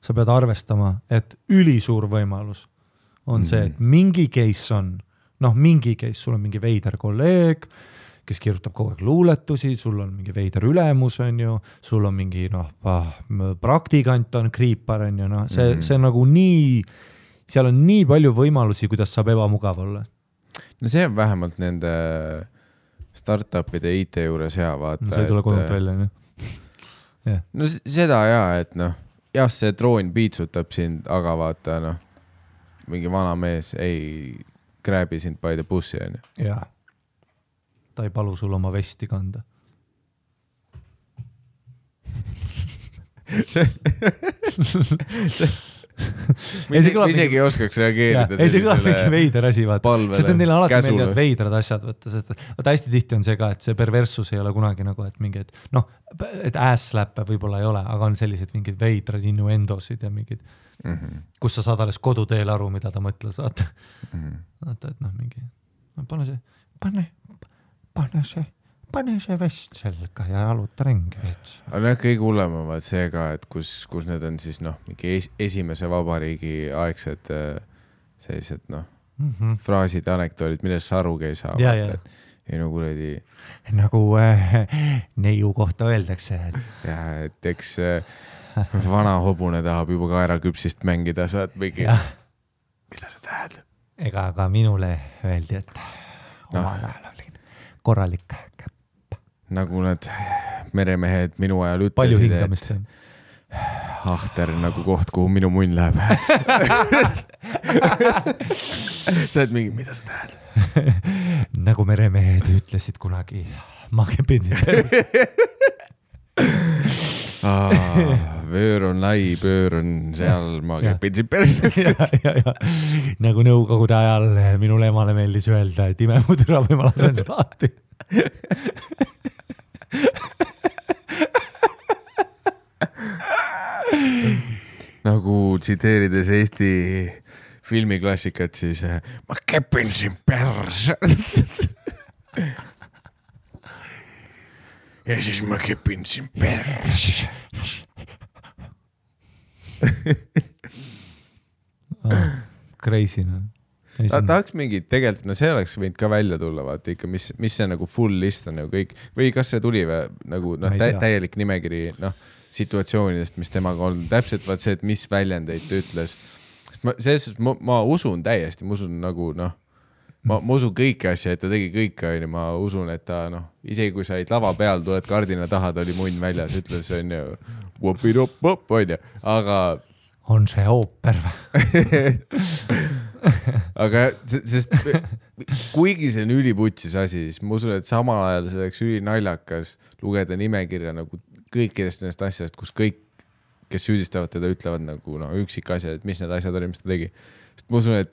sa pead arvestama, et ülisuur võimalus on see, et mingi case on, noh, mingi case, sul on mingi veider kolleeg, kes kirjutab kogu aeg luuletusi, sul on mingi veider ülemus, on ju, sul on mingi, noh, praktikant on kriipar, on ju, noh, see nagu nii, seal on nii palju võimalusi, kuidas saab ebamugav olla. No see on vähemalt nende startupide IT juures hea vaata. No see ei tule kodult välja, nii. Yeah. No seda et noh, jah, see droon piitsutab sind, aga vaata, noh, mingi vana mees ei graabi sind by the bussi, on ju. Jah. Ta ei palu sul oma vesti kanda. ma isegi ei oskaks reageerida. Ei, see kõlab mingi veider asi, vaata. See on neile alati meeldivad veidrad asjad, vaata, hästi tihti on see ka, et see perversus ei ole kunagi nagu, et mingi, et ass-slappe võib-olla ei ole, aga on sellised mingid veidrad innuendosid ja mingid, kus sa saad alles koduteel aru, mida ta mõtles, vaata, et mingi, pane see vest selga ja aluta ringi veits. Aga kõige hullemavad see ka, et kus need on siis mingi esimese vabariigi aegsed sellised fraasid, anekdoolid, millest sa arugi ei saa. Ei kuradi... Nagu neiu kohta öeldakse. Et eks vana hobune tahab juba kaeraküpsist mängida, saad mingi... Mida sa tähed? Ega ka minule öeldi, et omal ajal olin korralik käpp. Nagu need meremehed minu ajal ütlesid, palju hingamist on. Ahter nagu koht, kuhu minu munn läheb. Sa oled mingi, mida sa tähed? Nagu meremehed ütlesid kunagi, ma kepin sind. Vöör on lai, pöör on seal, ma kepin sind päris. Nagu nõukogude ajal minule emale meeldis öelda, et ime mu türa või ma lasen sul lahti. Nagu tsiteerides Eesti filmiklassikat, siis ma kepin siin pärs. Ja siis ma kepin siin pärs. Crazy, tahaks mingi, tegelikult, see oleks võinud ka välja tulla, vaata ikka, mis see nagu full list on nagu kõik, või kas see tuli või nagu täielik nimekiri, situatsioonidest, mis temaga on, täpselt vaat see, et mis väljendeid ta ütles. Sest ma usun täiesti, ma usun nagu, ma usun kõiki asja, et ta tegi kõike, ma usun, et ta, isegi kui sa olid lava peal, tuled kardina taha, ta oli munn väljas, ütles, on ju, wop-i-dop-pop, on ju, aga on see ooper või? Aga sest kuigi see on üliputsis asi, siis ma usun, et samal ajal see oleks ülinaljakas lugeda nimekirja nagu kõikidest nendest asjadest, kus kõik, kes süüdistavad teda, ütlevad nagu üksik asjad, et mis need asjad oli, mis ta tegi. Sest ma usun, et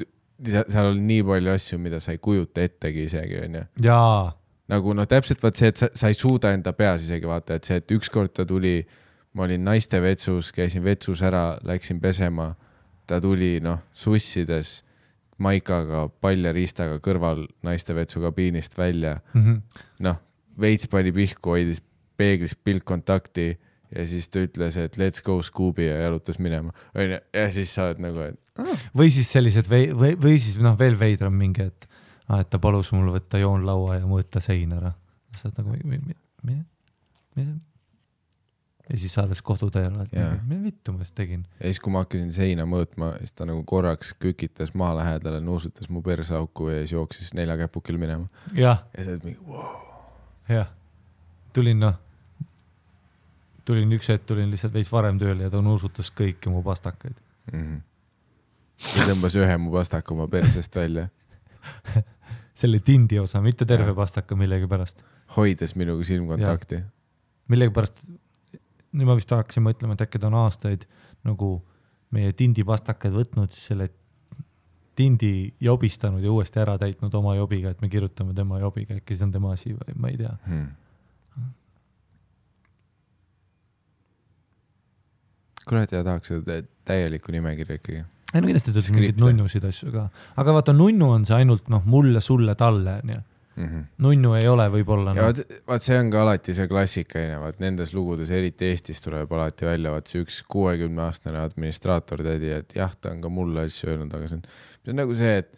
seal oli nii palju asju, mida sa ei kujuta ettegi isegi, on ju. Jaa. Nagu täpselt vaat see, et sa ei suuda enda peas isegi vaata, et see, et ükskord ta tuli, ma olin naiste vetsus, käisin vetsus ära, läksin pesema, ta tuli sussides maikaga, paljariistaga kõrval naiste vetsu kabiinist välja. Veits pani pihku, hoidis peeglis piltkontakti ja siis ta ütles, et let's go Scooby ja jalutas minema. Ja siis sa oled nagu, et... Või siis sellised, või siis veel veidram mingi, et ta palus mul võtta joonlaua ja mõõta sein ära. Sa oled nagu, mida? Ja siis saades kohtuteel, et mida vittu ma just tegin. Ja siis, kui ma hakkasin seina mõõtma, siis ta nagu korraks kükitas maa lähedale, nuusutas mu persauku ja siis jooksis 4 käpukil minema. Ja sa oled mingi, wow. Jah. Tulin üks hetk, tulin lihtsalt veits varem tööle ja ta nuusutas kõiki mu pastakaid. Ja tõmbas ühe mu pastaka oma persest välja. Selle tindi osa, mitte terve pastaka millegi pärast. Hoides minuga silmkontakti. Millegi pärast... Nüüd ma vist tahaksin mõtlema, et äkki ta on aastaid nagu meie tindi pastakaid võtnud, siis selle tindi jobistanud ja uuesti ära täitnud oma jobiga, et me kirjutame tema jobiga, äkki see on tema asi või ma ei tea. Kurat, ja tahaks seda täielikku nimekirja ikkagi. Ei, no kindlasti tõesti mingid nunnusid asju ka. Aga vaata, nunnu on see ainult mulle, sulle, talle, nii. Nunnu ei ole võib-olla. Ja vaat see on ka alati see klassikaine, vaat nendes lugudes, eriti Eestis tuleb alati välja, vaat see üks 60-aastane administraator tädi, et jah, ta on ka mulle asju öelnud, aga see on nagu see, et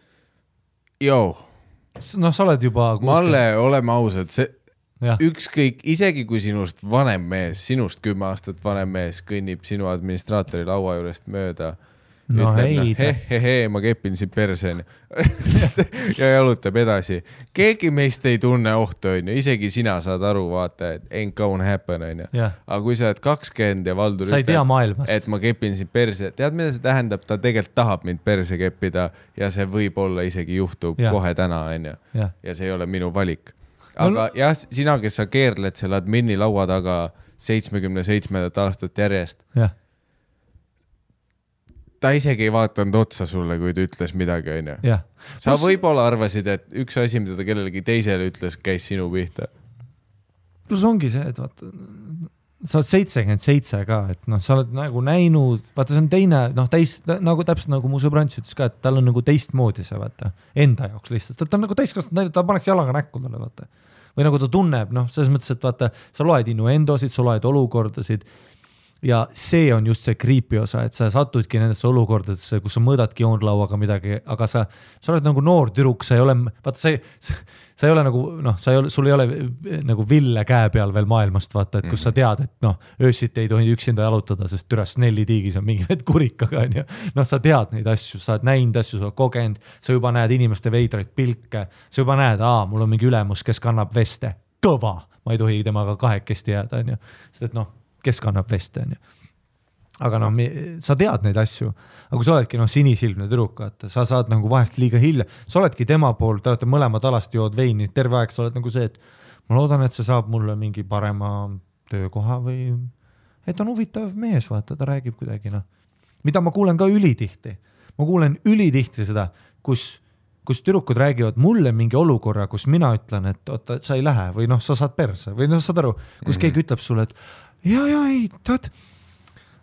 sa oled juba... Malle, oleme ausad, see ükskõik, isegi kui sinust vanem mees, sinust 10 aastat vanem mees kõnnib sinu administraatori laua juurest mööda, ütleb, ma kepin siin perseni ja jalutab edasi. Keegi meist ei tunne ohtu, on ju. Isegi sina saad aru, vaata, et ain't gonna happen, on ju. Aga kui sa oled 20 ja Valdur ütleb, et ma kepin siin perse, tead, mida see tähendab? Ta tegelikult tahab mind perse keppida ja see võib olla isegi juhtub kohe täna, on ju. Ja see ei ole minu valik. Aga jah, sina, kes sa keerled selle admini laua taga 77 aastat järjest, ta isegi ei vaatanud otsa sulle, kui ta ütles midagi, on ju. Jah. Sa võib-olla arvasid, et üks asi, mida ta kellelegi teisele ütles, käis sinu pihta. Plus ongi see, et vaata, sa oled 77 ka, et noh, sa oled nagu näinud, vaata see on teine, noh, nagu täpselt nagu mu sõbrants ütles ka, et tal on nagu teistmoodi see, vaata, enda jaoks lihtsalt, ta on nagu täiskasvanud, ta paneks jalaga näkku talle, vaata. Või nagu ta tunneb, noh, selles mõttes, et vaata, sa loed innuendosid, sa loed olukordasid ja see on just see creepy osa, et sa satudki nendesse olukordadesse, kus sa mõõdadki joonlauaga midagi, aga sa oled nagu noor tüdruk, sa ei ole, vaata, sa ei ole nagu, noh, sul ei ole nagu ville käe peal veel maailmast, vaata, et kus sa tead, et noh, öösiti ei tohi üksinda jalutada, sest türas Snelli tiigis on mingi kurikaga, on ju. Noh, sa tead neid asju, sa oled näinud asju, sa oled kogenud, sa juba näed inimeste veidraid pilke, sa juba näed, mul on mingi ülemus, kes kannab veste, kõva, ma ei tohi temaga kahekesti jääda, on ju. Sest et noh, kes kannab veste, on ju. Aga noh, sa tead neid asju, aga kui sa oledki sinisilmne tüdruk, sa saad nagu vahest liiga hilja, sa oledki tema pool, te olete mõlemad alasti jood veini, terve aeg sa oled nagu see, et ma loodan, et see saab mulle mingi parema töökoha või et on huvitav mees, vaata, ta räägib kuidagi, noh. Mida ma kuulen ka ülitihti. Ma kuulen ülitihti seda, kus tüdrukud räägivad mulle mingi olukorra, kus mina ütlen, et oota, sa ei lähe või noh, sa saad perse või noh, saad aru, kus keegi ütleb sulle, et ei, tead,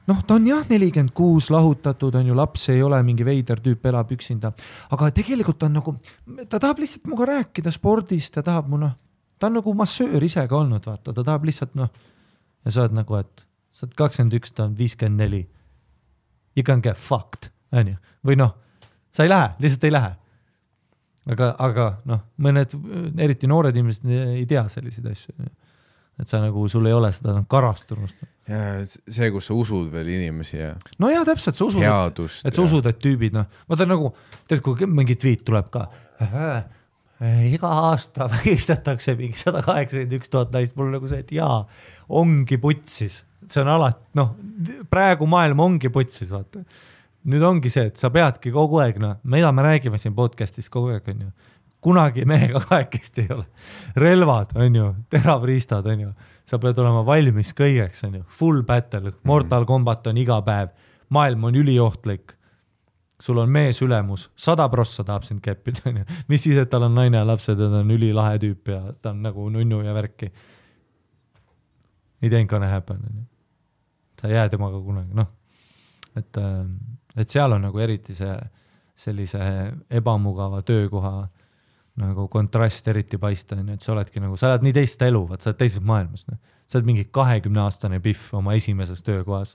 noh, ta on jah 46 lahutatud, on ju, laps ei ole mingi veider tüüp, elab üksinda, aga tegelikult ta on nagu, ta tahab lihtsalt muga rääkida spordist, ta tahab ta on nagu massöör ise ka olnud, vaata, ta tahab lihtsalt ja sa oled nagu, et sa oled 21, ta on 54. You can get fucked, on ju, või noh, sa ei lähe, lihtsalt ei lähe. Aga noh, mõned, eriti noored inimesed ei tea selliseid asju, et sa nagu, sul ei ole seda karastunust. Ja see, kus sa usud veel inimesi ja no jah, täpselt, sa usud, headust, et sa usud, et tüübid, noh, vaata nagu, tead, kui mingi tweet tuleb ka, iga aasta vägistatakse mingi 181 000 naist, mul nagu see, et jaa, ongi putsis, see on alati, noh, praegu maailm ongi putsis, vaata. Nüüd ongi see, et sa peadki kogu aeg, noh, mida me räägime siin podcastis kogu aeg, on ju. Kunagi mehega kahekesti ei ole. Relvad, on ju, teravriistad, on ju. Sa pead olema valmis kõigeks, on ju. Full battle, Mortal Kombat on iga päev. Maailm on üliohtlik. Sul on mees ülemus. 100% tahab sind keppida, on ju. Mis siis, et tal on naine ja lapsed, ta on ülilahe tüüp ja ta on nagu nunnu ja värki. It ain't gonna happen, on ju. Sa jää temaga kunagi, noh. Et seal on nagu eriti sellise ebamugava töökoha nagu kontrast eriti paista, et sa oledki nagu, sa oled nii teist elu, sa oled teises maailmas. Sa oled mingi 20-aastane pihv oma esimeses töökohas.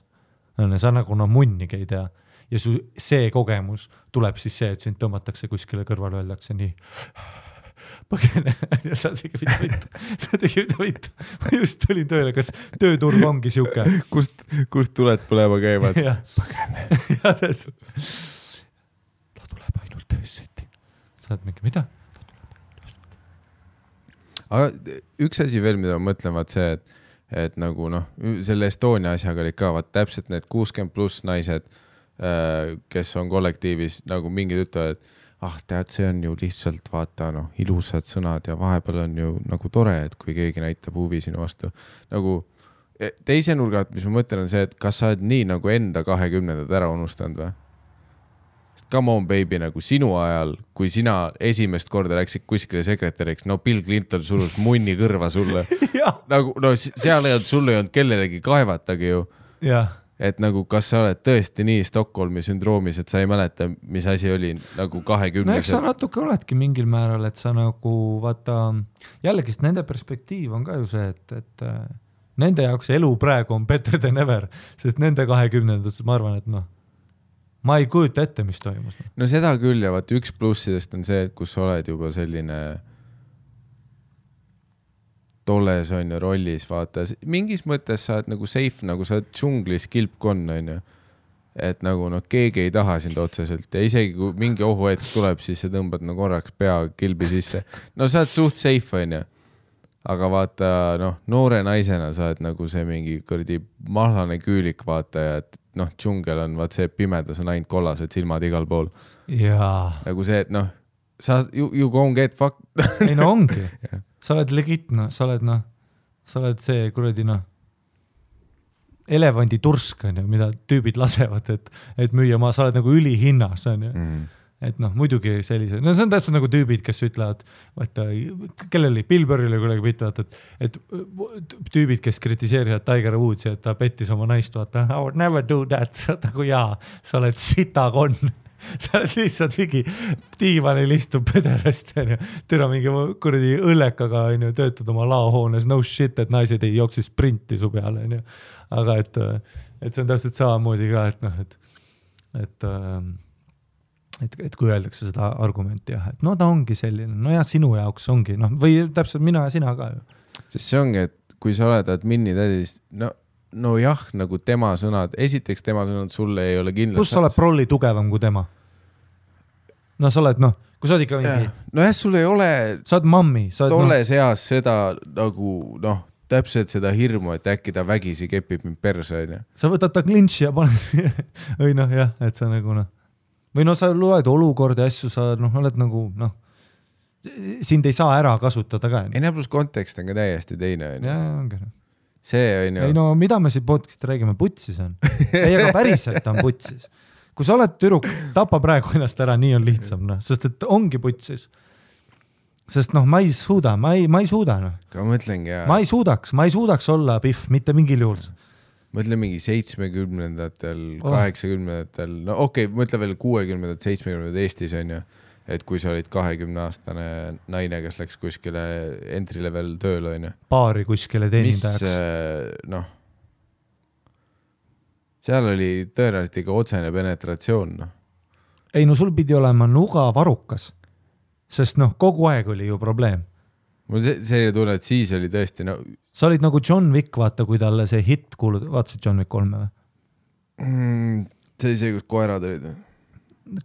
Sa nagu munnigi ei tea. Ja see kogemus tuleb siis see, et sind tõmmatakse kuskile kõrval, öeldakse nii põgene. Sa tegi mida vittu. Ma just tulin tööle, kas tööturg ongi siuke? Kust tuled põlema käivad? Põgene. Ja täsu. Ta tuleb ainult töösseti. Sa oled mingi, mida? Aga üks asi veel, mida ma mõtlen, vaat see, et nagu noh, selle Estonia asjaga oli ka, vaat täpselt need 60 pluss naised, kes on kollektiivis, nagu mingid ütlevad, et tead, see on ju lihtsalt vaata, noh, ilusad sõnad ja vahepeal on ju nagu tore, et kui keegi näitab huvi sinu vastu. Nagu teise nurgat, mis ma mõtlen, on see, et kas sa oled nii nagu enda 20-ndad ära unustanud või? Come on, baby, nagu sinu ajal, kui sina esimest korda läksid kuskile sekretäriks, no Bill Clinton surus munni kõrva sulle. Nagu, no seal ei olnud, sul ei olnud kellelegi kaevatagi ju. Et nagu, kas sa oled tõesti nii Stockholmi sündroomis, et sa ei mäleta, mis asi oli nagu 20. No eks sa natuke oledki mingil määral, et sa nagu, vaata, jällegi nende perspektiiv on ka ju see, et nende jaoks elu praegu on better than ever, sest nende 20-ndad, ma arvan, et noh, ma ei kujuta ette, mis toimus. No seda küll ja vaat üks plussidest on see, et kus sa oled juba selline tolles on ju rollis, vaata. Mingis mõttes sa oled nagu safe, nagu sa oled džunglis kilpkonn on ju. Et nagu noh, keegi ei taha sind otseselt ja isegi kui mingi ohuhetk tuleb, siis sa tõmbad no korraks pea kilbi sisse. No sa oled suht safe on ju. Aga vaata, noh, noore naisena sa oled nagu see mingi kõrdi mahlane küülik vaata ja et noh, džungel on vaat see pimedas on ainult kollased silmad igal pool. Jaa. Nagu see, et noh, sa you gonna get fucked. Ei no ongi. Sa oled legit, no, sa oled see kuradi noh. elevanditursk on ju, mida tüübid lasevad, et müüa sa oled nagu ülihinnas on ju. Et noh, muidugi sellise, no see on täpselt nagu tüübid, kes ütlevad, vaata, kelleli Billboardile kuidagi pitavad, et tüübid, kes kritiseerivad Tiger Woodsi, et ta pettis oma naist, vaata, I would never do that, nagu jaa, sa oled sitakonn, sa oled lihtsalt mingi diivanil istub pederast, türa mingi kuradi õllekaga, töötad oma laohoones, no shit, et naised ei jooksis sprinti su peale, aga et see on täpselt samamoodi ka, et noh, et kui öeldakse seda argumenti jah, et no ta ongi selline, no ja sinu jaoks ongi, noh, või täpselt mina ja sina ka ju. Sest see ongi, et kui sa oled admini tädis, no jah, nagu tema sõnad, esiteks tema sõnad sulle ei ole kindlasti. Kus sa oled prolli tugevam kui tema? No sa oled, noh, kui sa oled ikka mingi... No jah, sul ei ole... Sa oled mammi. Tolles eas seda nagu, noh, täpselt seda hirmu, et äkki ta vägisi kepib mind perse, on ju. Sa võtad ta klinši ja paned... või noh, jah, et sa nagu, noh... Või no sa loed olukordi asju, sa oled nagu, noh, sind ei saa ära kasutada ka. Ei, plus kontekst on ka täiesti teine. Ja, ongi. See on ju... Ei no, mida me siin podcast'i räägime? Putsis on. Ei, aga päriselt on putsis. Kui sa oled tüdruk, tapa praegu ennast ära, nii on lihtsam, noh, sest et ongi putsis. Sest noh, ma ei suuda, ma ei suuda, noh. Ka mõtlengi, jah. Ma ei suudaks olla pihv, mitte mingil juhul. Mõtle mingi 70-ndatel, 80-ndatel, no okei, mõtle veel 60-ndad, 70-ndad Eestis on ju, et kui sa olid 20-aastane naine, kes läks kuskile entry level tööle on ju. Paari kuskile teenindajaks. Mis, noh, seal oli tõenäoliselt ikka otsene penetratsioon, noh. Ei, no sul pidi olema nuga varukas, sest noh, kogu aeg oli ju probleem. Mul selline tunne, et siis oli tõesti, no... Sa olid nagu John Wick, vaata, kui talle see hit kuulud, vaatasid John Wick 3 või? See oli see, kus koerad olid või?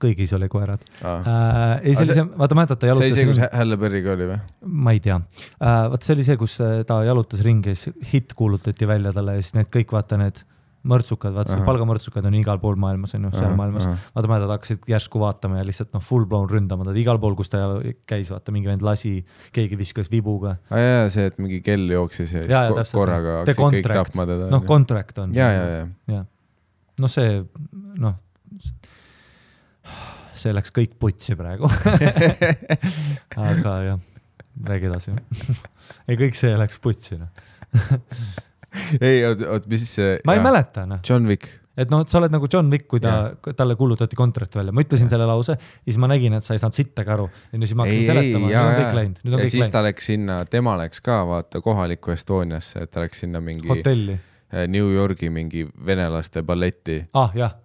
Kõigis oli koerad. Vaata, mäletad, ta jalutas... See oli see, kus Halle Berry'ga oli või? Ma ei tea. Vaata, see oli see, kus ta jalutas ringi, hit kuulutati välja talle ja siis need kõik, vaata, need mõrtsukad, vaata, palgamõrtsukad on igal pool maailmas, on ju, seal maailmas. Vaata, mäletad, hakkasid järsku vaatama ja lihtsalt full blown ründama, igal pool, kus ta käis, vaata, mingi vend lasi, keegi viskas vibuga. Ja, see, et mingi kell jooksis ja korraga hakkasid kõik tapma teda. Noh, contract on. Ja. No see, noh, see läks kõik putsi praegu. Aga jah, räägi edasi. Ei, kõik see läks putsi. Ei, oot, mis see... Ma ei mäleta, noh. John Wick. Et noh, sa oled nagu John Wick, kui talle kuulutati kontrakt välja. Ma ütlesin selle lause, siis ma nägin, et sa ei saanud sittega aru. Ja siis ma hakkasin seletama. Nüüd on kõik läinud. Ja siis ta läks sinna, tema läks ka, vaata, kohalikku Estoniasse, et ta läks sinna mingi... Hotelli. New Yorgi mingi venelaste balletti,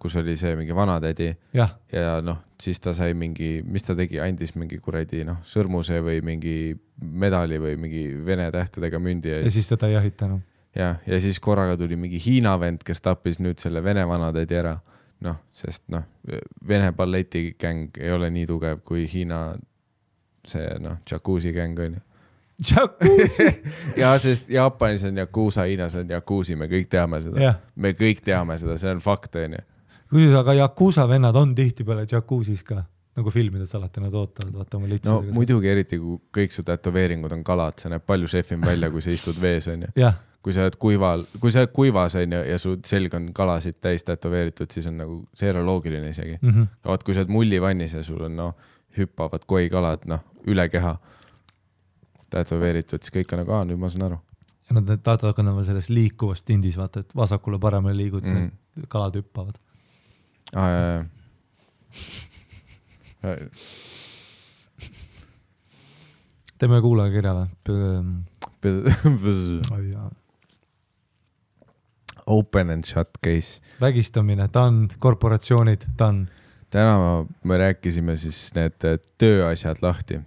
kus oli see mingi vanatädi. Ja noh, siis ta sai mingi, mis ta tegi, andis mingi kuradi, noh, sõrmuse või mingi medali või mingi vene tähtedega mündi. Ja siis ta ei jahitanud. Ja siis korraga tuli mingi Hiina vend, kes tappis nüüd selle vene vanatädi ära. Noh, sest noh, vene balletikäng ei ole nii tugev kui Hiina see, noh, jacuzzi käng on ju. Jacuzzi? Ja, sest Jaapanis on jakuusa, Hiinas on jakuusi, me kõik teame seda. Me kõik teame seda, see on fakt, on ju. Kusjuures, aga jakuusa vennad on tihti peale jakuusis ka, nagu filmides alati nad ootavad, vaata oma litsidega. No muidugi eriti, kui kõik su tätoveeringud on kalad, see näeb palju šefim välja, kui sa istud vees, on ju. Kui sa oled kuivas on ju, ja su selg on kalasid täis tätoveeritud, siis on nagu, see ei ole loogiline isegi. Vaat, kui sa oled mullivannis ja sul on, noh, hüppavad koi kalad, noh, üle keha tätoveeritud, siis kõik on nagu, nüüd ma saan aru. Ja nad hakkavad selles liikuvast tindis, vaata, et vasakule paremale liigud, siis kalad hüppavad. Ja. Teeme kuulaja kirja või? Open and shut case. Vägistamine, done, korporatsioonid, done. Täna me rääkisime siis need tööasjad lahti.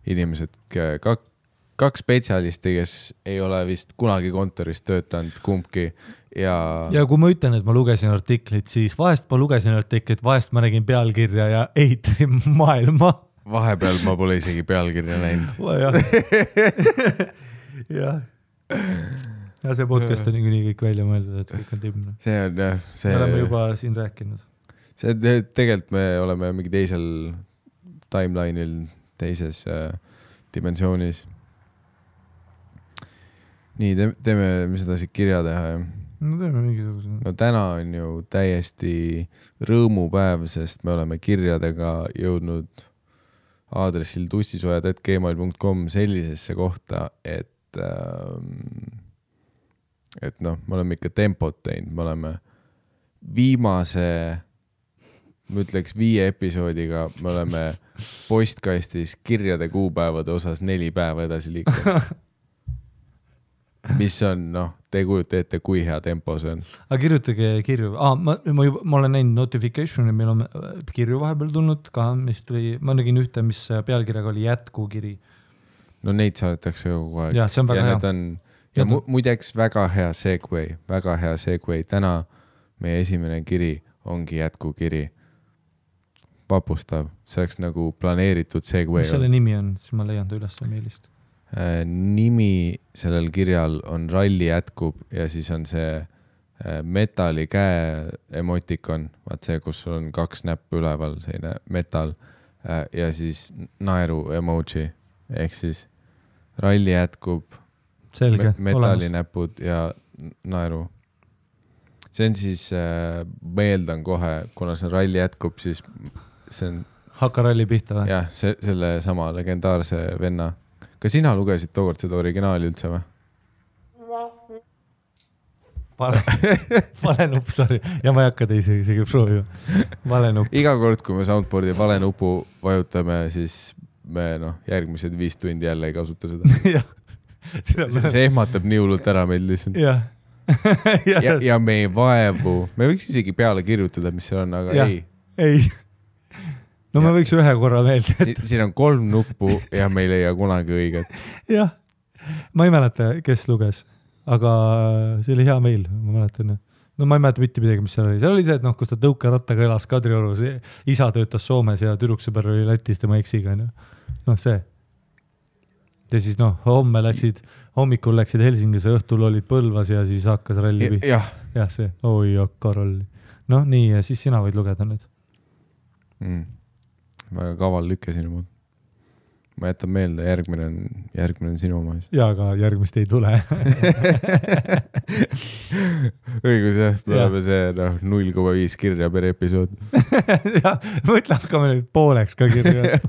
Inimesed, kaks spetsialisti, kes ei ole vist kunagi kontoris töötanud kumbki. Ja kui ma ütlen, et ma lugesin artiklit, siis vahest ma lugesin artiklit, vahest ma nägin pealkirja ja ehitasin maailma. Vahepeal ma pole isegi pealkirja näinud. Ja see podcast on nii kõik välja mõeldud, et kõik on timne. See on jah. Me oleme juba siin rääkinud. See tegelikult me oleme mingi teisel timeline'il, teises dimensioonis. Nii, teeme, mis edasi kirja teha. No teeme mingisuguse. No täna on ju täiesti rõõmupäev, sest me oleme kirjadega jõudnud aadressil tussisojad@gmail.com sellisesse kohta, et noh, me oleme ikka tempot teinud, me oleme viimase, ma ütleks 5 episoodiga, me oleme postkastis kirjade kuupäevade osas 4 päeva edasi liikunud. Mis on, noh, te kujuta ette, kui hea tempo see on. Aga kirjutage kirju. Ma olen näinud notificationi, meil on kirju vahepeal tulnud ka, mis tuli, ma nägin ühte, mis pealkirjaga oli jätkukiri. No neid saadetakse kogu aeg. Ja, see on väga hea. Ja muideks väga hea segway. Täna meie esimene kiri ongi jätkukiri. Vapustav. See oleks nagu planeeritud segway. Mis selle nimi on? Siis ma leian ta üles meelist. Nimi sellel kirjal on Ralli jätkub ja siis on see metali käe emotikon, vaat see, kus on 2 näppu üleval, selline metal ja siis naeru emoji ehk siis Ralli jätkub, metalinäpud ja naeru. See on siis, meeldan kohe, kuna see Ralli jätkub, siis see on Hakka Ralli pihta või? Jah, selle sama legendaarse venna. Ka sina lugesid tookord seda originaali üldse või? Vale nupp, sorry. Ja ma ei hakka teisi isegi proovima. Vale nupp. Iga kord, kui me soundboardi vale nupu vajutame, siis me järgmised 5 tundi jälle ei kasuta seda. See ehmatab nii hullult ära meil lihtsalt. Ja me ei vaevu. Me võiks isegi peale kirjutada, mis seal on, aga ei. No me võiks ühe korra meelde. Siin on 3 nuppu ja me ei leia kunagi õiget. Jah, ma ei mäleta, kes luges, aga see oli hea meil, ma mäletan. No ma ei mäleta mitte midagi, mis seal oli. Seal oli see, et kus ta tõukerattaga elas Kadriorus, isa töötas Soomes ja tüdruksõber oli Lätis tema eksiga. No see. Ja siis hommikul läksid Helsingis ja õhtul olid Põlvas ja siis hakkas ralli. Jah, see. Oi, hakka ralli. No nii, ja siis sina võid lugeda nüüd. Väga kaval lükke sinu mood. Ma jätan meelde, järgmine on sinu oma. Ja, aga järgmist ei tule. Õigus jah, me oleme see 0,5 kirja per episood. Ja, mõtle, hakkame nüüd pooleks ka kirja.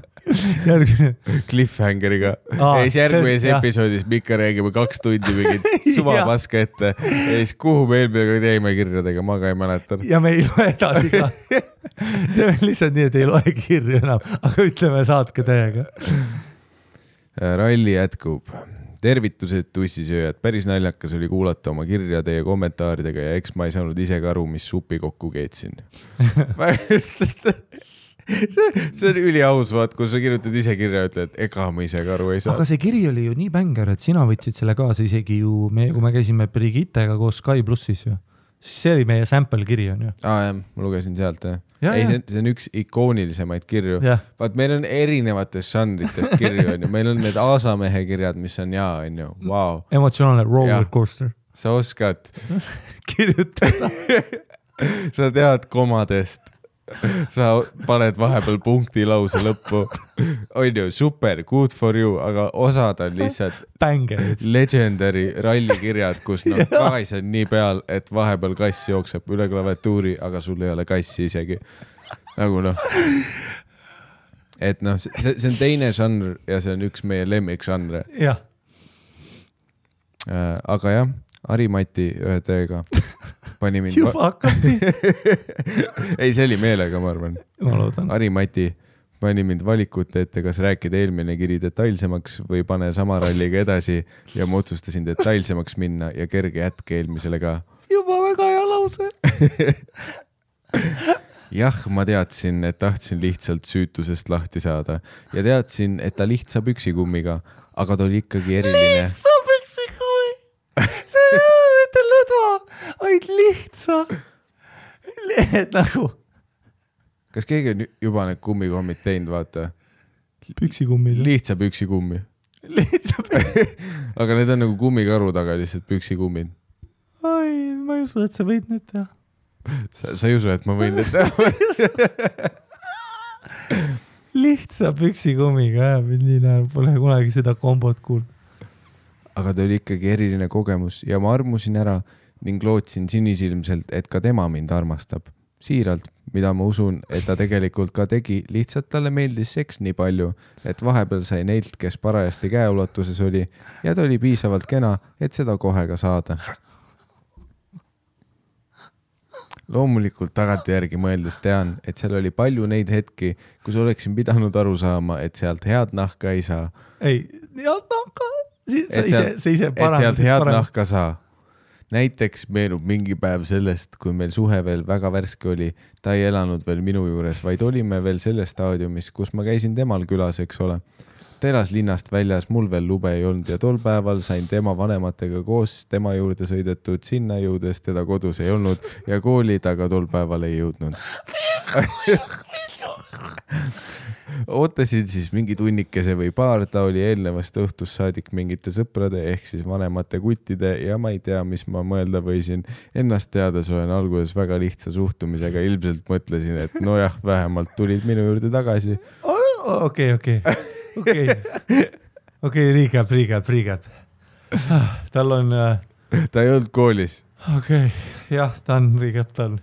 Cliffhangeriga. Järgmises episoodis me ikka räägime 2 tundi mingit suvapaska ette. Ja siis kuhu me eelmine teeme kirjadega, ma ka ei mäleta. Ja me ei loe edasi ka. Teeme lihtsalt nii, et ei loe kirju enam, aga ütleme saatke täiega. Ralli jätkub. Tervitused tussisööjad. Päris naljakas oli kuulata oma kirjade ja kommentaaridega ja eks ma ei saanud ise ka aru, mis supi kokku keetsin. See on üliaus, vaat, kui sa kirjutad ise kirja ja ütled, ega ma ise ka aru ei saa. Aga see kiri oli ju nii bänger, et sina võtsid selle kaasa isegi ju, kui me käisime Brigittega koos Sky Plussis ju. See oli meie sample kiri on ju. Jah, ma lugesin sealt. Ei, see on üks ikoonilisemaid kirju. Vaat meil on erinevatest žanritest kirju on ju. Meil on need Aasamehe kirjad, mis on on ju. Wow. Emotsionaalne roller coaster. Sa oskad kirjutada. Sa tead komadest. Sa paned vahepeal punkti lause lõppu. On ju, super, good for you, aga osad on lihtsalt Bängerid. Legendary rallikirjad, kus kass on nii peal, et vahepeal kass jookseb üle klaviatuuri, aga sul ei ole kassi isegi. Nagu Et see on teine žanr ja see on üks meie lemmikžanre. Jah. Aga jah, Ari-Mati ühe teega pani mind... Juba hakkati. Ei, see oli meelega, ma arvan. Ma loodan. Ari-Mati pani mind valikut ette, kas rääkida eelmine kiri detailsemaks või pane sama ralliga edasi ja ma otsustasin detailsemaks minna ja kerge jätk eelmisele ka. Juba väga hea lause. Jah, ma teadsin, et tahtsin lihtsalt süütusest lahti saada ja teadsin, et ta lihtsa püksikummiga, aga ta oli ikkagi eriline. Lihtsa püksikummi! See ei ole mitte lõdva, vaid lihtsa. Nagu. Kas keegi on juba need kummikommid teinud, vaata? Püksikummid. Lihtsa püksikummi. Lihtsa püksikummi. Aga need on nagu kummikaru taga lihtsalt püksikummid. Ai, ma ei usu, et sa võid need teha. Sa ei usu, et ma võin need teha? Lihtsa püksikummiga, nii näeb, pole kunagi seda kombot kuulnud. aga ta oli ikkagi eriline kogemus ja ma armusin ära ning lootsin sinisilmselt, et ka tema mind armastab. Siiralt, mida ma usun, et ta tegelikult ka tegi, lihtsalt talle meeldis seks nii palju, et vahepeal sai neilt, kes parajasti käeulatuses oli ja ta oli piisavalt kena, et seda kohe ka saada. Loomulikult tagantjärgi mõeldes tean, et seal oli palju neid hetki, kus oleksin pidanud aru saama, et sealt head nahka ei saa. Ei, head nahka, see ise parem. Et sealt head nahka saa. Näiteks meenub mingi päev sellest, kui meil suhe veel väga värske oli, ta ei elanud veel minu juures, vaid olime veel selles staadiumis, kus ma käisin temal külas, eks ole. Ta elas linnast väljas, mul veel lube ei olnud ja tol päeval sain tema vanematega koos tema juurde sõidetud, sinna jõudes teda kodus ei olnud ja kooli ta ka tol päeval ei jõudnud. Ootasin siis mingi tunnikese või paar, ta oli eelnevast õhtust saadik mingite sõprade ehk siis vanemate kuttide ja ma ei tea, mis ma mõelda võisin. Ennast teades olen alguses väga lihtsa suhtumisega, ilmselt mõtlesin, et nojah, vähemalt tulid minu juurde tagasi. Okei, recap. Tal on... Ta ei olnud koolis. Okei, jah, ta on recap, ta on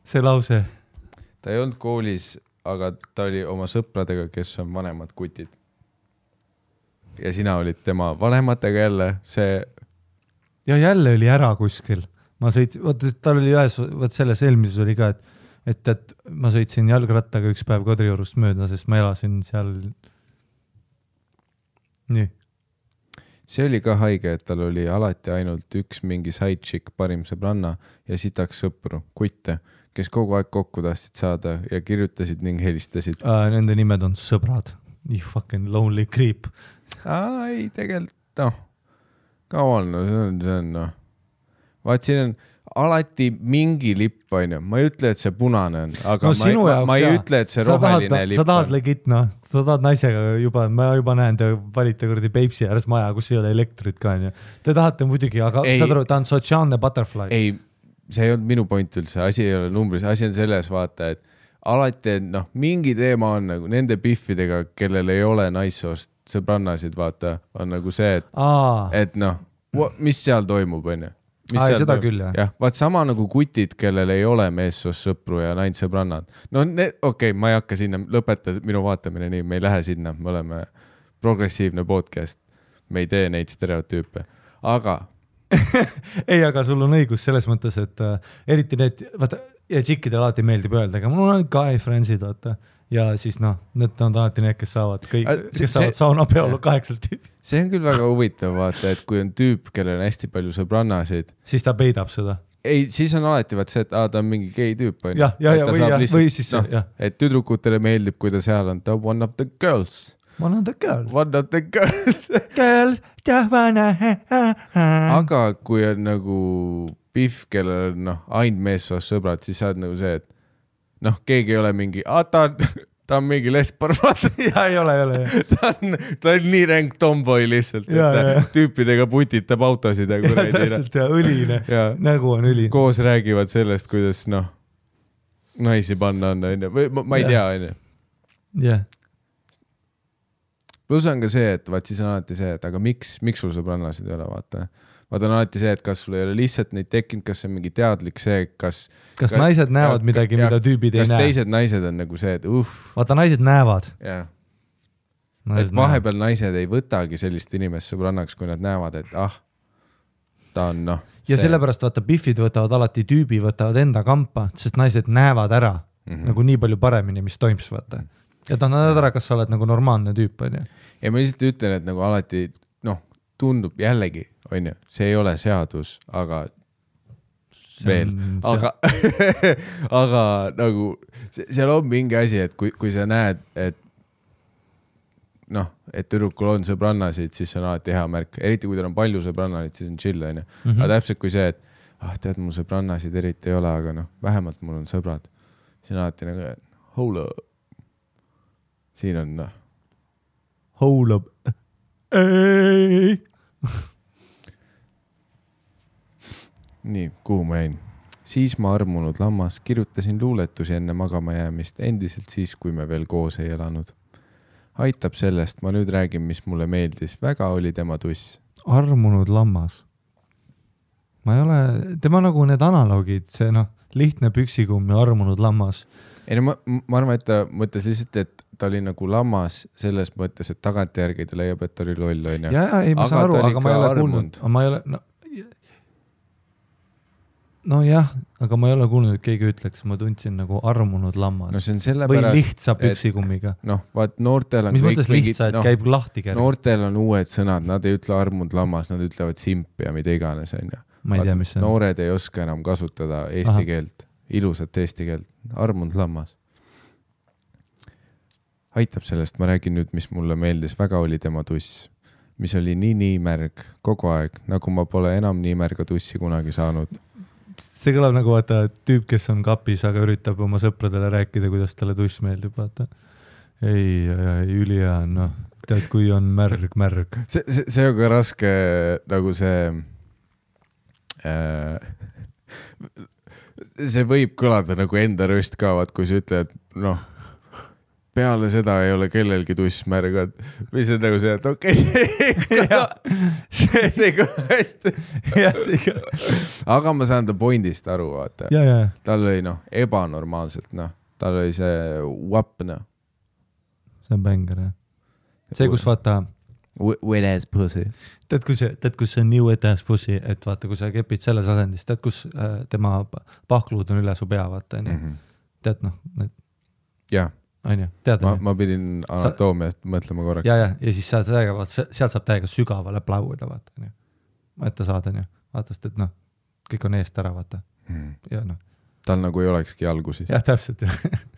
see lause. Ta ei olnud koolis, aga ta oli oma sõpradega, kes on vanemad kutid. Ja sina olid tema vanematega jälle, see... Ja jälle oli ära kuskil. Ma sõitsin, tal oli ühes, selles eelmises oli ka, et ma sõitsin jalgrattaga üks päev Kadriorust mööda, sest ma elasin seal... Nii. See oli ka haige, et tal oli alati ainult üks mingi sidechick, parim sõbranna ja sitaks sõpru, kutte, kes kogu aeg kokku tahtsid saada ja kirjutasid ning helistasid. Nende nimed on sõbrad. You fucking lonely creep. Ei, tegelikult, come on, see on, Vaat siin on alati mingi lipp, on ju. Ma ei ütle, et see punane on, aga ma ei ütle, et see roheline lipp on. Sa tahad legit, sa tahad naisega juba, ma juba näen, te valite kurdi Peipsi ääres maja, kus ei ole elektrit ka, on ju. Te tahate muidugi, aga saad aru, ta on sotsiaalne butterfly. Ei, see ei olnud minu point üldse, asi ei ole numbris, asi on selles vaata, et alati, mingi teema on nagu nende piffidega, kellel ei ole naissoost sõbrannasid, vaata, on nagu see, et mis seal toimub, on ju. Seda küll, jah. Jah, vaat sama nagu kutid, kellel ei ole meessoost sõpru ja naint sõbrannad. Okei, ma ei hakka sinna, lõpeta minu vaatamine nii, me ei lähe sinna, me oleme progressiivne podcast, me ei tee neid stereotüüpe, aga... Ei, aga sul on õigus selles mõttes, et eriti need, vaata, ja tšikkidel alati meeldib öelda, aga mul on guy friendsid, vaata. Ja siis need on alati need, kes saavad saunapeolu 8 tüüpi. See on küll väga huvitav, vaata, et kui on tüüp, kellel on hästi palju sõbrannasid. Siis ta peidab seda. Ei, siis on alati vaat see, et ta on mingi gei tüüp. Või siis see, jah. Et tüdrukutele meeldib, kui ta seal on, ta one of the girls. One of the girls. One of the girls. Girl, tahvana. Aga kui on nagu pihv, kellel on ainult meessoost sõbrad, siis saad nagu see, et keegi ei ole mingi, ta on mingi lesbar, ja ei ole. Ta on nii ränk tomboy lihtsalt, et tüüpidega putitab autosid. Täpselt, ja õline, nägu on õline. Koos räägivad sellest, kuidas naisi panna on, või ma ei tea, on ju. Jah. Plus on ka see, et vaat siis on alati see, et aga miks sul sõbrannasid ei ole, vaata. Vaata on alati see, et kas sul ei ole lihtsalt neid tekkinud, kas see on mingi teadlik see, kas naised näevad midagi, mida tüübid ei näe. Kas teised naised on nagu see, et Vaata, naised näevad. Jah. Et vahepeal naised ei võtagi sellist inimest sõbrannaks, kui nad näevad, et ta on Ja sellepärast vaata, biffid võtavad alati tüübi, võtavad enda kampa, sest naised näevad ära nagu nii palju paremini, mis toims, vaata. Ja ta näevad ära, kas sa oled nagu normaalne tüüp, on ju. Ja ma lihtsalt ütlen, et nagu alati, tundub jällegi, on ju, see ei ole seadus, aga veel, aga nagu seal on mingi asi, et kui sa näed, et et tüdrukul on sõbrannasid, siis see on alati hea märk, eriti kui tal on palju sõbrannasid, siis on chill, on ju. Aga täpselt kui see, et tead, mul sõbrannasid eriti ei ole, aga vähemalt mul on sõbrad. Siin alati nagu, hold up. Siin on hold up. Ei. Nii, kuhu ma jäin? Siis ma armunud lammas, kirjutasin luuletusi enne magama jäämist, endiselt siis, kui me veel koos ei elanud. Aitab sellest, ma nüüd räägin, mis mulle meeldis. Väga oli tema tuss. armunud lammas. Ma ei ole, tema nagu need analoogid, see lihtne püksikumm ja armunud lammas. Ei no ma arvan, et ta mõtles lihtsalt, et ta oli nagu lammas selles mõttes, et tagantjärgi ta leiab, et ta oli loll, on ju. Ja, ei, ma saan aru, aga ma ei ole kuulnud. Ma ei ole, no jah, aga ma ei ole kuulnud, et keegi ütleks, ma tundsin nagu armunud lammas. No see on sellepärast, või lihtsa püksikummiga. Vaat noortel on... Mis mõttes lihtsa, et käib lahti kerge? Noortel on uued sõnad, nad ei ütle armunud lammas, nad ütlevad simp ja mida iganes, on ju. Ma ei tea, mis see on. Noored ei oska enam kasutada eesti keelt, ilusat eesti keelt, armunud lammas. Aitab sellest, ma räägin nüüd, mis mulle meeldis, väga oli tema tuss, mis oli nii märg kogu aeg, nagu ma pole enam nii märga tussi kunagi saanud. See kõlab nagu vaata tüüp, kes on kapis, aga üritab oma sõpradele rääkida, kuidas talle tuss meeldib, vaata. Ei, ülihea, tead, kui on märg. See on ka raske nagu see võib kõlada nagu enda röst ka, vaat kui sa ütled, peale seda ei ole kellelgi tuss märgad. Mis on nagu see, et okei, see kõla hästi. Aga ma saan ta pointist aru, vaata. Tal oli ebanormaalselt, tal oli see wap, See on bänger, jah. See, kus vaata... Wet ass pussy. Tead, kus see on nii wet ass pussy, et vaata, kui sa kepid selles asendis, tead, kus tema pahkluud on üle su pea, vaata, tead, jah. Ma pidin anatoomiast mõtlema korraks. Ja siis sealt saab täiega sügavale plauida, vaata. Ette saada, vaata, sest et kõik on eest ära, vaata. Ja tal nagu ei olekski jalgu siis. Jah, täpselt.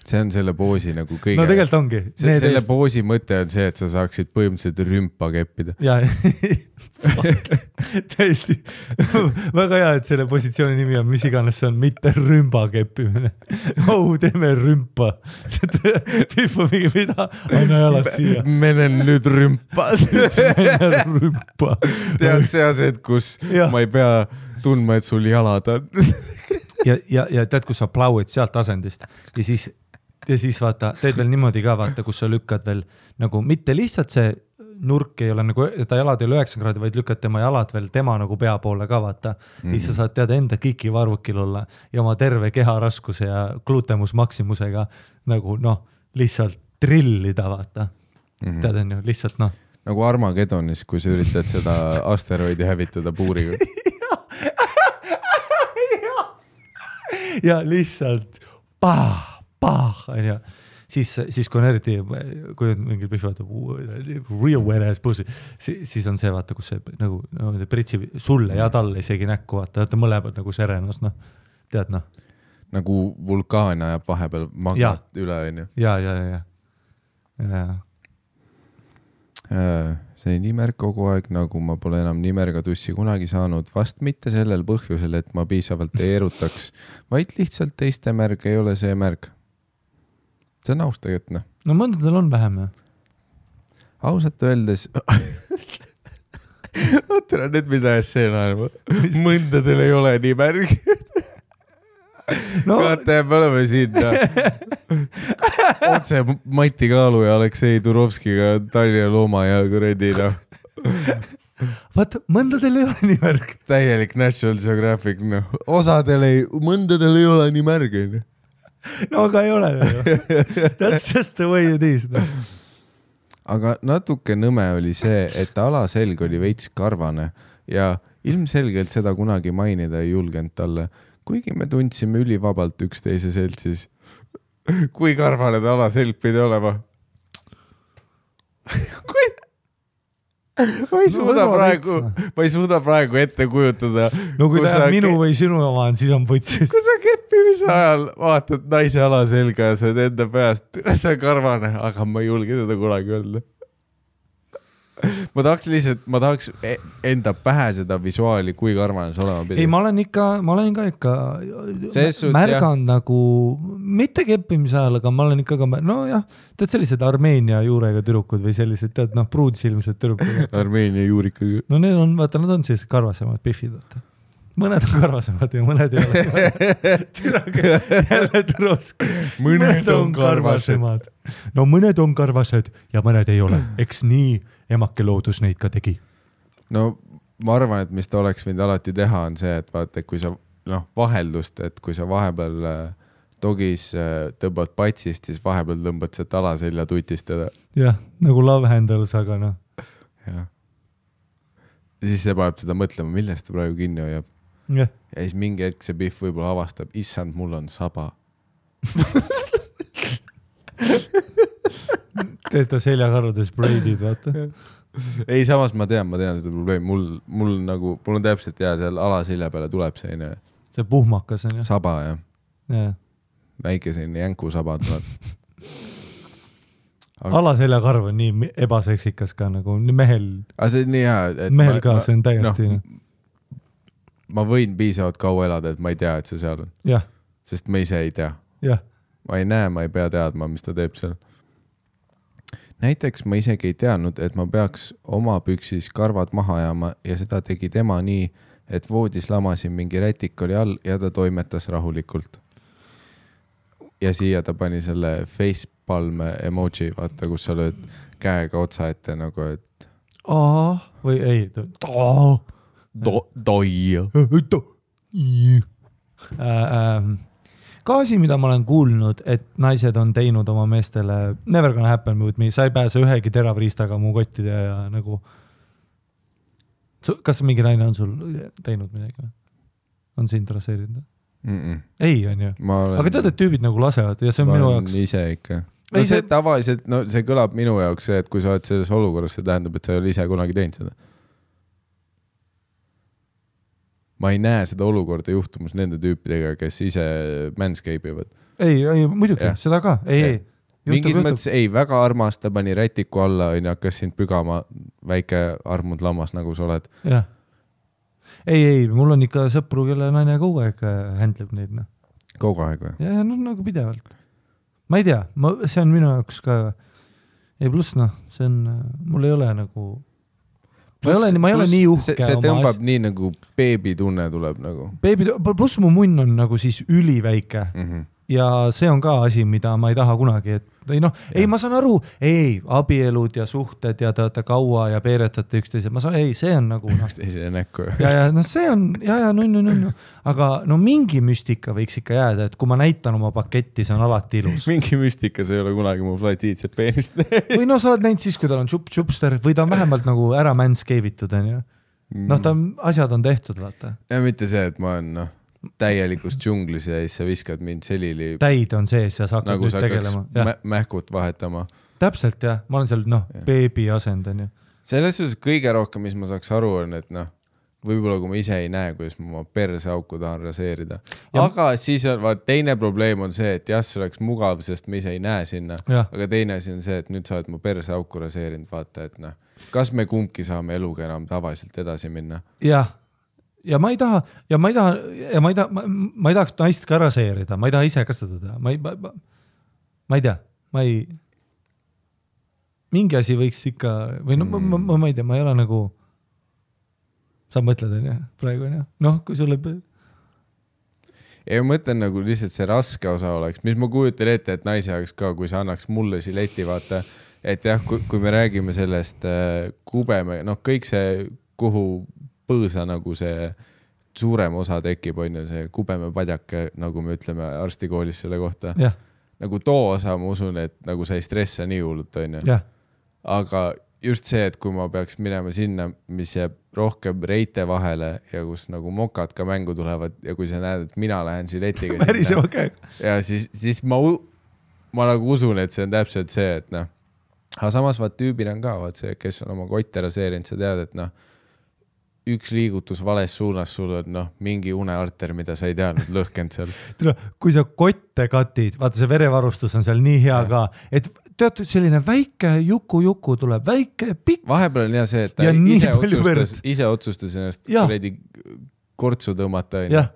See on selle poosi nagu kõige... No tegelikult ongi. Selle poosi mõte on see, et sa saaksid põhimõtteliselt rümpa keppida. Ja, täiesti. Väga hea, et selle positsiooni nimi on, mis iganes see on, mitte rümba keppimine. Teeme rümpa. Pihva mingi mida, anna jalad siia. Menen nüüd rümpa. Rümpa. Tead see ased, kus ma ei pea tundma, et sul jalad on. Ja tead, kus sa plauid sealt asendist ja siis vaata, teed veel niimoodi ka vaata, kus sa lükkad veel nagu mitte lihtsalt see nurk ei ole nagu, ta jalad ei ole 9 kraadi, vaid lükkad tema jalad veel tema nagu pea poole ka vaata. Siis sa saad teada enda kiki varvukil olla ja oma terve keha raskuse ja glutemus maksimusega nagu lihtsalt trillida vaata. Tead on ju, lihtsalt Nagu Armagedonis, kui sa üritad seda asteroidi hävitada puuriga. Ja lihtsalt ja siis kui on eriti, kui on mingi pihvad real wet ass pussy, siis on see vaata, kus see nagu pritsi sulle ja talle isegi näkku vaata, mõlemad nagu serenas, tead Nagu vulkaan ajab vahepeal magnat üle, on ju. Ja. See nii märg kogu aeg, nagu ma pole enam nii märga tussi kunagi saanud, vast mitte sellel põhjusel, et ma piisavalt ei erutaks, vaid lihtsalt teiste märg ei ole see märg. See on aus tegelikult, No mõndadel on vähem, Ausalt öeldes... Oota, nüüd mida see on, mõndadel ei ole nii märg. Vaata, me oleme siin otse Mati Kaalu ja Aleksei Turovskiga Tallinna looma ja kuredi Vaata, mõndadel ei ole nii märg. Täielik National Geographic, mõndadel ei ole nii märg. No aga ei ole. That's just the way it is. Aga natuke nõme oli see, et alaselg oli veits karvane ja ilmselgelt seda kunagi mainida ei julgenud talle. Kuigi me tundsime ülivabalt üksteise seltsis. Kui karvane ta alaselg pidi olema? Ma ei suuda praegu ette kujutada. No kui ta minu või sinu oma on, siis on putsis. Kui sa keppimise ajal vaatad naise alaselga ja sa enda peast, see on karvane, aga ma ei julge seda kunagi öelda. Ma tahaks enda pähe seda visuaali, kui karvane see olema pidi. Ei, ma olen ikka märganud nagu, mitte keppimise ajal, aga ma olen ikka tead sellised Armeenia juurega türukud või sellised, tead, pruudsilmsed türukud. Armeenia juurikaga. No need on, vaata, nad on sellised karvasemad pihvid, vaata. Mõned on karvasemad ja mõned ei ole. Türage jälle Turovski. Mõned on karvasemad. No mõned on karvased ja mõned ei ole. Eks nii emake loodus neid ka tegi. no ma arvan, et mis ta oleks võinud alati teha, on see, et vaata, kui sa vaheldust, et kui sa vahepeal dogis tõmbad patsist, siis vahepeal tõmbad sealt alaselja tutistada. Jah, nagu love handles, aga noh. Jah. Ja siis see paneb teda mõtlema, millest ta praegu kinni hoiab. Ja siis mingi hetk see Biff võib-olla avastab, issand, mul on saba. Teed ta seljakarvades braidid, vaata. Ei, samas ma tean seda probleemi. Mul on täpselt seal alaselja peale tuleb see puhmakas on jah. Saba, jah. Ja. Väike selline jänku saba tuleb. Alaseljakarv on nii ebaseksikas ka nagu mehel. Aga see on nii hea. Mehel ka, see on täiesti. Ma võin piisavalt kaua elada, et ma ei tea, et see seal on. Jah. Sest ma ise ei tea. Jah. Ma ei näe, ma ei pea teadma, mis ta teeb seal. Näiteks ma isegi ei teadnud, et ma peaks oma püksis karvad maha jääma ja seda tegi tema nii, et voodis lamasin mingi rätik oli all ja ta toimetas rahulikult. Ja siia ta pani selle facepalme emoji, vaata, kus sa lööd käega otsa ette nagu, et... või ei, ka asi, mida ma olen kuulnud, et naised on teinud oma meestele never gonna happen with me, sa ei pääse ühegi teravriistaga mu kottide ja nagu kas mingi naine on sul teinud midagi? On see interesseerinud? Ei, on ju. Aga tead, et tüübid nagu lasevad ja see on minu jaoks... Ma ise ikka. No see tavaliselt, see kõlab minu jaoks see, et kui sa oled selles olukorras, see tähendab, et sa ei ole ise kunagi teinud seda. Ma ei näe seda olukorda juhtumus nende tüüpidega, kes ise manscape ivad. Ei, muidugi, seda ka. Ei. Mingis mõttes, väga armas, ta pani rätiku alla, hakkas sind pügama väike armunud lammas, nagu sa oled. Jah. Ei, mul on ikka sõpru, kelle naine kogu aeg händleb neid. Kogu aeg või? Ja, nagu pidevalt. Ma ei tea, see on minu jaoks ka... Ei, pluss, see on... Mul ei ole nagu... Ma ei ole nii uhke. See tõmbab nii nagu beebitunne tuleb nagu. Pluss mu munn on nagu siis üliväike. Ja see on ka asi, mida ma ei taha kunagi. Ei, ma saan aru, abielud ja suhted ja te olete kaua ja peeretate üksteise. Ma saan, see on nagu... Üksteisele näkku. Ja, see on, aga mingi müstika võiks ikka jääda, et kui ma näitan oma paketti, see on alati ilus. Mingi müstika, see ei ole kunagi mu flatiidset peenist. Või sa oled näinud siis, kui tal on čupster või ta on vähemalt nagu ära manscape'itud, on ju. Asjad on tehtud, vaata. Ja mitte see, et ma olen, täielikus džunglis ja siis sa viskad mind selili... Täid on sees ja sa hakkad nagu nüüd tegelema. Nagu sa mähkut vahetama. Täpselt, jah. Ma olen seal, beebi asendan. Selles suhtes kõige rohkem, mis ma saaks aru, on, et võib-olla kui ma ise ei näe, kuidas ma oma perseauku tahan raseerida. Aga siis on, teine probleem on see, et jah, see oleks mugav, sest ma ise ei näe sinna. Aga teine asi on see, et nüüd sa oled mu perseauku raseerinud, vaata, et kas me kumbki saame eluga enam tavaliselt edasi minna? Jah. Ja ma ei tahaks naist ka raseerida, ma ei taha ise ka seda teha, ma ei tea, mingi asi võiks ikka, või ma ei tea, ma ei ole nagu, sa mõtled, on jah, praegu on jah, kui sulle... Ja ma mõtlen nagu lihtsalt see raske osa oleks, mis ma kujutan ette, et naise jaoks ka, kui sa annaks mulle žileti, vaata, et jah, kui me räägime sellest kubeme, kõik see, kuhu põõsa nagu see suurem osa tekib, on ju see kubeme padjake, nagu me ütleme arstikoolis selle kohta. Yeah. Nagu too osa, ma usun, et nagu sa ei stressa nii hullult, on ju. Yeah. Aga just see, et kui ma peaks minema sinna, mis jääb rohkem reite vahele ja kus nagu mokad ka mängu tulevad ja kui sa näed, et mina lähen žiletiga sinna. Okay. Ja siis ma nagu usun, et see on täpselt see, et aga samas tüübil on ka, see, kes on oma kotte raseerinud, sa tead, et üks liigutus vales suunas sul on mingi unearter, mida sa ei teadnud lõhkend seal. Kui sa kotte katid, vaata see verevarustus on seal nii hea ka, et tead, selline väike juku tuleb, väike pikk. Vahepeal on jah see, et ta ise otsustas ennast kuredi kortsu tõmmata. Jah,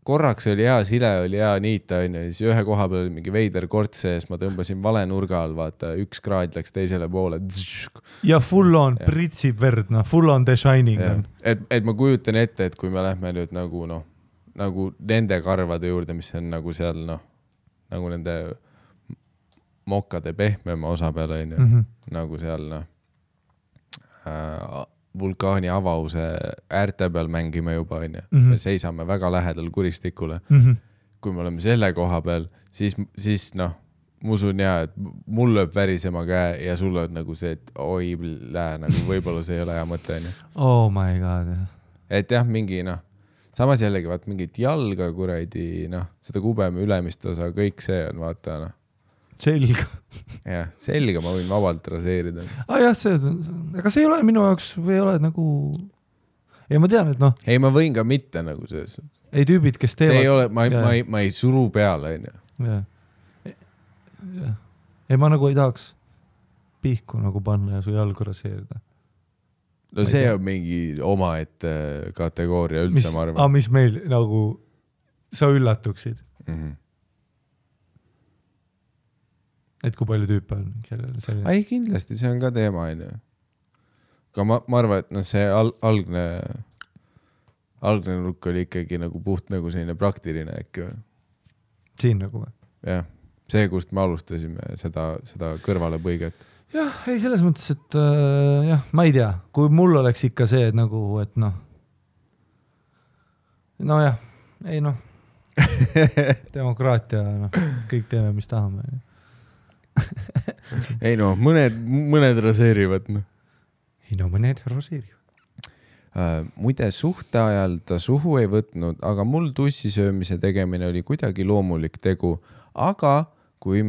korraks oli hea sile, oli hea niita, siis ühe koha peal oli mingi veider korts sees, ma tõmbasin vale nurga all, vaata, 1 kraad läks teisele poole. Ja full on, pritsib verd, full on The Shining. Et ma kujutan ette, et kui me lähme nüüd nagu nende karvade juurde, mis on nagu seal, nagu nende mokade pehmema osa peale, nagu seal, vulkaani avause äärte peal mängime juba, onju. Me seisame väga lähedal kuristikule. Kui me oleme selle koha peal, siis noh, ma usun et mul lööb värisema käe ja sul on nagu see, et oi, nagu võib-olla see ei ole hea mõte. Oh my god. Et jah, mingi samas jällegi vaat mingit jalga kuradi, seda kubeme ülemist osa, kõik see on vaata. Selga. Jah, selga ma võin vabalt raseerida. Jah, aga see ei ole minu jaoks või ei ole nagu... Ei, ma tean, et Ei, ma võin ka mitte nagu selles. Ei tüübid, kes teevad... See ei ole, ma ei suru peale, onju. Jah. Ei, ma nagu ei tahaks pihku nagu panna ja su jalgu raseerida. No see on mingi omaette kategooria üldse, ma arvan. Mis meil nagu sa üllatuksid? Et kui palju tüüpe on? Ei, kindlasti, see on ka teema, onju. Aga ma arvan, et see algne nurk oli ikkagi nagu puht nagu selline praktiline äkki või? Siin nagu või? Jah. See, kust me alustasime seda kõrvale põiget. Jah, ei selles mõttes, et jah, ma ei tea, kui mul oleks ikka see, et nagu, et jah, ei demokraatia, kõik teeme, mis tahame. Ei mõned raseerivad. Ei mõned raseerivad. Muide suhte ajal ta suhu ei võtnud, aga mul tussisöömise tegemine oli kuidagi loomulik tegu, aga kui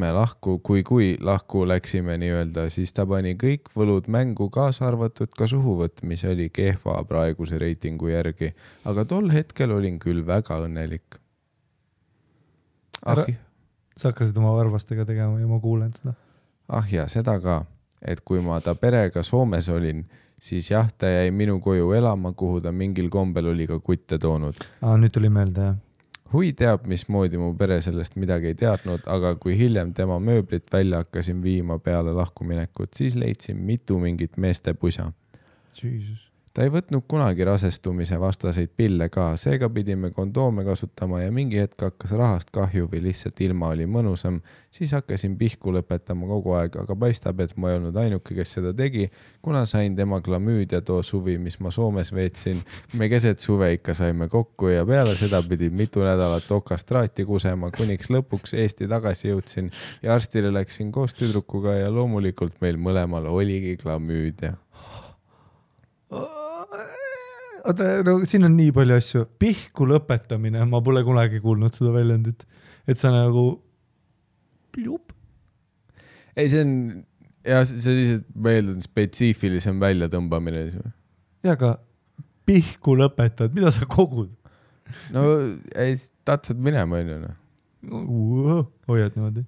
lahku läksime nii-öelda, siis ta pani kõik võlud mängu kaasa arvatud ka suhuvõtt, mis oli kehva praeguse reitingu järgi. Aga tol hetkel olin küll väga õnnelik. Sa hakkasid oma varvastega tegema ja ma kuulen seda. Ja seda ka, et kui ma ta perega Soomes olin, siis jah, ta jäi minu koju elama, kuhu ta mingil kombel oli ka kutte toonud. Nüüd tuli meelde, jah. Hui teab, mismoodi mu pere sellest midagi ei teadnud, aga kui hiljem tema mööblit välja hakkasin viima peale lahkuminekut, siis leidsin mitu mingit meeste pusa. Jesus. Ta ei võtnud kunagi rasestumise vastaseid pille ka, seega pidime kondoome kasutama ja mingi hetk hakkas rahast kahju või lihtsalt ilma oli mõnusam, siis hakkasin pihku lõpetama kogu aeg, aga paistab, et ma ei olnud ainuke, kes seda tegi, kuna sain tema klamüüdia too suvi, mis ma Soomes veetsin. Me keset suve ikka saime kokku ja peale seda pidin mitu nädalat okastraati kusema, kuniks lõpuks Eesti tagasi jõudsin ja arstile läksin koos tüdrukuga ja loomulikult meil mõlemal oligi klamüüdia. Siin on nii palju asju. Pihku lõpetamine, ma pole kunagi kuulnud seda väljendit, et sa nagu plup. Ei, see on lihtsalt meeldun spetsiifilisem väljatõmbamine. Ja aga pihku lõpetad, mida sa kogud? No ei, tahtsad minema, hoiad niimoodi.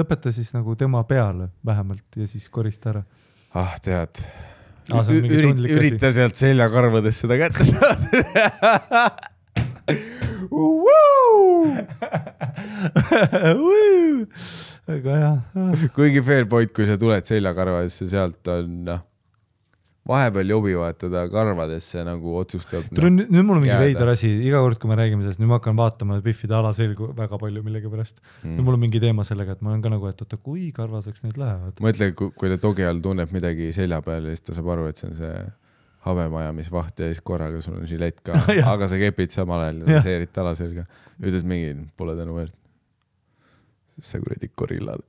Lõpeta siis nagu tema peale vähemalt ja siis korista ära. Tead. Ürita sealt seljakarvades seda kätte saada. Aga jah. Kuigi fair point, kui sa tuled seljakarvadesse, sealt on vahepeal jobi vahetada karvadesse nagu otsustab. Nüüd mul on mingi veidar asi, iga kord, kui me räägime sellest, nüüd ma hakkan vaatama Biffide alaselgu väga palju millegi pärast. Nüüd mul on mingi teema sellega, et ma olen ka nagu, et oota, kui karvaseks need lähevad. Mõtle, kui ta togi all tunneb midagi selja peal ja siis ta saab aru, et see on see habemajamisvaht ja siis korraga sul on žilett ka, aga sa kepid samal ajal ja seerid alaselga. Ütled mingi, pole tänu väärt. Sa kuradi korillad.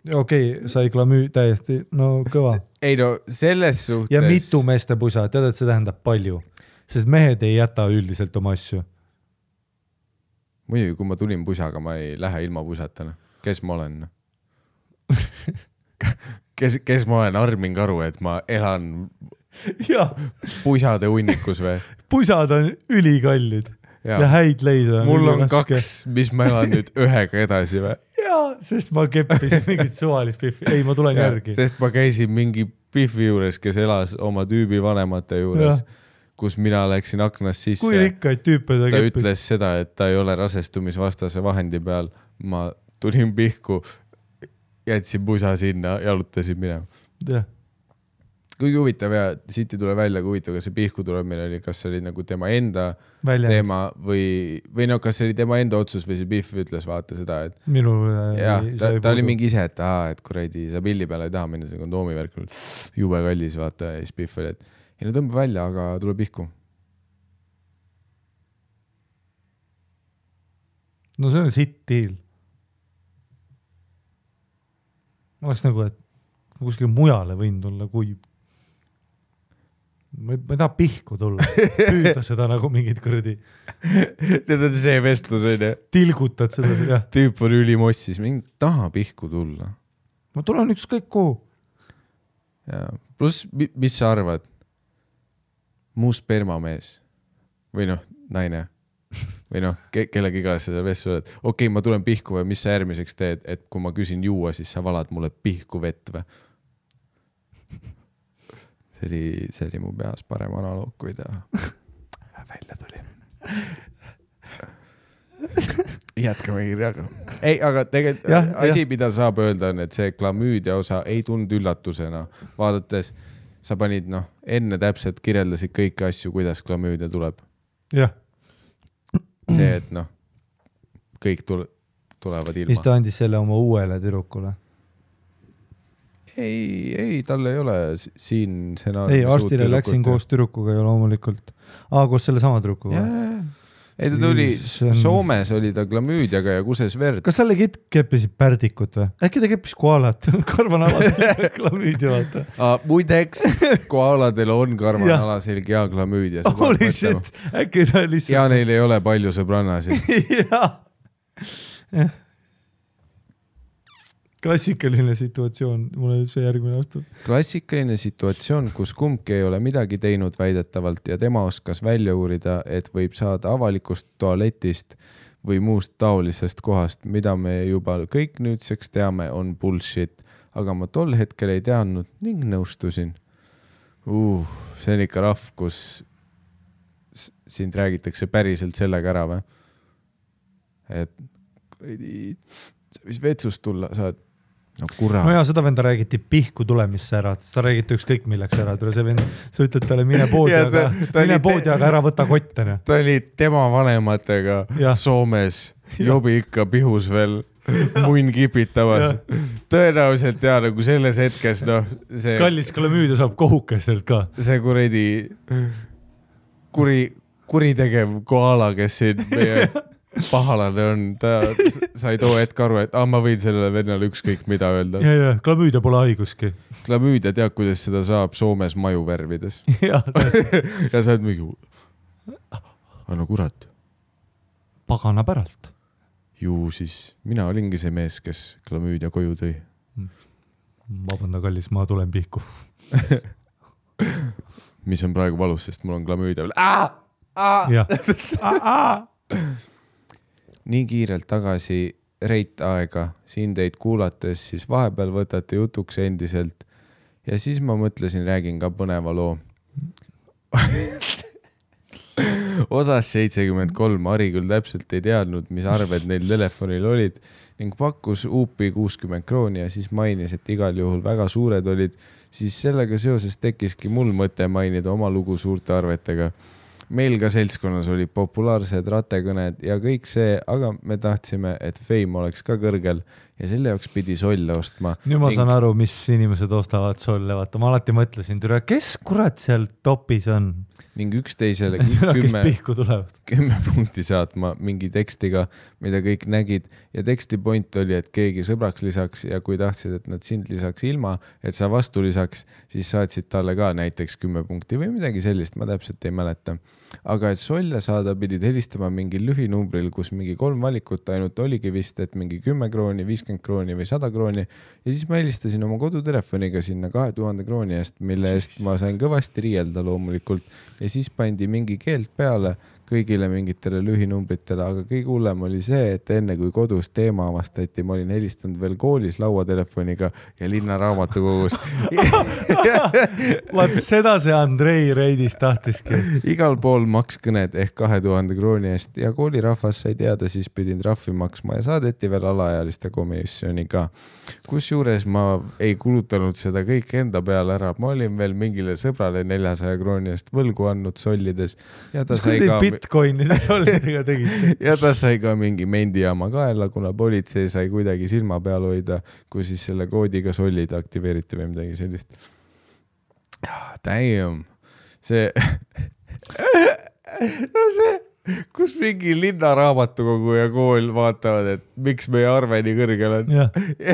Okei, sai klamüü täiesti, no kõva. Ei no, selles suhtes... Ja mitu meeste pusa, tead, et see tähendab palju. Sest mehed ei jäta üldiselt oma asju. Muidugi, kui ma tulin pusaga, ma ei lähe ilma pusatana. Kes ma olen? Kes ma olen? Armin Karu, et ma elan pusade hunnikus või? Pusad on ülikallid ja häid leida. Mul on kaks, mis ma elan nüüd ühega edasi või? Sest ma keppisin mingit suvalist Biffi. Ei, ma tulen järgi. Sest ma käisin mingi Biffi juures, kes elas oma tüübi vanemate juures, kus mina läksin aknast sisse. Kui rikkaid tüüpe ta keppis? Ta ütles seda, et ta ei ole rasestumisvastase vahendi peal. Ma tulin pihku, jätsin pusa sinna, jalutasin minema. kuigi huvitav ja siit ei tule välja, kui huvitav, kas see pihku tuleb meil oli, kas see oli nagu tema enda teema või no kas see oli tema enda otsus või see Pihv ütles vaata seda, et ta oli mingi ise, et kuradi sa pilli peale ei taha minna, see kondoomi värk jube kallis vaata ja siis Pihv oli, et ei no tõmba välja, aga tule pihku. No see on sitt deal. Ma oleks nagu, et kuskil mujale võin tulla, kui ma ei taha pihku tulla, püüda seda nagu mingid kõrdi. Need on see vestlus, on ju. Tilgutad seda, jah. Tüüp on ülimossis, mingi taha pihku tulla. Ma tulen ükskõik kuhu. Ja, pluss, mis sa arvad? Muu spermamees või noh, naine või noh, kellegi ka seda vestlus oled. Okei, ma tulen pihku või mis sa järgmiseks teed, et kui ma küsin juua, siis sa valad mulle pihku vett või? See oli mu peas parem analoog, kui ta välja tuli. Jätkame kirjaga. Ei, aga tegelikult asi, mida saab öelda, on, et see klamüüdia osa ei tulnud üllatusena. Vaadates, sa panid, enne täpselt kirjeldasid kõiki asju, kuidas klamüüdia tuleb. Jah. See, et kõik tulevad ilma. Mis ta andis selle oma uuele tüdrukule? Ei, tal ei ole siin ei, arstile läksin koos tüdrukuga ja loomulikult. Koos selle sama tüdrukuga. Ei, ta tuli, Soomes oli ta klamüüdiaga ja kuses verd. Kas sa legit keppisid pärdikut või? Äkki ta keppis koalat? Karvanalaselg klamüüdia, vaata. Muideks, koaladel on karvanalaselg ja klamüüdia. Holy shit, äkki ta lihtsalt... Ja neil ei ole palju sõbrannasid. Jah. Klassikaline situatsioon, mulle see järgmine aastal. Klassikaline situatsioon, kus kumbki ei ole midagi teinud väidetavalt ja tema oskas välja uurida, et võib saada avalikust tualetist või muust taolisest kohast, mida me juba kõik nüüdseks teame, on bullshit, aga ma tol hetkel ei teadnud ning nõustusin. See on ikka rahv, kus sind räägitakse päriselt sellega ära või? Et sa võis vetsust tulla, saad No ja seda venda räägiti pihku tulemisse ära, sa räägid ükskõik milleks ära, see vend, sa ütled talle mine poodi, aga ära võta kottene. Ta oli tema vanematega Soomes, jobi ikka pihus veel munn kipitamas. Tõenäoliselt nagu selles hetkes, see... Kallis klamüüdia saab kohukestelt ka. See kuredi kuritegev koala, kes siin meie... pahalane on, sa ei too hetk aru, et ma võin sellele vennale ükskõik mida öelda. Ja, klamüüdia pole haiguski. Klamüüdia tead, kuidas seda saab Soomes maju värvides. Ja sa oled mingi, no kurat. Pagana päralt. Ju siis, mina olingi see mees, kes klamüüdia koju tõi. Vabanda kallis, ma tulen pihku. Mis on praegu valus, sest mul on klamüüdia veel. Nii kiirelt tagasi reit aega, siin teid kuulates, siis vahepeal võtate jutuks endiselt ja siis ma mõtlesin, räägin ka põneva loo. Osas 73 Ari küll täpselt ei teadnud, mis arved neil telefonil olid ning pakkus uupi 60 krooni ja siis mainis, et igal juhul väga suured olid, siis sellega seoses tekkiski mul mõte mainida oma lugu suurte arvetega. Meil ka seltskonnas olid populaarsed ratekõned ja kõik see, aga me tahtsime, et fame oleks ka kõrgel ja selle jaoks pidi solle ostma. Nüüd ma saan aru, mis inimesed ostavad solle, vaata. Ma alati mõtlesin, kes kurat seal topis on? Ning üksteisele 10 punkti saatma mingi tekstiga, mida kõik nägid ja teksti point oli, et keegi sõbraks lisaks ja kui tahtsid, et nad sind lisaks ilma, et sa vastu lisaks, siis saatsid talle ka näiteks 10 punkti või midagi sellist, ma täpselt ei mäleta. Aga et solle saada pidid helistama mingi lühinumbril, kus mingi 3 valikut ainult oligi vist, et mingi 10 krooni, 50 krooni või 100 krooni ja siis ma helistasin oma kodutelefoniga sinna 2000 krooni eest, mille eest ma sain kõvasti riielda loomulikult ja siis pandi mingi keelt peale, kõigile mingitele lühinumbritele, aga kõige hullem oli see, et enne kui kodus teema avastati, ma olin helistanud veel koolis lauatelefoniga ja linnaraamatukogus. Vaat seda see Andrei Reidis tahtiski. Igal pool makskõned ehk 2000 krooni eest ja koolirahvas sai teada, siis pidin trahvi maksma ja saadeti veel alaealiste komisjoni ka. Kusjuures ma ei kulutanud seda kõik enda peale ära. Ma olin veel mingile sõbrale 400 krooni eest võlgu andnud sollides ja ta sai ka bitcoinide sollidega tegite. Ja ta sai ka mingi mendijaama kaela, kuna politsei sai kuidagi silma peal hoida, kui siis selle koodiga sollid aktiveeriti või midagi sellist. Damn. See no see, kus mingi linnaraamatukogu ja kool vaatavad, et miks meie arve nii kõrgel on. Ja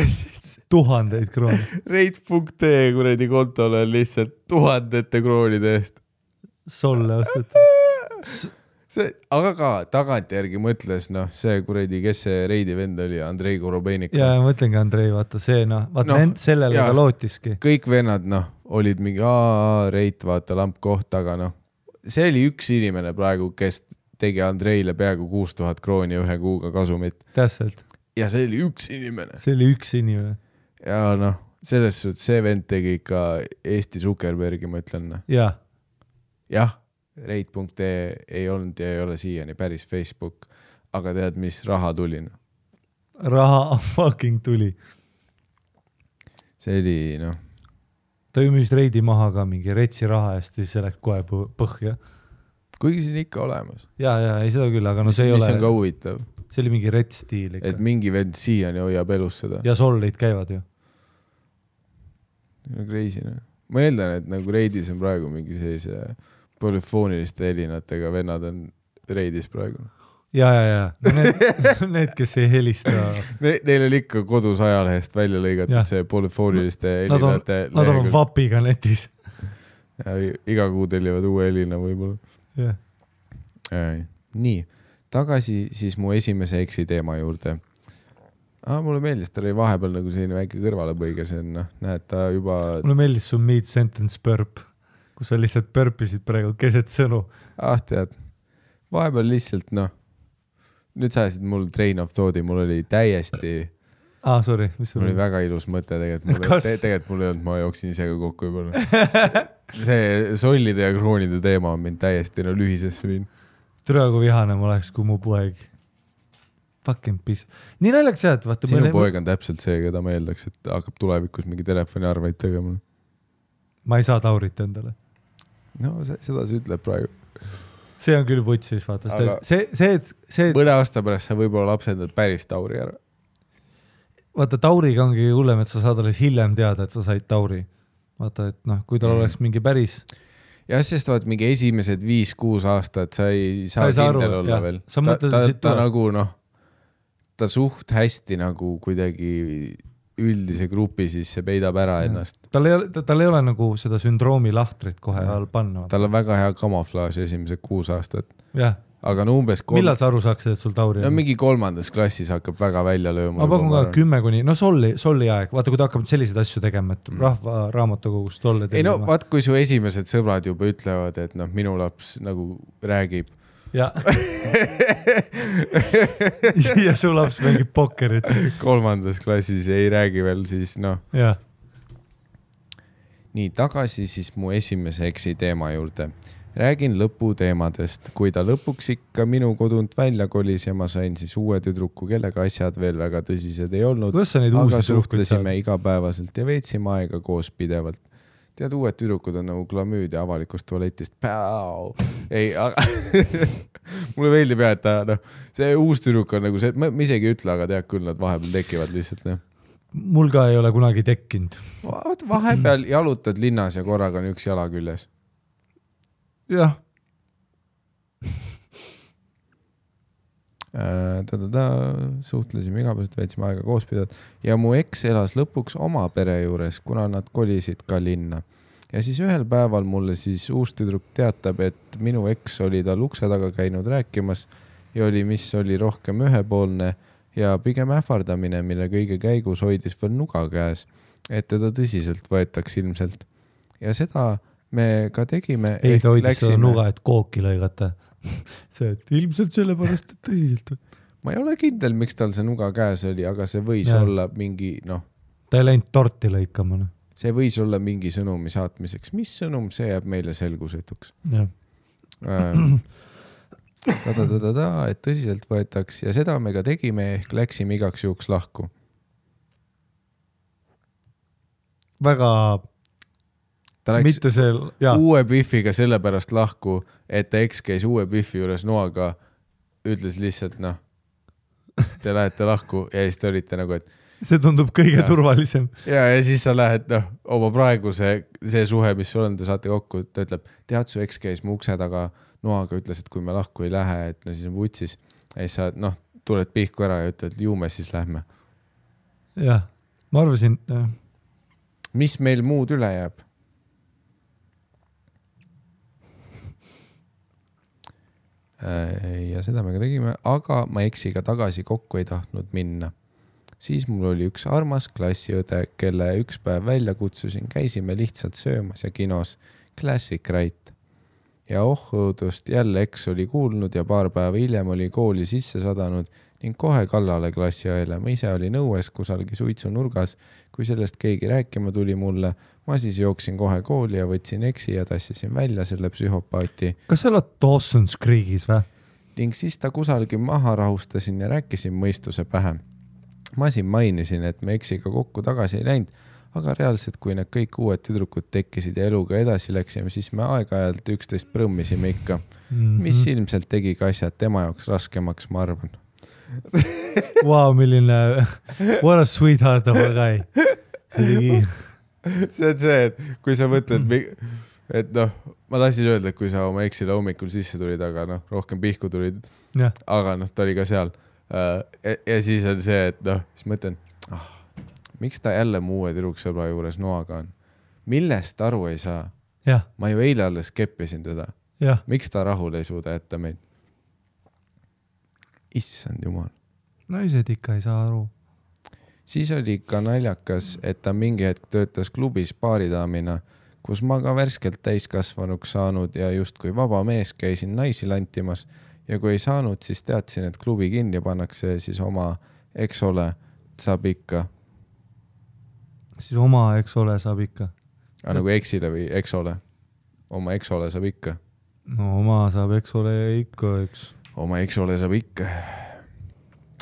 siis 1000 krooni. Reit.ee kuradi kontole on lihtsalt 1000 kroonide eest. Solle osteti. Aga ka tagantjärgi mõtles, noh, see kuradi, kes see Reidi vend oli, Andrei Korobeinik. Ja mõtlengi Andrei, vaata see, sellele ka lootiski. Kõik vennad, olid mingi Reit, vaata lamp koht, aga see oli üks inimene praegu, kes tegi Andreile peaaegu 6000 krooni ühe kuuga kasumit. Täpselt. Ja see oli üks inimene. See oli üks inimene. Ja selles suhtes see vend tegi ikka Eesti Zuckerbergi, ma ütlen. Jah. Reit.ee ei olnud ja ei ole siiani päris Facebook, aga tead, mis raha tuli? Raha fucking tuli. See oli, Ta ju müüs Reidi maha ka mingi retsi raha eest, siis see läks kohe põhja. Kuigi siin ikka olemas. Ja, ei seda küll, aga see ei ole... Mis on ka huvitav. See oli mingi retsstiil ikka. Et mingi vend siiani hoiab elus seda. Ja sollid käivad ju. Crazy, Ma eeldan, et nagu Reidis on praegu mingi sellise... polüfooniliste helinatega vennad on Reidis praegu. Ja. Need, kes ei helista. Neil oli ikka kodus ajalehest välja lõigatud see polüfooniliste helinate. Nad on vapiga netis. Ja iga kuu tellivad uue helina võib-olla. Nii, tagasi siis mu esimese eksi teema juurde. Mulle meeldis, ta oli vahepeal nagu selline väike kõrvalepõige, see on, näed, ta juba... Mulle meeldis su mid-sentence burp, kus sa lihtsalt burpisid praegu keset sõnu. Tead, vahepeal lihtsalt, nüüd sa ajasid mul train of thought'i, mul oli täiesti... sorry, mis sul oli? Mul oli väga ilus mõte tegelikult mul ei olnud, ma jooksin ise ka kokku juba. See sollide ja kroonide teema on mind täiesti lühisesse viin. Türagu vihane ma oleks, kui mu poeg fucking piss. Nii naljaks jah, et vaata... Sinu poeg on täpselt see, keda ma eeldaks, et hakkab tulevikus mingi telefoniarveid tegema. Ma ei saa Taurit endale. Seda see ütleb praegu. See on küll putsis, vaata. See... Mõne aasta pärast sa võib-olla lapsendad päris Tauri ära. Vaata, Tauriga ongi hullem, et sa saad alles hiljem teada, et sa said Tauri. Vaata, et kui tal oleks mingi päris... Jah, sest vaat mingi esimesed 5-6 aastat sa ei saa kindel olla veel. Ta nagu, ta suht hästi nagu kuidagi... üldise grupi, siis see peidab ära ennast. Tal ei ole nagu seda sündroomi lahtrit kohe all panna. Tal on väga hea kamuflaaž esimesed 6 aastat. Jah. Aga umbes... Millal sa aru saaks, et sul Tauri on? Mingi 3. klassis hakkab väga välja lööma. Ma pakun ka 10 kuni... solli aeg. Vaata, kui ta hakkab selliseid asju tegema, et rahva raamatukogust solle tegema. Vaat kui su esimesed sõbrad juba ütlevad, et minu laps nagu räägib. Ja. Ja su laps mängib pokkerit. 3. klassis ei räägi veel, siis Ja. Nii, tagasi siis mu esimese eksi teema juurde. Räägin lõpu teemadest. Kui ta lõpuks ikka minu kodunt välja kolis ja ma sain siis uue tüdruku, kellega asjad veel väga tõsised ei olnud. Aga suhtlesime igapäevaselt ja veetsime aega koos pidevalt. Tead, uued tüdrukud on nagu glamüüd ja avalikust tualetist. Ei, aga mulle meeldib jah, et see uus tüdruk on nagu see, ma isegi ütle, aga tead küll, nad vahepeal tekivad lihtsalt. Mul ka ei ole kunagi tekkinud. Vahepeal jalutad linnas ja korraga on üks jala küljes. Jah. Suhtlesime igapäevaselt, veetsime aega koos pidevalt ja mu eks elas lõpuks oma pere juures, kuna nad kolisid ka linna. Ja siis ühel päeval mulle siis uus tüdruk teatab, et minu eks oli tal ukse taga käinud rääkimas ja mis oli rohkem ühepoolne ja pigem ähvardamine, mille kõige käigus hoidis veel nuga käes, et teda tõsiselt võetaks ilmselt. Ja seda me ka tegime. Ei, ta hoidis seda nuga, et kooki lõigata. see, et ilmselt sellepärast, et tõsiselt. Ma ei ole kindel, miks tal see nuga käes oli, aga see võis olla mingi, ta ei läinud torti lõikama. See võis olla mingi sõnumi saatmiseks. Mis sõnum, see jääb meile selgusetuks. Et tõsiselt võetaks ja seda me ka tegime, ehk läksime igaks juhuks lahku. Väga ta läks mitte see, uue Biffiga sellepärast lahku, et ta eks käis uue Biffi juures noaga, ütles lihtsalt, te lähete lahku ja siis te olite nagu, et see tundub kõige turvalisem. Ja siis sa lähed, oma praegu see suhe, mis sul on, te saate kokku, ta ütleb, tead, su eks käis mu ukse taga noaga, ütles, et kui me lahku ei lähe, et siis on vutsis. Ja siis sa, tuled pihku ära ja ütled, ju me siis lähme. Jah, ma arvasin. Mis meil muud üle jääb? Ja seda me ka tegime, aga ma eksiga tagasi kokku ei tahtnud minna. Siis mul oli üks armas klassiõde, kelle üks päev välja kutsusin, käisime lihtsalt söömas ja kinos Classic Right. Ja õudust jälle eks oli kuulnud ja paar päeva hiljem oli kooli sisse sadanud ning kohe kallale klassiõele. Ma ise oli nõues kusalgi suitsu nurgas, kui sellest keegi rääkima tuli mulle. Ma siis jooksin kohe kooli ja võtsin eksi ja tassisin välja selle psühhopaati. Kas sa oled Dawson's Creekis või? Ning siis ta kusalgi maha rahustasin ja rääkisin mõistuse pähe. Ma siin mainisin, et me eksiga kokku tagasi ei läinud, aga reaalselt, kui need kõik uued tüdrukud tekkisid ja eluga edasi läksime, siis me aeg-ajalt 11 prõmmisime ikka. Mis ilmselt tegi ka asjad tema jaoks raskemaks, ma arvan. Wow, milline, what a sweetheart of a guy. See on see, et kui sa mõtled, et ma tahtsin öelda, et kui sa oma eksile hommikul sisse tulid, aga rohkem pihku tulid, aga ta oli ka seal. Ja siis on see, et siis mõtlen, miks ta jälle mu uue tüdruksõbra juures noaga on? Millest aru ei saa? Ma ju eile alles keppisin teda. Miks ta rahul ei suuda jätta meid? Issand jumal. Naised ikka ei saa aru. Siis oli ka naljakas, et ta mingi hetk töötas klubis baaridaamina, kus ma ka värskelt täiskasvanuks saanud ja just kui vaba mees käisin naisi lantimas ja kui ei saanud, siis teadsin, et klubi kinni pannakse siis oma eksole saab ikka. Siis oma eksole saab ikka. Nagu eksile või eksole? Oma eksole saab ikka. No oma saab eksole ikka, eks. Oma eksole saab ikka.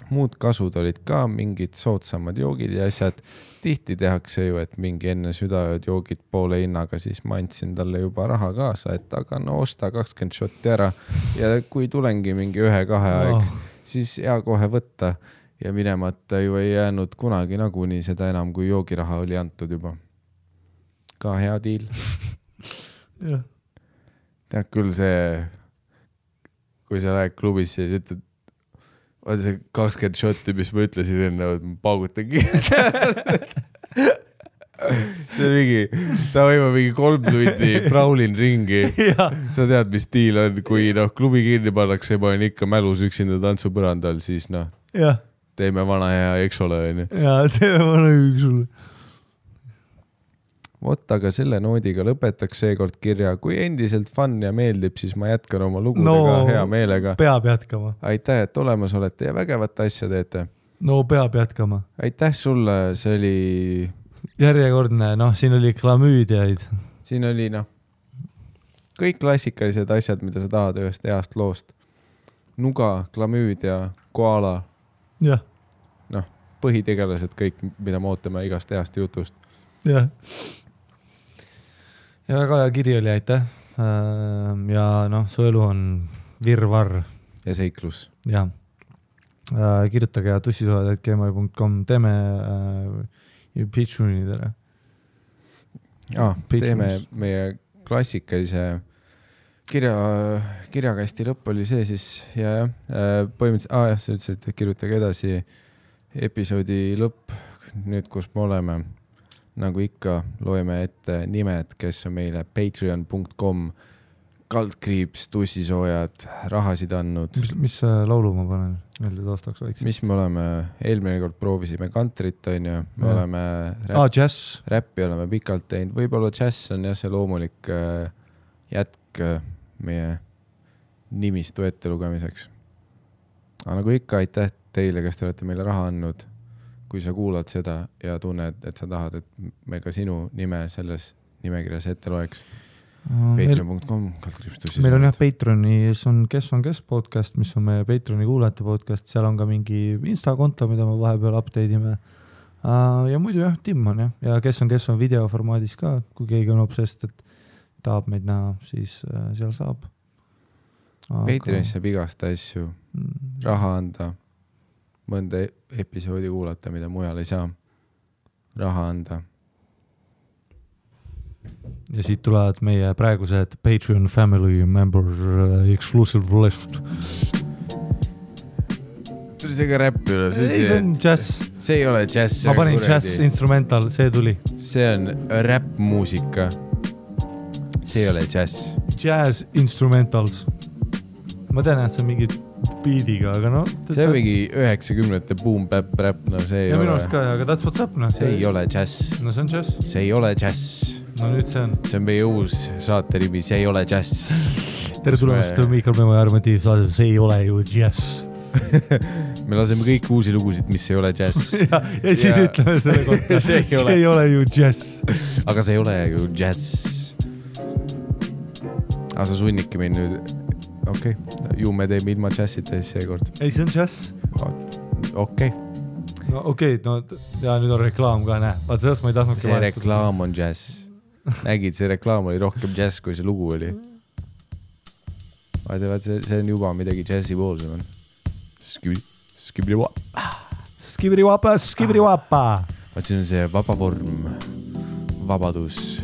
Muud kasud olid ka mingid soodsamad joogid ja asjad. Tihti tehakse ju, et mingi enne südaööd joogid poole hinnaga, siis ma andsin talle juba raha kaasa, et aga osta 20 shotti ära ja kui tulengi mingi 1-2 aeg, siis hea kohe võtta ja minemata ju ei jäänud kunagi nagunii seda enam, kui joogiraha oli antud juba. Ka hea diil. Tead küll see, kui sa lähed klubisse ja ütled, on see 20 shotti, mis ma ütlesin enne, et ma paugutan kiirelt. See mingi, ta võima mingi 3 tundi praulin ringi. Sa tead, mis diil on, kui klubi kinni pannakse ja ma olen ikka mälus üksinda tantsupõrandal, siis teeme vana hea eksole. Ja teeme vana eksole. Vot, aga selle noodiga lõpetaks seekord kirja. Kui endiselt fun ja meeldib, siis ma jätkan oma lugudega hea meelega. Peab jätkama. Aitäh, et olemas olete ja vägevat asja teete. No peab jätkama. Aitäh sulle, see oli... Järjekordne, siin oli klamüüdiaid. Siin oli, kõik klassikalised asjad, mida sa tahad ühest heast loost. Nuga, klamüüdia, koala. Jah. Põhitegelased kõik, mida me ootame igast heast jutust. Jah. Ja väga hea kiri oli, aitäh. Ja su elu on virvarr. Ja seiklus. Ja. Kirjutage ja tussisoojad@gmail.com. Teeme Patreonidele. Teeme meie klassikalise kirjakasti lõpp oli see siis ja põhimõtteliselt, sa ütlesid, et kirjutage edasi episoodi lõpp, nüüd kus me oleme. Nagu ikka loeme ette nimed, kes on meile patreon.com /, tussisoojad, rahasid andnud. Mis laulu ma panen meelde taastaks väikse? Mis me oleme, eelmine kord proovisime kantrit, on ju, me oleme räppi oleme pikalt teinud, võib-olla jazz on jah see loomulik jätk meie nimistu ette lugemiseks. Aga nagu ikka, aitäh teile, kes te olete meile raha andnud. Kui sa kuulad seda ja tunned, et sa tahad, et me ka sinu nime selles nimekirjas ette loeks. Patreon.com. Meil on Patreonis on kes podcast, mis on meie Patreoni kuulajate podcast. Seal on ka mingi Insta-konto, mida me vahepeal update'ime. Ja muidu Tim on ja kes on videoformaadis ka, kui keegi on obsest, et tahab meid näha, siis seal saab. Patreonis saab igast asju raha anda, mõnda episoodi kuulata, mida mujal ei saa raha anda. Ja siit tulevad meie praegused Patreon family members exclusive list. Tuli see ka räpp üle. Ei, see on jazz. See ei ole jazz. Ma panin jazz instrumental, see tuli. See on räpp-muusika. See ei ole jazz. Jazz instrumentals. Ma tean, et see on mingi beatiga, aga see on mingi 90-te boom-bap-rap, see ei ja ole. Ja minu ka, aga that's what's up, See ei ole jazz. See on jazz. See ei ole jazz. Nüüd see on. See on meie uus saate nimi, see ei ole jazz. Tere tulemast Miikal Memo ja Armatiiv saade, see ei ole ju jazz. Me laseme kõik uusi lugusid, mis ei ole jazz. ja siis ütleme selle kohta, see ei ole ju jazz. Aga see ei ole ju jazz. Aga sa sunnidki meid nüüd, ju me teeme ilma jazzita seekord. Ei, see on jazz. Okei. No okei, ja nüüd on reklaam ka, näe. Vaat sellest ma ei tahtnud see reklaam on jazz. Nägid, see reklaam oli rohkem jazz, kui see lugu oli. Vaat see on juba midagi jazzi poolsem on. Skibri-wapa. Vaat siin on see vaba vorm, vabadus,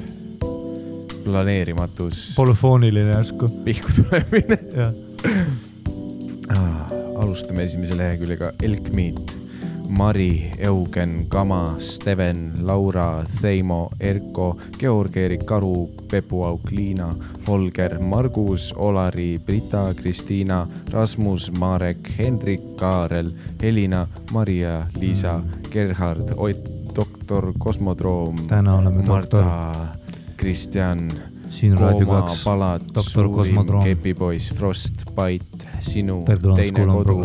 planeerimatus. Polüfooniline järsku. Pihku tulemine. Alustame esimese leheküljega Elkmiit, Mari, Eugen, Kama, Steven, Laura, Theimo, Erko, Georg-Erik, Karu, Pepu-Auk, Liina, Holger, Margus, Olari, Brita, Kristiina, Rasmus, Marek, Hendrik, Kaarel, Elina, Maria, Liisa, Gerhard, Ott, Doktor, Kosmodroom, Marta, Kristjan, Kooma, Palat, Suurim, Kepipoiss, Frost, Pait, Sinu, Teine kodu,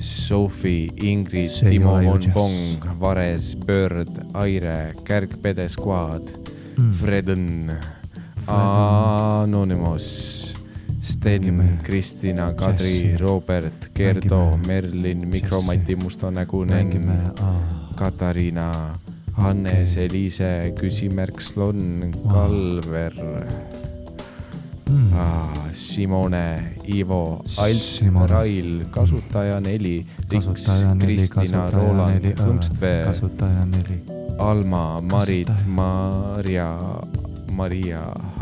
Sophie, Ingrid, Timo Monbong, Vares, Bird, Aire, Kärg-Pede Squad, Freden, Anonymous, Sten, Kristina, Kadri, Robert, Gerdo, Merlin, Mikromati, Mustonägunen, Katariina, Hannes, Eliise, Küsimärk, Slon, Kalver, Simone, Ivo, Alt, Rail, Kasutaja 4, Riks, Kristina, Roland, Hõmstvee, Alma, Marit, Maria,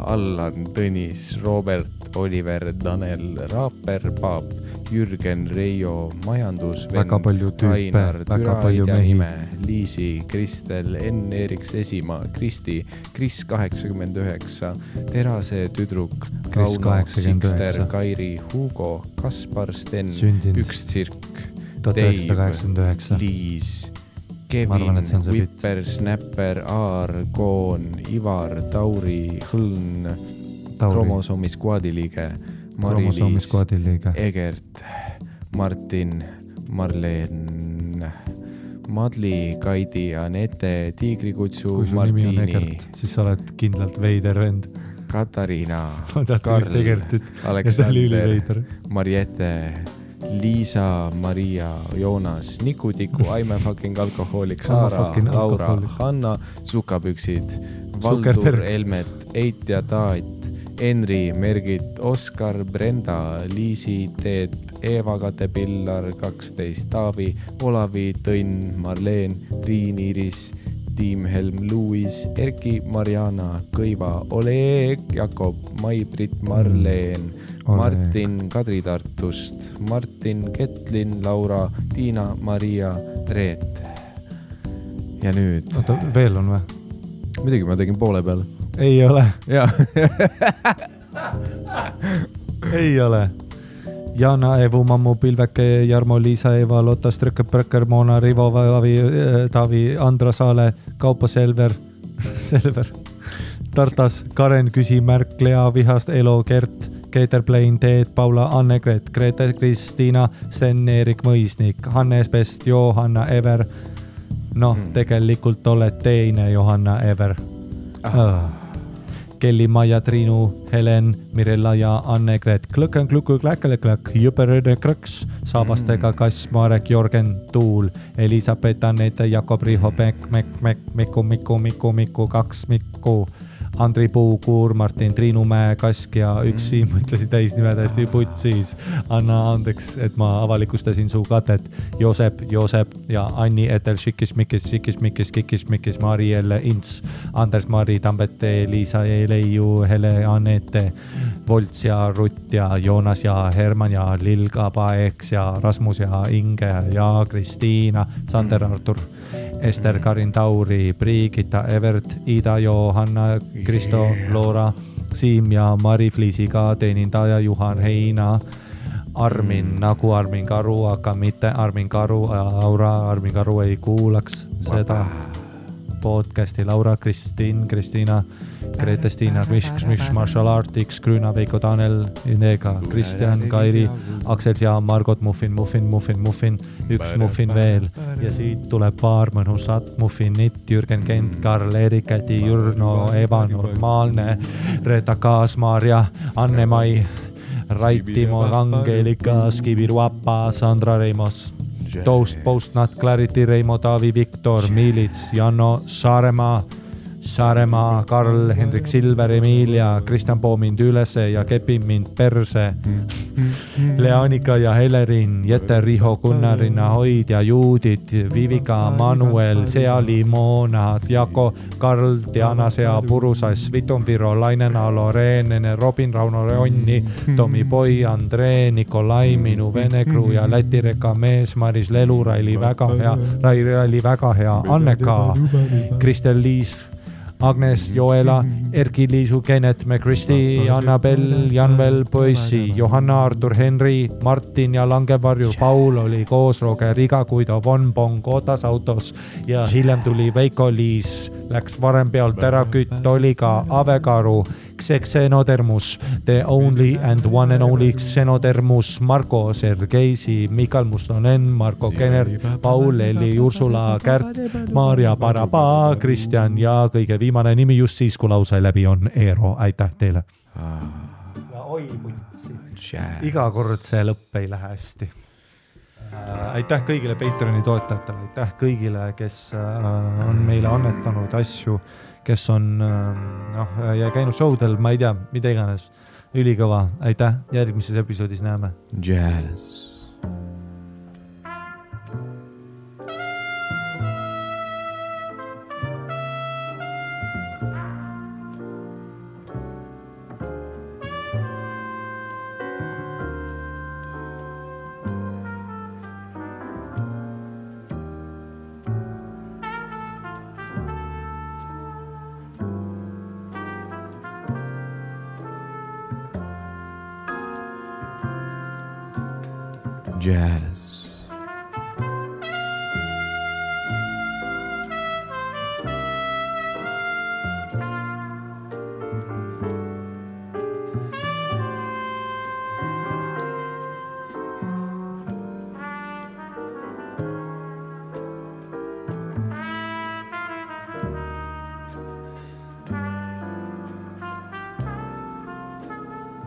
Allan, Tõnis, Robert, Oliver, Danel, Raaper, Paap, Jürgen, Reijo, Majandus, Rainar, Türa, Ida Nime, Liisi, Kristel, Enn, Eeriks, Esimaa, Kristi, Kris 89, Terase tüdruk, Kauno, Sikster, Kairi, Hugo, Kaspar, Sten, Üks tsirk, Dave, Liis, Kevin, Wipper, Snapper, Aar, Koon, Ivar, Tauri, Hõln, Kromosoomi skuadi liige, Mari-Liis, Egert, Martin, Marleen, Madli, Kaidi, Anette, Tiigrikutsu, Martini, siis sa oled kindlalt veider vend. Katariina, Karl, Aleksander, Mariette, Liisa, Maria, Joonas, Nikutiku, I'm a fucking alkohoolik, Saara, Laura, Hanna, Sukapüksid, Valdur, Elmet, Eit ja Taat, Henri, Mergit, Oskar, Brenda, Liisi, Teet, Eeva, Kate, Pillar, 12, Taavi, Olavi, Tõnn, Marleen, Triin, Iris, Tiim, Helm, Luis, Erki, Mariana, Kõiva, Oleg, Jakob, Mai-Brit, Marleen, Martin, Kadri Tartust, Martin, Ketlin, Laura, Tiina, Maria, Reet. Ja nüüd... Oota, veel on või? Midagi ma tegin poole peal. Ei ole. Jaa. Ei ole. Jana, Evu, Mammu, Pilveke, Jarmo, Liisa, Eva, Lotta, Strökke, Prökker, Moona, Rivo, Taavi, Andra Saale, Kaupo, Selver, Tartas, Karen, Küsimärk, Lea, Vihast, Elo, Gert, Keeter Plain, Teet, Paula, Anne-Gret, Grete, Kristiina, Sten, Erik Mõisnik, Hannes Pest, Johanna, Ever. Tegelikult oled teine Johanna Ever. Kelly, Maja, Triinu, Helen, Mirella ja Anne-Gret, Klõkken, Klukku, Kläkkelekläk, Jüperööde Krõks, Saabastega Kass, Marek, Jorgen, Tuul, Elisabeth, Annette, Jakob, Riho, Miku, 2 Mikku, Andri Puu, Kuur, Martin, Triinu Mäe, Kask ja üks Siim ütlesid täisnime täiesti putsis. Anna andeks, et ma avalikustasin su katet. Joosep ja Anni Etel, Šikis, Mari Elle, Ints, Anders, Mari, Tambete, Liisa, Leiu, Hele, Anette, Volts ja Rutt ja Joonas ja Herman ja Lilga, Paeks ja Rasmus ja Inge ja Kristiina, Sander, Artur, Ester, Karin, Tauri, Brigitta, Evert, Ida, Johanna, Kristo, Loora, Siim ja Mari Fliisiga, teenindaja Juhan Heina, Armin, nagu Armin Karu, aga mitte Armin Karu, Laura, Armin Karu ei kuulaks seda podcasti, Laura, Kristiina, Grete-Stiina, Marshall Artiks, Grüna, Veiko, Tanel, Inega, Kristjan, Kairi, Aksel ja Margot, Muffin, üks Muffin veel ja siit tuleb paar mõnusat Muffinit, Jürgen Kent, Karl, Erik, Käti, Jürno, Eva, Normaalne, Reeta Kaas, Maarja, Anne-Mai, Rait, Timo, Angelika, Skiviruapa, Sandra Reimos, Toast, Postnat, Clarity, Reimo, Taavi, Viktor, Miilits, Janno, Saaremaa, Karl, Hendrik Silver, Emilia, Kristjan Poo mind ülese ja kepib mind perse. Leanika ja Helerin, Jette, Riho, Gunnarina, Hoid ja Juudit, Vivika, Manuel, Seali, Moona, Jako, Karl, Diana, Sea, Purusass, Vitumviro, Lainena, Loreenene, Robin, Rauno, Reonni, Tomi Poi, Andree, Nikolai, minu Venekru ja Lätireka mees, Maris Lelu, Raili väga hea, Anneka, Kristel Liis, Agnes, Joela, Erki, Liisu, Kenet, McChristi, Annabel, Janvel, Poissi, Johanna, Artur, Henri, Martin ja Langevarju, Paul oli koos Roger Iga, kui ta Von Bong ootas autos ja hiljem tuli Veiko Liis, läks varem pealt ära kütt, oli ka Avekaru, Xenodermus, the only and one and only Xenodermus, Marko, Sergeisi, Mikal Mustonen, Marko Kenert, Paul, Eli, Ursula, Kärt, Maarja, Paraba, Kristjan ja kõige viimane nimi just siis, kui lause läbi on Eero. Aitäh teile. Ja oi mutsi. Iga kord see lõpp ei lähe hästi. Aitäh kõigile Patreoni toetajatele, aitäh kõigile, kes on meile annetanud asju, kes on ja käinud showdel, ma ei tea, mida iganes, ülikõva, aitäh, järgmises episoodis näeme. Jazz. Jazz.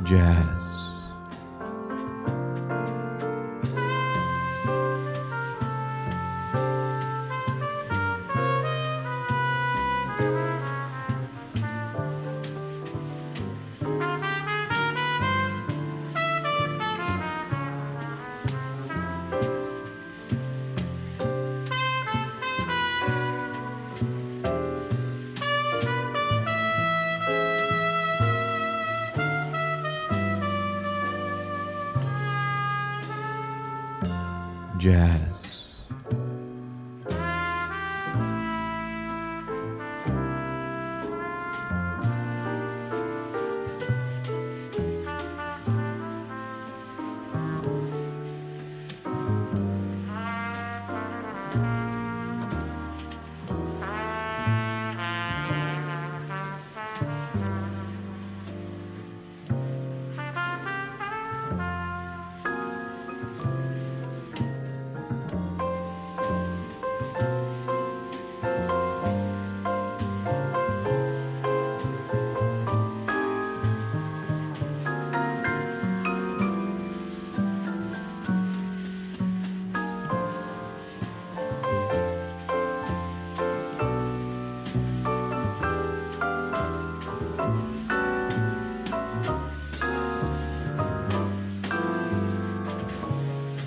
Jazz. Jazz.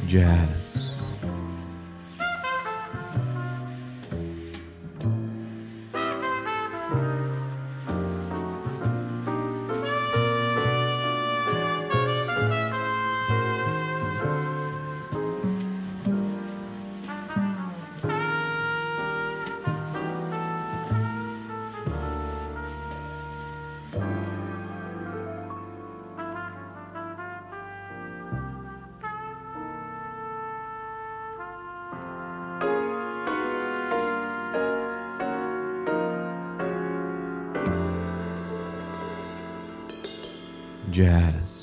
Jazz. Jazz.